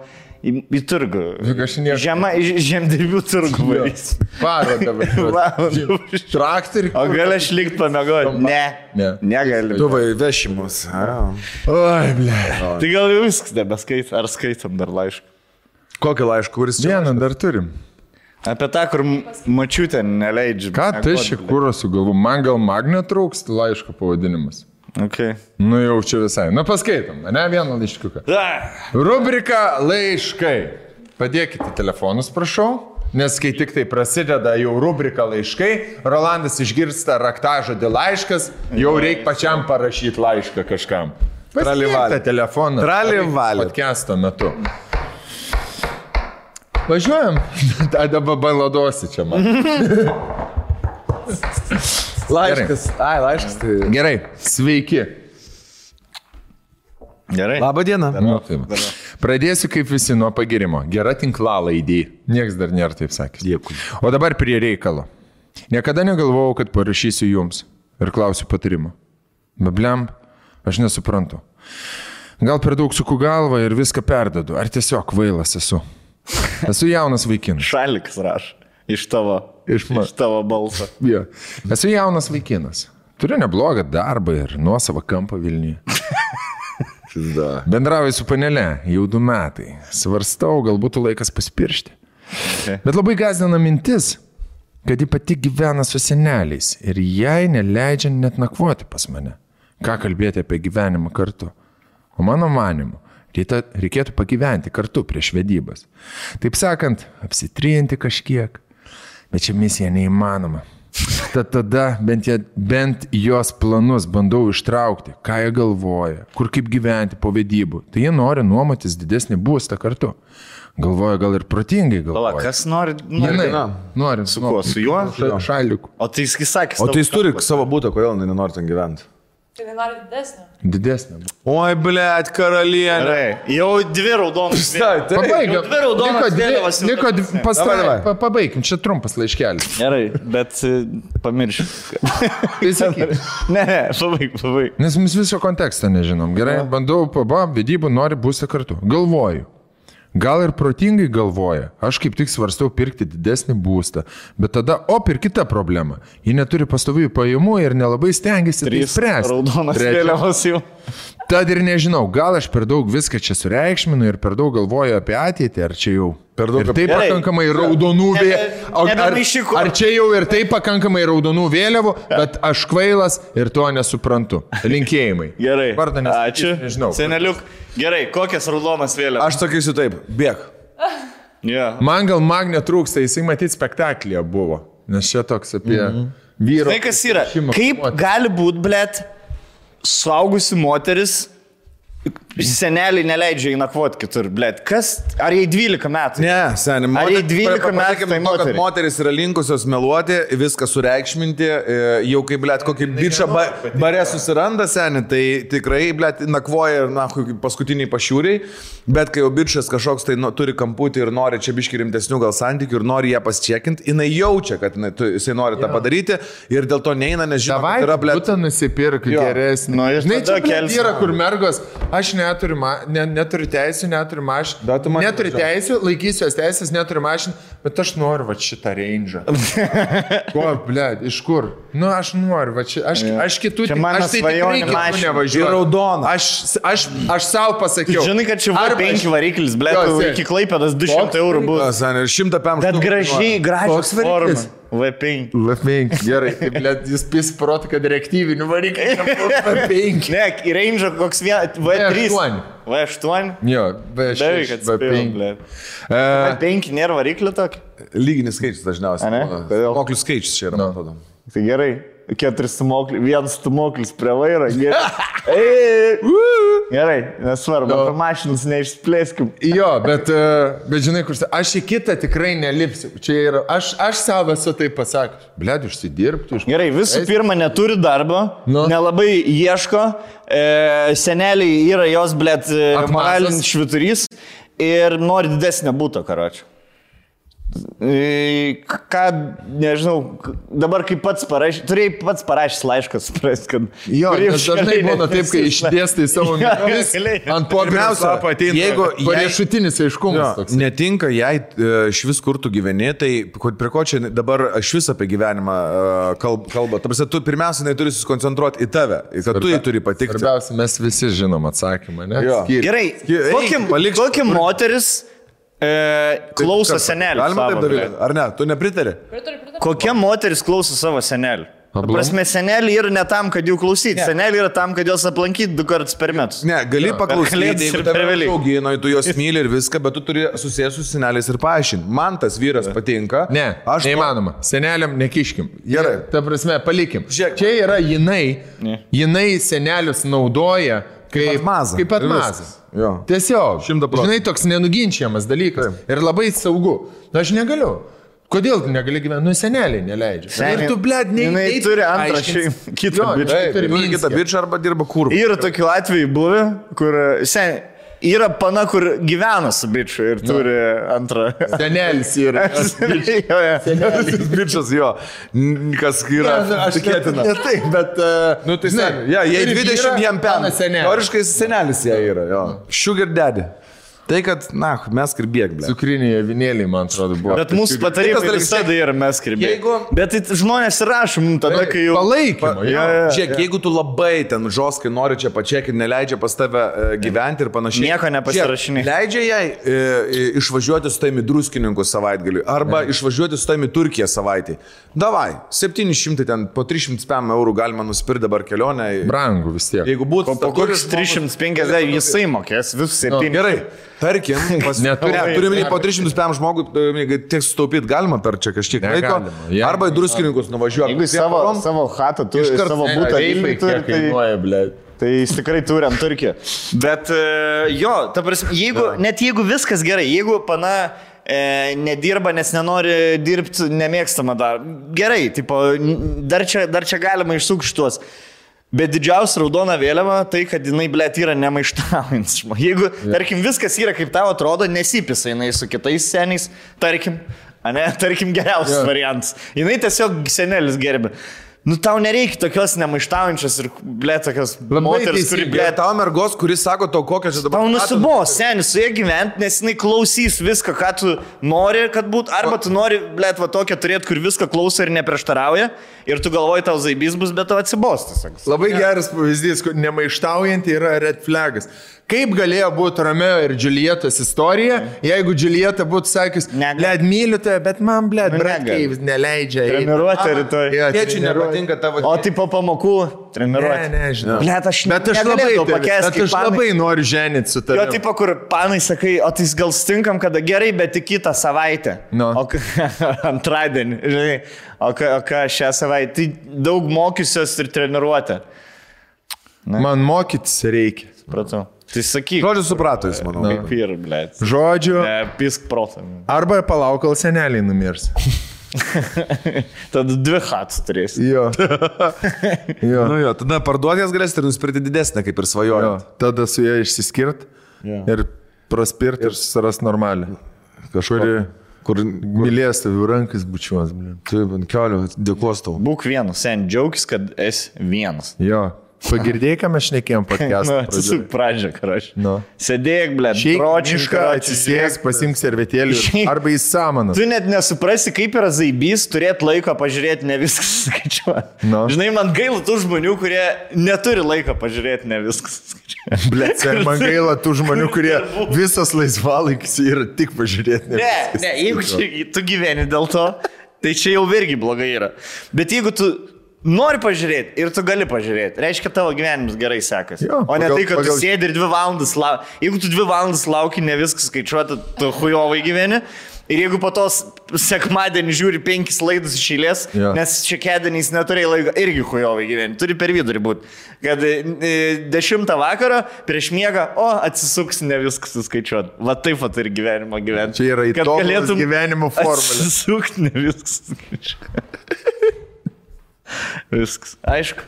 Į turgų. Žemdirbių turgų varysim. Parodą važiuoti. Traktorių. O gali aš likt pamėgoti? Ne. Negali. Tu vešimus. Oi, ble. Tai gal jau viskas nebeskait. Ar skaitom dar laišką? Kokį laišką, kuris čia? Vieną dar turim. Apie tą, kur mačiutė neleidžia. Ką tai šį kūrą sugalvu? Man gal magnio trūks laiško pavadinimas. Okay. Nu jau čia visai. Nu paskaitom, ne vieną laiškiuką. Rubrika laiškai. Padėkite telefonus, prašau. Nes kai tik tai prasideda jau rubrika laiškai, Rolandas išgirsta raktažodį laiškas, jau reikia pačiam parašyti laišką kažkam. Paskirta telefoną. Tralivalė. Podcasto metu. Važiuojam. Dabar baladosi čia man. Laiškas. Ai, laiškas. Tai... Gerai. Sveiki. Gerai. Labą dieną. Nu, pradėsiu kaip visi nuo pagirimo. Gera tinklalaidė. Niekas dar nėra taip sakęs. Dėkui. O dabar prie reikalo. Niekada negalvojau, kad parašysiu jums ir klausiu patarimo. Bebliam, aš nesuprantu. Gal per daug suku galvą ir viską perdedu. Ar tiesiog kvailas esu? Esu jaunas vaikinas. Šalikas raš. Iš tavo balso. Ja. Esu jaunas vaikinas. Turiu neblogą darbą ir nuosavą kampą Vilniuje. Bendrauju su panele jau 2 metai. Svarstau, gal būtų laikas pasipiršti. Okay. Bet labai gąsdina mintis, kad ji pati gyvena su seneliais ir jai neleidžia net nakvoti pas mane. Ką kalbėti apie gyvenimą kartu? O mano manimu, reikėtų pagyventi kartu prieš vedybas. Taip sakant, apsitrinti kažkiek. Bet čia misija neįmanoma. Tad tada bent jos planus bandau ištraukti, ką jie galvoja, kur kaip gyventi po vedybų. Tai jie nori nuomotis didesnį būstą kartu. Galvoja gal ir protingai galvoja. Pala, kas nori? Nori. Su kuo? Su juo? Šaliku. O tai jis sakė. O tai jis turi savo būtą, kodėl nenori ten gyventi? Tai nori didesnį. Didesnė. Oi, blėt, karalienė. Gerai, jau 2 raudonas. Pabaigiam. 2 raudonas vėliavas. Pabaigim, čia trumpas laiškelis. Gerai, bet pamiršiu. Ne, pabaig. Nes mes viso konteksto nežinom. Gerai, bandau vedybų, nori būti kartu. Galvoju. Gal ir protingai galvoja, aš kaip tik svarstau pirkti didesnį būstą, bet tada, ir kita problema. Ji neturi pastovių pajamų ir nelabai stengiasi tai spręsti. Raudonas vėliavas jau. Tad ir nežinau, gal aš per daug viską čia sureikšminu ir per daug galvoju apie ateitį, ar čia jau per daug. Ir tai pakankamai raudonų vėliavų. Ar čia jau ir tai pakankamai raudonų vėliavų, bet aš kvailas ir to nesuprantu. Linkėjimai. Gerai. Ačiū. Nežinau. Seneliuk. Gerai, kokias raudonas vėliavas? Aš sakysiu taip, bėg. Yeah. Man gal magnio trūksta, jisai matyti spektaklyje buvo. Nes čia toks apie vyro. Tai kas yra? Kaip gali būti, blėt, suaugusi moteris, seneliai neleidžia įnakvoti kitur, blėt. Kas? Ar jai 12 metų? Ne, seniai. Ar jai 12 metų tai moteris? Moteris yra linkusios meluoti, viską sureikšminti, jau kaip, blėt, kokį bičą bare susiranda, seniai, tai tikrai, blėt, nakvoja ir paskutiniai pašiūriai, bet kai jau bičas kažkoks tai turi kamputį ir nori čia biški rimtesnių gal santykių ir nori ją pasčekinti, jinai jaučia, kad jisai nori tą padaryti ir dėl to neina, nes žinoma, kad yra, blėt. Būtų nusipirk geresnį. Žinai, čia yra, kur mergos, aš neturiu teisų, neturiu mašinų. Neturiu teisų, laikysiu jos teisės, neturiu mašinų, bet aš noriu va šitą range'ą. Ko, blėd, iš kur? Nu, aš noriu, va čia, aš kitų, aš tai tikrai kitų nevažiuoju. Raudona. Aš savo pasakiau. Žinai, kad čia V5 variklis, blėd, iki Klaipėdos 200 eurų bus. Ir 105. Bet gražios formos. V5. V5, gerai. Blėd, jūs pisprot, kad reaktyvinių variklių V5. Ne, į range'ą koks V3. V8. Jo, V6, V5. V5 nėra variklio tokio? Lyginis skaičius dažniausiai. Ne? Moklių skaičius čia yra, man atrodo. Tai gerai. 4 stumoklis, 1 stumoklis prie vairo. Gerai, nesvarbu, apie mašinas neišsplėskim. Jo, bet žinai, kur aš į kitą tikrai nelipsiu. Čia yra, aš savo esu taip pasakęs. Bled, užsidirbti. Gerai, visų pirma, neturi darbo, nelabai ieško, seneliai yra jos, bled, moralinis švyturys ir nori didesnio būto, karočią. Ką, nežinau, dabar kaip pats parašys, turėjai pats parašys laišką, supras, kad... Jo, nes dažnai būna taip, kai išdėstai savo mintis, ant popieriaus lapo ateina riešutinis aiškumas toks. Netinka, jei iš vis kur tu gyveni, tai prie ko čia dabar aš vis apie gyvenimą kalba. Tarsi tu pirmiausia turi susikoncentruoti į tave, kad tu jį turi patikti. Svarbiausia, mes visi žinom atsakymą, ne? Gerai, kokia moteris klauso senelių. Galima taip daryti, ar ne? Tu nepritari? Kokia moteris klauso savo senelių? Prasme, seneliai yra ne tam, kad jų klausyti. Seneliai yra tam, kad juos aplankyti 2 kartus per metus. Ne, gali paklausyti, jeigu tave augino, tu juos myli ir viską, bet tu turi susijęs su seneliais ir paaiškinti. Man tas vyras patinka. Ne, neįmanoma. Seneliam nekiškim. Gerai. Ta prasme, palikim. Čia yra jinai senelius naudoja kaip atmazas. Tiesiog. Žinai, toks nenuginčiamas dalykas. Ir labai saugu. Aš negaliu. Kodėl tu negali gyventi? Nu, seneliai neleidžia. Ir tu, bled, jinai turi antrą kitą bičą arba dirba kur. Yra tokių atvejų buvę, kur yra pana, kur gyvena su bičiu ir turi antrą. Senelis yra. Senelis bičias, jo. Kas yra tikėtina. Ne taip, bet... Nu, tai jei 20 jam pena. Teoriškai senelis jie yra, jo. Sugar daddy. Tai, kad, mes kirbėk, ble. Cukriniai avinėliai, man atrodo, buvo. Bet mūsų patarimai visada yra mes kirbėk. Bet tai žmonės rašo mums tada, kai jau... Palaikymą. Žiūrėk, jeigu tu labai ten žoskai nori čia pačiak ir neleidžia pas tave gyventi ir panašiai. Nieko nepasirašinai. Leidžia jai išvažiuoti su taimi druskininkus savaitgaliui arba išvažiuoti su taimi Turkiją savaitį. Davai, 700 ten, po 300 eurų galima nusipirkti dabar kelionę. Brangu vis tiek. Jeigu būtų... Po kokius 350 jisai mokės, visus 7. Gerai. Tarkim, turime po 300 žmogų, tiek sutaupyti galima per čia kažkiek laiko, arba į druskininkus nuvažiuoti. Jeigu savo chatą turi, savo būtą Vilniui turi, tai jis tikrai turi ant Turkiją. Bet jo, ta prasme, net jeigu viskas gerai, jeigu pana nedirba, nes nenori dirbti nemėgstamą darbą, gerai, tipo, dar čia galima išsukti šitos. Bet didžiausia raudona vėliava tai, kad jinai, blėt, yra nemaištaujantis. Jeigu, tarkim, viskas yra kaip tau atrodo, nesipisa jinai su kitais seniais, tarkim geriausias variantas. Jinai tiesiog senelis gerbė. Nu, tau nereikia tokios nemaištaujančios ir, blėt, tokios moteris, kuri, blėt, tau mergos, kuris sako to, kokią čia dabar... Tau nusibos, senis, su jie gyventi, nes jinai klausys viską, ką tu nori, kad būtų, arba tu nori, blėt, va tokią turėti, kur viską klauso ir neprieštarauja, ir tu galvoji, tau zaibys bus, bet tau atsibos. Labai geras pavyzdys, kad nemaištaujant yra red flagas. Kaip galėjo būti Romeo ir Julietos istorija, jeigu Julieta būtų sakęs, blėt, myliu tave, bet man, blėt, bratkai neleidžia. Treniruotė rytoj. Tėčiui nepatinka tavo... O tai po pamokų treniruotė. Ne, žinau. Blėt, aš negalėjau pakęsti. Bet aš labai noriu ženyti su tavimi. Jo, tipo, kur panai sakai, o tai gal stinkam, kada gerai, bet tik kitą savaitę. No. O antradienį, žinai, o ką šią savaitę. Tai daug mokysios ir treniruotė. Man mokytis reikia. Supratau. Tai sakyk. Žodžiu suprato jis, manau. Kaip ir, blėt. Žodžiu. Pisk protą. Arba palauk, kol seneliai numirs. Tada 2 hats turėsi. Jo. Nu jo, tada parduotės galėsite ir nusipirkti didesnę, kaip ir svajojot. Tada su ją išsiskirt ir praspirti ir susiras normalią. Kažkurį, kur mylės tavi rankas bučiuos. Taip, ant kelio, dėkos tau. Būk vienas, sen džiaugis, kad esi vienas. Jo. Pagirdėjai, ką mes šnekėjom podcast'ą. Atsisuk pradžią, karoš. Sėdėk, blėt, pročišką, atsisėk, pasimk servetėlį arba į samaną. Tu net nesuprasi, kaip yra zaibys turėti laiko pažiūrėti, ne viskas skaičiuoti. Žinai, man gaila tų žmonių, kurie neturi laiko pažiūrėti, ne viskas skaičiuoti. Blėt, man gaila tų žmonių, kurie visas laisvalaikis yra tik pažiūrėti. Ne, jeigu tu gyveni dėl to, tai čia jau irgi blogai yra. Bet jeigu tu nori pažiūrėti ir tu gali pažiūrėti, reiškia, tavo gyvenimas gerai sekasi. O ne tai, kad tu sėdi ir 2 valandas lauki. Jeigu tu 2 valandas lauki, ne viskas skaičiuoti, tu hujovai gyveni. Ir jeigu po tos sekmadienį žiūri 5 laidus iš eilės, nes šekedieniais neturėjai laiko, irgi hujovai gyventi, turi per vidurį būti. Kad 10 vakaro prieš miegą, atsisuks, ne viskas suskaičiuot. Va taip pat ir gyvenimo gyventi. Čia yra įtobulas gyvenimo formulė. Atsisukt, ne viskas suskaičiuot. Viskas. Aišku.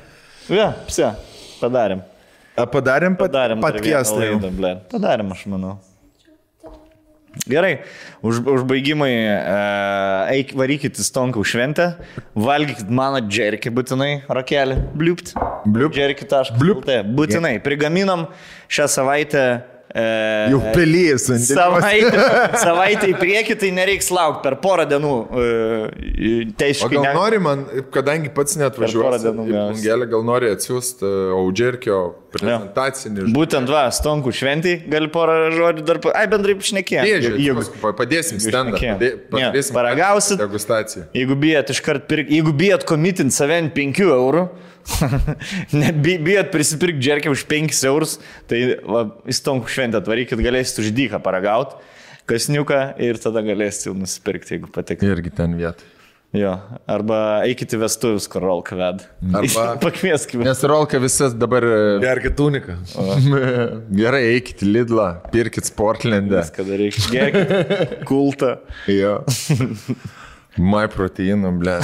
Pse, padarėm. Padarėm podcastą. Padarėm, aš manau. Gerai, užbaigimai, varykit į Stonkų šventę, valgykit mano džerkį būtinai, rakelį, bliupt, džerkį.lt, būtinai, prigaminom šią savaitę. Jau pelijas. Savaitę į priekį, tai nereiks laukti per porą dienų teisiškai. O gal nori man, kadangi pats net važiuosi į Bungelę, gal nori atsiųsti Audžerkio prezentacinį. Būtent Stonkų šventį, gali porą žodžių dar, bendrai šnekėjom. Padėsim stendą, paragausit, degustaciją. Jeigu bijat iškart pirkti, jeigu bijat komitinti save 5 eurų, bijat prisipirkti džerkę už 5 eurus, tai į Stonkų šventę atvarykit, galėsit už dyką paragauti, kasniuką ir tada galėsit jau nusipirkti, jeigu patekti. Irgi ten vietą. Jo, arba eikit į vestuvius, kur Rolka ved. Arba pakvieskime. Nes Rolka visas dabar... Gerkit uniką. Gerai, eikit į Lidlą, pirkit Sportlandą. Viską darykit, gerkit kultą. Jo. My proteinų, ble.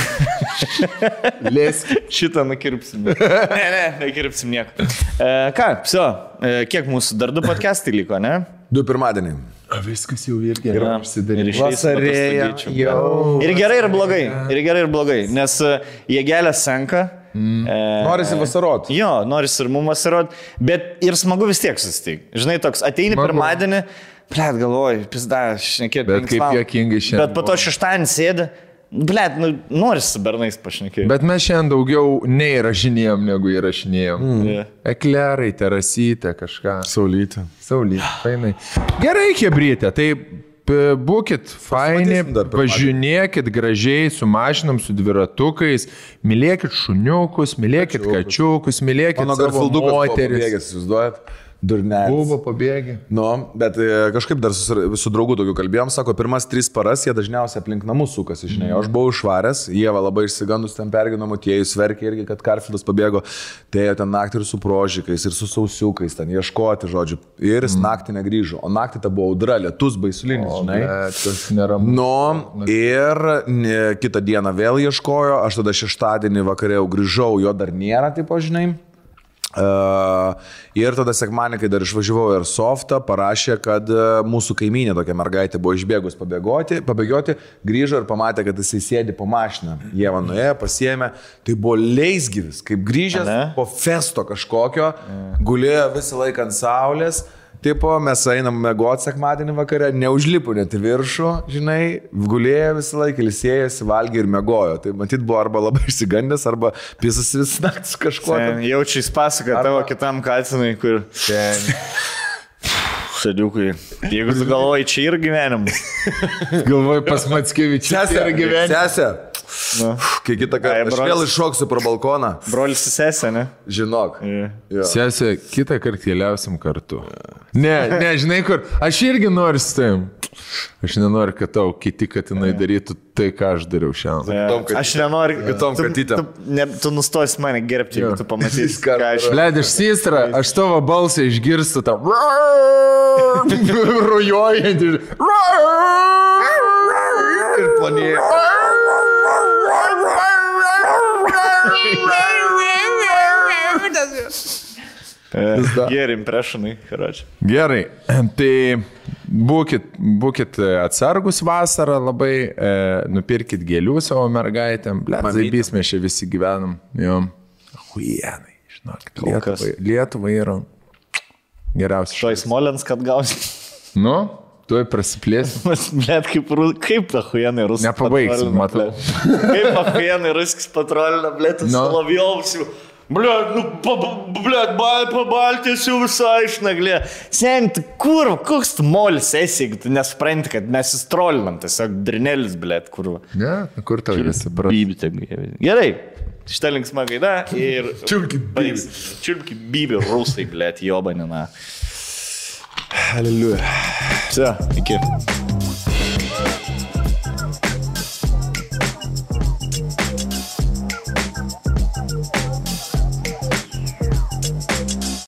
Lėskit. Šitą nukirpsim. Nekirpsim nieko. Ką, kiek mūsų dar 2 podcastai liko, ne? 2 pirmadienį. Viskas jau irgi yra užsidaryti. Vasarėja jau. Ir gerai, ir blogai. Nes jėgelė senka. Norisi vasarot. Jo, norisi ir mums vasarot. Bet ir smagu vis tiek susitikti. Žinai, toks ateini pirmadienį, Blet, galvoju, pizda, šnekėti. Bet kaip juokingai šiandien. Bet po to šeštadienį sėdi, blet, noris su bernais pašnekėti. Bet mes šiandien daugiau neįrašinėjom, negu įrašinėjom. Eklerai, terasytė, kažką. Saulytė, fainai. Gerai, kebrytė, tai būkit faini, važinėkit gražiai, su mašinom, su dviratukais, mylėkit šuniukus, mylėkit kačiukus, mylėkit savo moteris. Durnelis. Buvo pabėgę. Bet kažkaip dar su draugu tokiu kalbėjom, sako, pirmas 3 paras jie dažniausiai aplink namus sukasi, žinai. Aš buvau išvaręs, Ieva labai išsigandus ten pergino motiejus, verkė irgi, kad Karfilas pabėgo, tai jie ten naktį ir su prožikais, ir su sausiukais, ten ieškoti, žodžiu, ir jis naktį negrįžo, o naktį ta buvo audra, lietus baisulinis, žinai. Tas neramu. Ir kitą dieną vėl ieškojo, aš tada šeštadienį vakarė jau grįžau, jo dar nėra, tipo, žinai. Ir tada sekmanį, kai dar išvažiavau Airsoftą, parašė, kad mūsų kaimynė tokia mergaitė buvo išbėgus pabėgioti, grįžo ir pamatė, kad jisai sėdi po mašiną. Ieva nuėjo, pasiėmė, tai buvo leisgyvis, kaip grįžęs po festo kažkokio, gulėjo visą laiką ant saulės. Tipo, mes einam mėgoti sekmadienį vakarę, neužlipu net į viršų, žinai, gulėjo visą laiką, ilsėjosi, valgė ir mėgojo. Tai matyt buvo arba labai išsigandęs, arba pisas vis naktis kažkuo. Jaučiai pasaka tavo kitam kalcinui, kur... Sadiukui. Jeigu tu galvoji, čia ir gyvenimas. Galvoji pas Mackevičius yra gyvenimas. Sesė. Kai kitą kartą aš vėl iššoksiu pro balkoną. Brolis su sesė, ne? Žinok. Sesė, kitą kartą keliausim kartu. Ne, žinai kur, aš irgi noriu su tavim. Aš nenoriu, kad tau kiti katinai darytų tai, ką aš dariau šiandien. Aš nenoriu, kitom katytėm. Tu nustosi mane gerbti, jeigu tu pamatysi, ką aš... Bled, iš Sistra, aš tavo balsą išgirstu tam. Rujojant ir... Ir planėjo. Geri impressionai, karoči. Gerai, tai būkit atsargus vasarą labai, nupirkit gėlių savo mergaitėm. Zaibys mes čia visi gyvenam. Huienai, žinok, Lietuva yra geriausia. Štai Smolens, kad gausi. Nu, tuoj prasiplėsim. Blet, kaip ta huienai ruskas. Nepabaigsim, matau. Kaip ta huienai ruskas patrolina, blet, Solovjovsiu. Blet, pabaltės jau visai išnaglė. Sen, kur, koks tu molis esi, jeigu tu nesupranti, kad mes įstrolinam, tiesiog drinelis, blet, kur. Ne, kur tau visi prasme. Gerai, šitą linksmą gaidą ir... Čiulpki bybį rusai, blet, jobanina. Hallelujah. Все, iki.